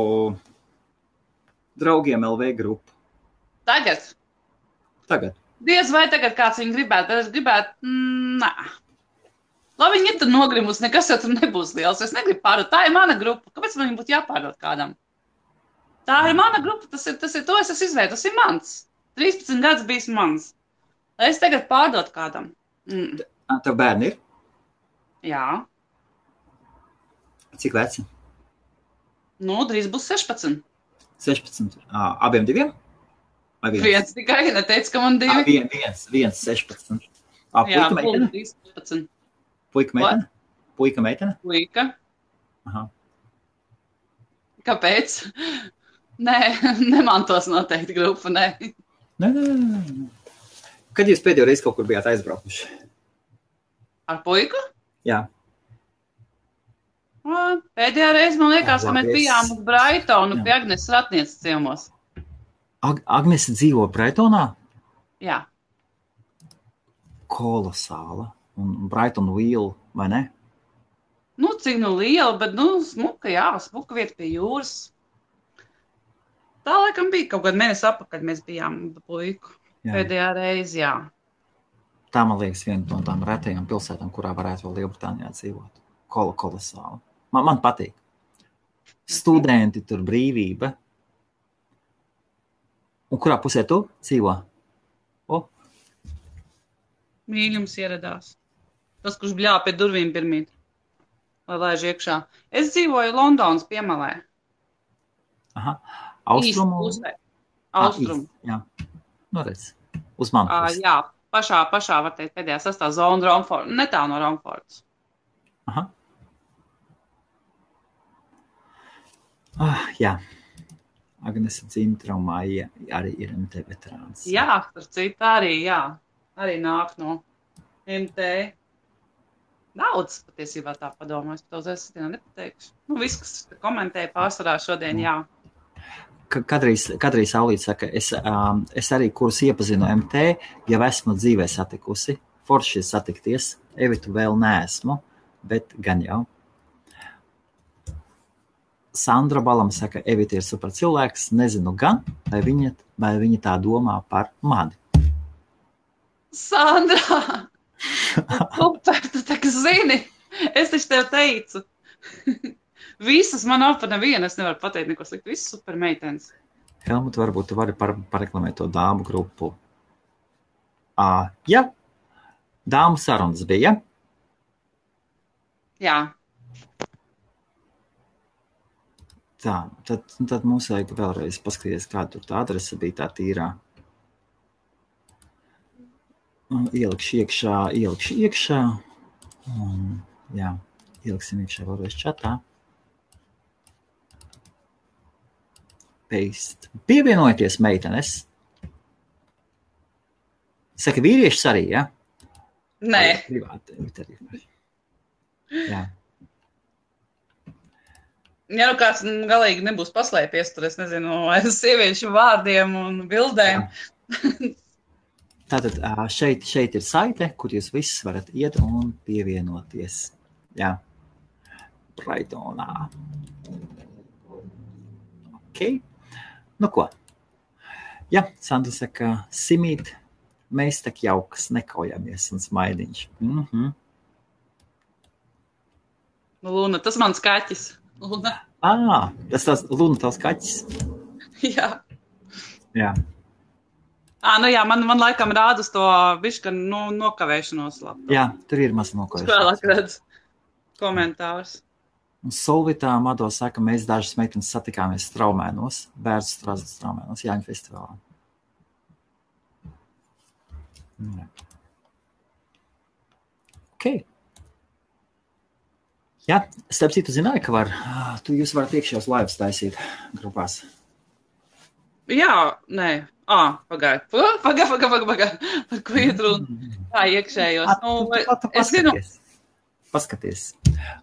draugiem LV grupu? Tagad. Diez vai tagad kāds viņu gribētu, bet es gribētu, nā. Lai viņi ir tur nogrimus, nekas jau tur nebūs liels. Es negribu pārdot. Tā ir mana grupa. Kāpēc man viņa būtu jāpārdot kādam? Tā ir mana grupa, tas ir to, es esmu izveidojis, tas ir mans. 13 gadus bijis mans. Lai es tagad pārdot kādam. Tev bērni ir? Jā. Cik veci? Nu, drīz būs 16. 16. Abiem diviem? Viens tikai, neteicu, ka man divi. Viens 16. Jā, Puika meitene? 16. Puika meitene? Puika meitene? Puika. Aha. Kāpēc? Nē, nemantos noteikti grupu, nē. Nē. Kad jūs pēdējo reizi kaut kur bijāt aizbraukuši? Ar puiku? Jā. Pēdējā reize, man liekas, ka mēs bijām uz Braitonu pie Agnes Ratnieces ciemos. Agnese dzīvo Braitonā? Jā. Kolosāla. Un Brighton Wheel, vai ne? Nu, cik liela, bet, smuka, jā, smuka vieta pie jūras. Tā laikam bija kaut kāda mēnesi apakaļ, mēs bijām puiku. Jā. Pēdējā reize, jā. Tā, man liekas, viena no tām retajām pilsētām, kurā varētu vēl Lielbritānijā dzīvot. Kolosāli. Man patīk. Studenti, tur brīvība. Un kurā pusē tu dzīvo? Mīļums ieradās. Tas, kurš bļāva pie durvīm pirmīt. Lai laiž iekšā. Es dzīvoju Londonas piemalē. Aha. Austrumu? Austrumu. Jā. Nu, redz. Uz manu pusi. Jā. Pašā, var teikt, pēdējā sastāv zona Romfords. Netā no Romfords. Aha. Jā. Agnese Dzintra un Maija arī ir MT veterāns. Jā, ar citu arī, jā. Arī nāk no MT. Daudz patiesībā tā padomājas, bet es nepateikšu. Viss, kas komentēja pārsvarā šodien, jā. Kadrī Saulīt saka, es arī, kurus iepazinu MT, jau esmu dzīvē satikusi. Forši satikties. Evitu vēl neesmu, bet gan jau. Sandra Balam saka, Evita ir super cilvēks, nezinu gan, vai viņa tā domā par mani. Sandra! Super, tu tā kā zini. Es taču tev teicu. Visas man nav par nevienu, es nevaru pateikt neko sliktu. Visas super meitenes. Helmut, varbūt tu vari pareklamēt to dāmu grupu. Ja, dāmu sarunas bija. Jā. Tā, tad mums vajag vēlreiz paskatīties, kāda tur tā adrese bija tā tīrā. Ielikšu iekšā. Jā, ieliksim iekšā vēlreiz čatā. Paste. Pievienojieties, meitenes. Saka, vīriešus arī, ja? Nē. Privāti. Jā. Ja nu kāds galīgi nebūs paslēpies, tur es nezinu, aiz sieviešu vārdiem un bildēm. Tātad šeit ir saite, kur jūs visus varat iet un pievienoties. Jā. Brightonā. Ok. Nu ko? Jā, Sandra saka, Simīt, mēs tak jaukas, nekaujamies un smaidiņš. Luna, tas mans kaķis. Luna. Tas Luna tavs kaķis? Jā. Jā. Nu jā, man laikam rāda uz to bišķi nokavēšanos labu. Jā, tur ir maz nokavēšanos. Vēlāk redz komentārs. Un Solvitā Mado saka, mēs dažas meitenes satikāmies Straumēnos, Bērzu Strasdas Straumēnos, Jāņu festivālā. Jā. Ok. Jā, starp citu zināju, ka jūs varat iekšējos laivas taisīt grupās. Jā, nē. Pagaid. Par ko iet runa? Tā iekšējos. Es zinu. Paskaties.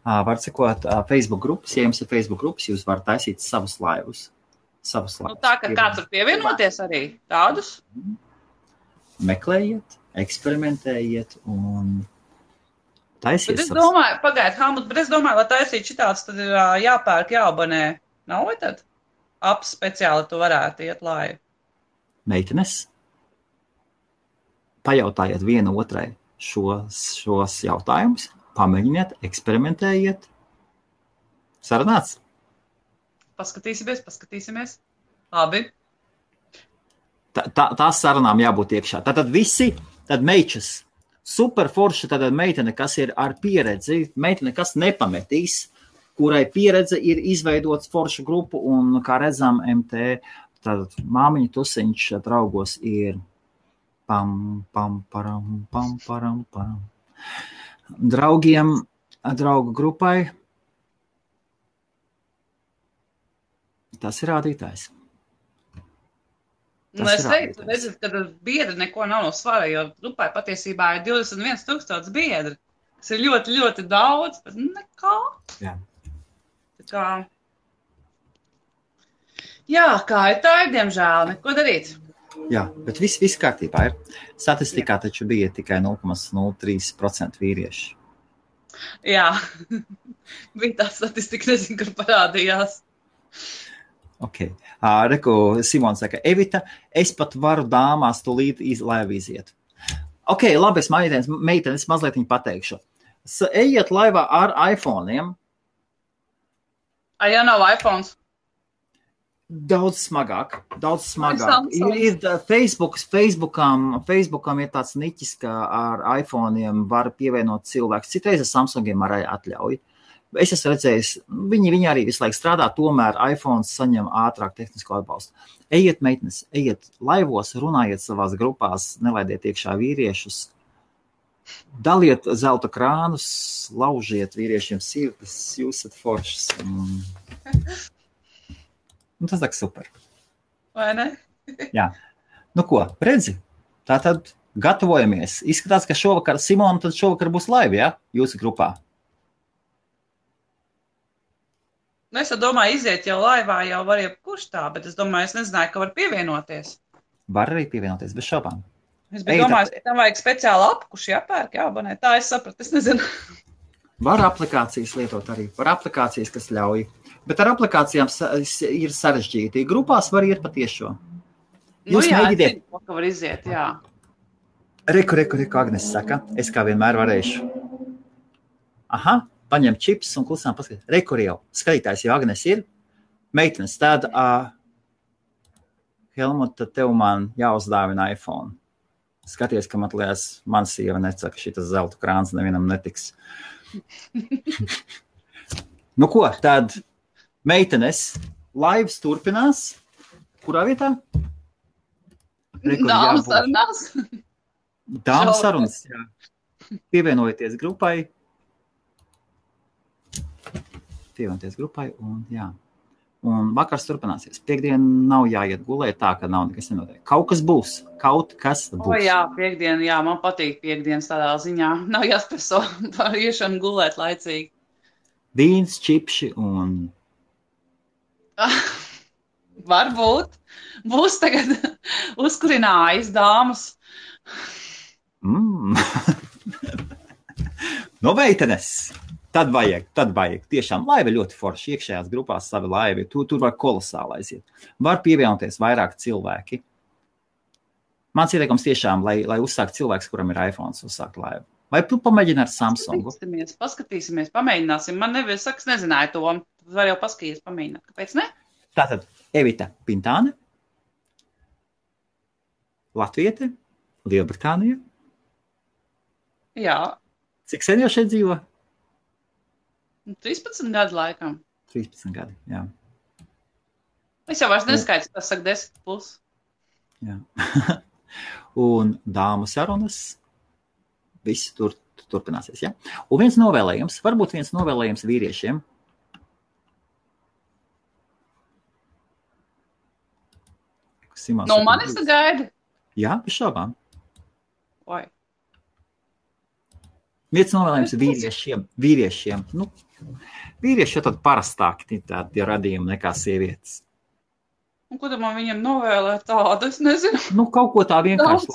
Var sekot Facebook grupas. Ja jums ir Facebook grupas, jūs varat taisīt savus laivus. Tā, ka kāds var pievienoties arī tādus? Meklējiet, eksperimentējiet un taisiet. Bet es domāju, Helmut, lai taisīt šitāds, tad ir jāpērk, jāabonē. Nav vai tad? Apps speciāli tu varētu iet laivu. Meitenes, pajautājiet viena otrai šos jautājumus, pamēģiniet, eksperimentējiet. Sarunāts? Paskatīsimies. Labi. Tās sarunām jābūt iekšā. Tātad visi, tad meičas, super forša, tātad meitene, kas ir ar pieredzi, meitene, kas nepametīs, kurai pieredze ir izveidots foršu grupu un, kā redzam, MT, tātad māmiņa tusiņš draugos ir param. Draugu grupai. Tas ir rādītājs. Es teiktu, ka biedri neko nav no svara, jo grupai patiesībā ir 21,000 biedri. Tas ir ļoti, ļoti daudz, bet nekā. Jā. Kā ir tā, diemžēl, neko darīt. Jā, bet viss kārtībā ir. Statistikā taču bija tikai 0,03% vīrieši. Jā, bija tā statistika, nezinu, kur parādījās. Ok. Reku Simons saka, Evita, es pat varu dāmās tūlīt laivu iziet. Ok, labi, es meitenes mazliet viņu pateikšu. Ejiet laivā ar iPhone'iem. Ja nav iPhones? Daudz smagāk. Ir Facebookam ir tāds niķis, ka ar iPhone'iem var pievienot cilvēks. Citreiz ar Samsungiem arī atļauj. Es esmu redzējis, viņi arī visu laiku strādā, tomēr iPhones saņem ātrāk tehnisko atbalstu. Ejiet, meitenes, ejiet laivos, runājiet savās grupās, nelaidiet iekšā vīriešus, daliet zelta krānus, laužiet vīriešiem sirdis, jūs esat foršas. Tas tā super. Vai ne? Jā. Nu ko, redzi? Tātad gatavojamies. Izskatās, ka šovakar, Simona, tad šovakar būs live, ja? Jūsu grupā. Nu, es domāju, iziet jau laivā, jau var jebkurš tā, bet es domāju, es nezināju, ka var pievienoties. Var arī pievienoties bez šaubām. Es biju domājis, ka tam vajag speciālu apkuši jāpērk, jāabonē. Tā es sapratu, es nezinu. Var aplikācijas lietot arī. Var aplikācijas, kas ļauj. Bet ar aplikācijām ir sarežģīti. Grupās var iet patiešo. Jūs mēģiniet. Nu, jā, var iziet, jā. Reku, Agnes saka. Es kā vienmēr varēšu. Aha, paņem čips un klusām paskatīt. Reku jau. Skatītājs jau Agnes ir. Meitenes, tad Helmut, tad tev man jāuzdāvina iPhone. Skaties, ka man liekas, man sieva necaka, šitas zelta krāns nevienam netiks. Nu ko, tad meitenes, laivs turpinās. Kurā vietā? Dāmas sarunās. Dāmas sarunas, jā. Pievienojieties grupai. Un jā. Un vakars turpināsies. Piektdien nav jāiet gulēt tā, ka nav nekas nenotiek. Kaut kas būs. O jā, piektdien, jā, man patīk piektdienas tādā ziņā. Nav jāstreso par iešanu gulēt laicīgi. Vīns, čipši un... Varbūt. Būs tagad uzkurinājas dāmas. No meitenes! Tad vajag. Tiešām laiva ļoti forši. Iekšējās grupās savi laivi. Tur var kolosāli aiziet. Var pievienoties vairāk cilvēki. Mans ieteikums tiešām, lai uzsākt cilvēks, kuram ir iPhone, uzsākt laivu. Vai tu pamēģini ar Samsungu? Paskatīsimies, pamēģināsim. Man nevies saka, nezināju to. Var jau paskatīties, pamēģināt. Kāpēc ne? Tātad Evita Pintāne, Latviete, Lielbritānija. Jā. Cik sen jau šeit dzīvo? 13 gadu laikam. 13 gadi, jā. Es jau vairs neskaitu, tas saka 10 plus. Jā. Un dāmu sarunas, viss turpināsies, jā. Un viens novēlējums, varbūt viens novēlējums vīriešiem. No manis tu gaidi? Jā, bez šaubām. Oi. Viens novēlējums vīriešiem. Nu, vīrieši jau tad parastāki tādi radījumi nekā sievietes. Un ko tad man viņam novēlēt tādu? Es nezinu. Nu, kaut ko tā vienkārši,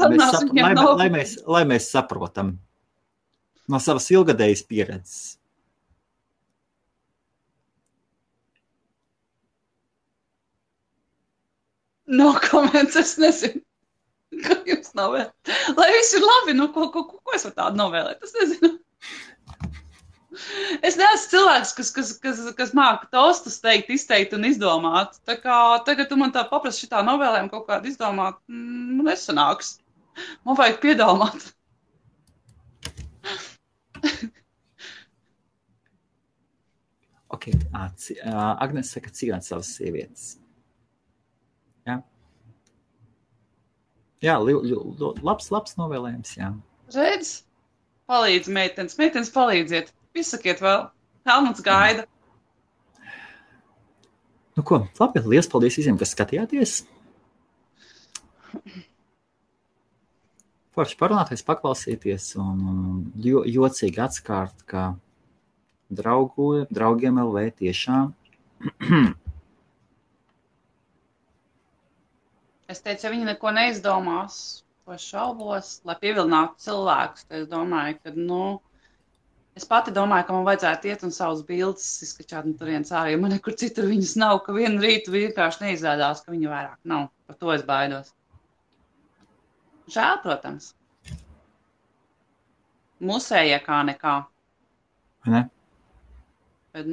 lai mēs saprotam no savas ilgadējas pieredzes. No comments, es nezinu. Ko jums novēlēt? Lai viss ir labi, nu, ko es varu tādu novēlēt? Es nezinu. Es neesmu cilvēks, kas māka tostus izteikt un izdomāt. Tā kā tagad tu man tā paprasti šitā novēlējumu kaut kādu izdomāt, nesanāks. Man vajag piedomāt. Ok, Agnes saka, cīnāt savas sievietes. Jā. Jā, labs novēlējums, jā. Redz, palīdz meitenes palīdziet. Izsakiet vēl, Helmuts gaida. Nu ko, labi, liels paldies visiem, kas skatījāties. Forši parunāties, paklausīties un jocīgi atskārt, ka draugiem LV tiešām. Es teicu, ja viņi neko neizdomās, ko šaubos, lai pievilinātu cilvēkus, tad es domāju, ka, es pati domāju, ka man vajadzētu iet un savus bildes izskačāt no turienes ārā, jo man nekur citur viņas nav, ka vienu rītu vienkārši neizrādās, ka viņu vairāk nav. Par to es baidos. Žēl, protams. Musējie kā nekā. Ne? Bet,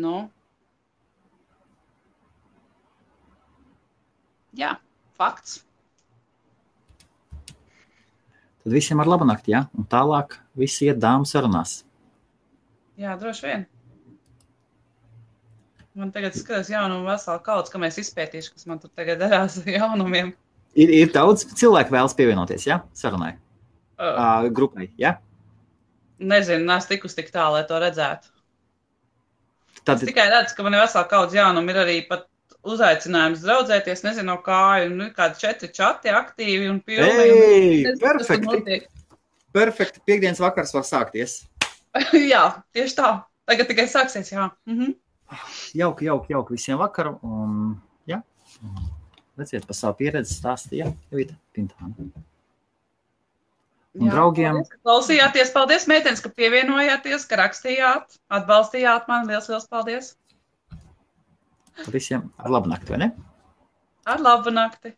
jā, fakts. Tad visiem ar labu nakti, jā? Un tālāk visi iet dāmu sarunās. Jā, droši vien. Man tagad skatās jaunumu veselu kauds, ka mēs izpētīšu, kas man tur tagad darās ar jaunumiem. Ir daudz cilvēku vēlas pievienoties, jā? Sarunai. Grupai, jā? Nezinu, neesmu tikus tik tā, lai to redzētu. Tad... Es tikai redzu, ka man ir veselu kauds jaunumu, ir arī pat uzaicinājums draudzēties, nezinu, no kā, un kādi 4 čati aktīvi un pilni. Ei, perfekti. Perfekti. Piektdienas vakars var sākties. Jā, tieši tā. Tagad tikai sāksies, jā. Jauki visiem vakaru. Jā. Redziet, par savu pieredzi stāstīja Jovita Pintāna. Un draugiem. Paldies, ka klausījāties. Paldies, meitenes, ka pievienojāties, ka rakstījāt, atbalstījāt mani. Liels paldies. Visiem ar labu nakti, vai ne? Ar labu nakti.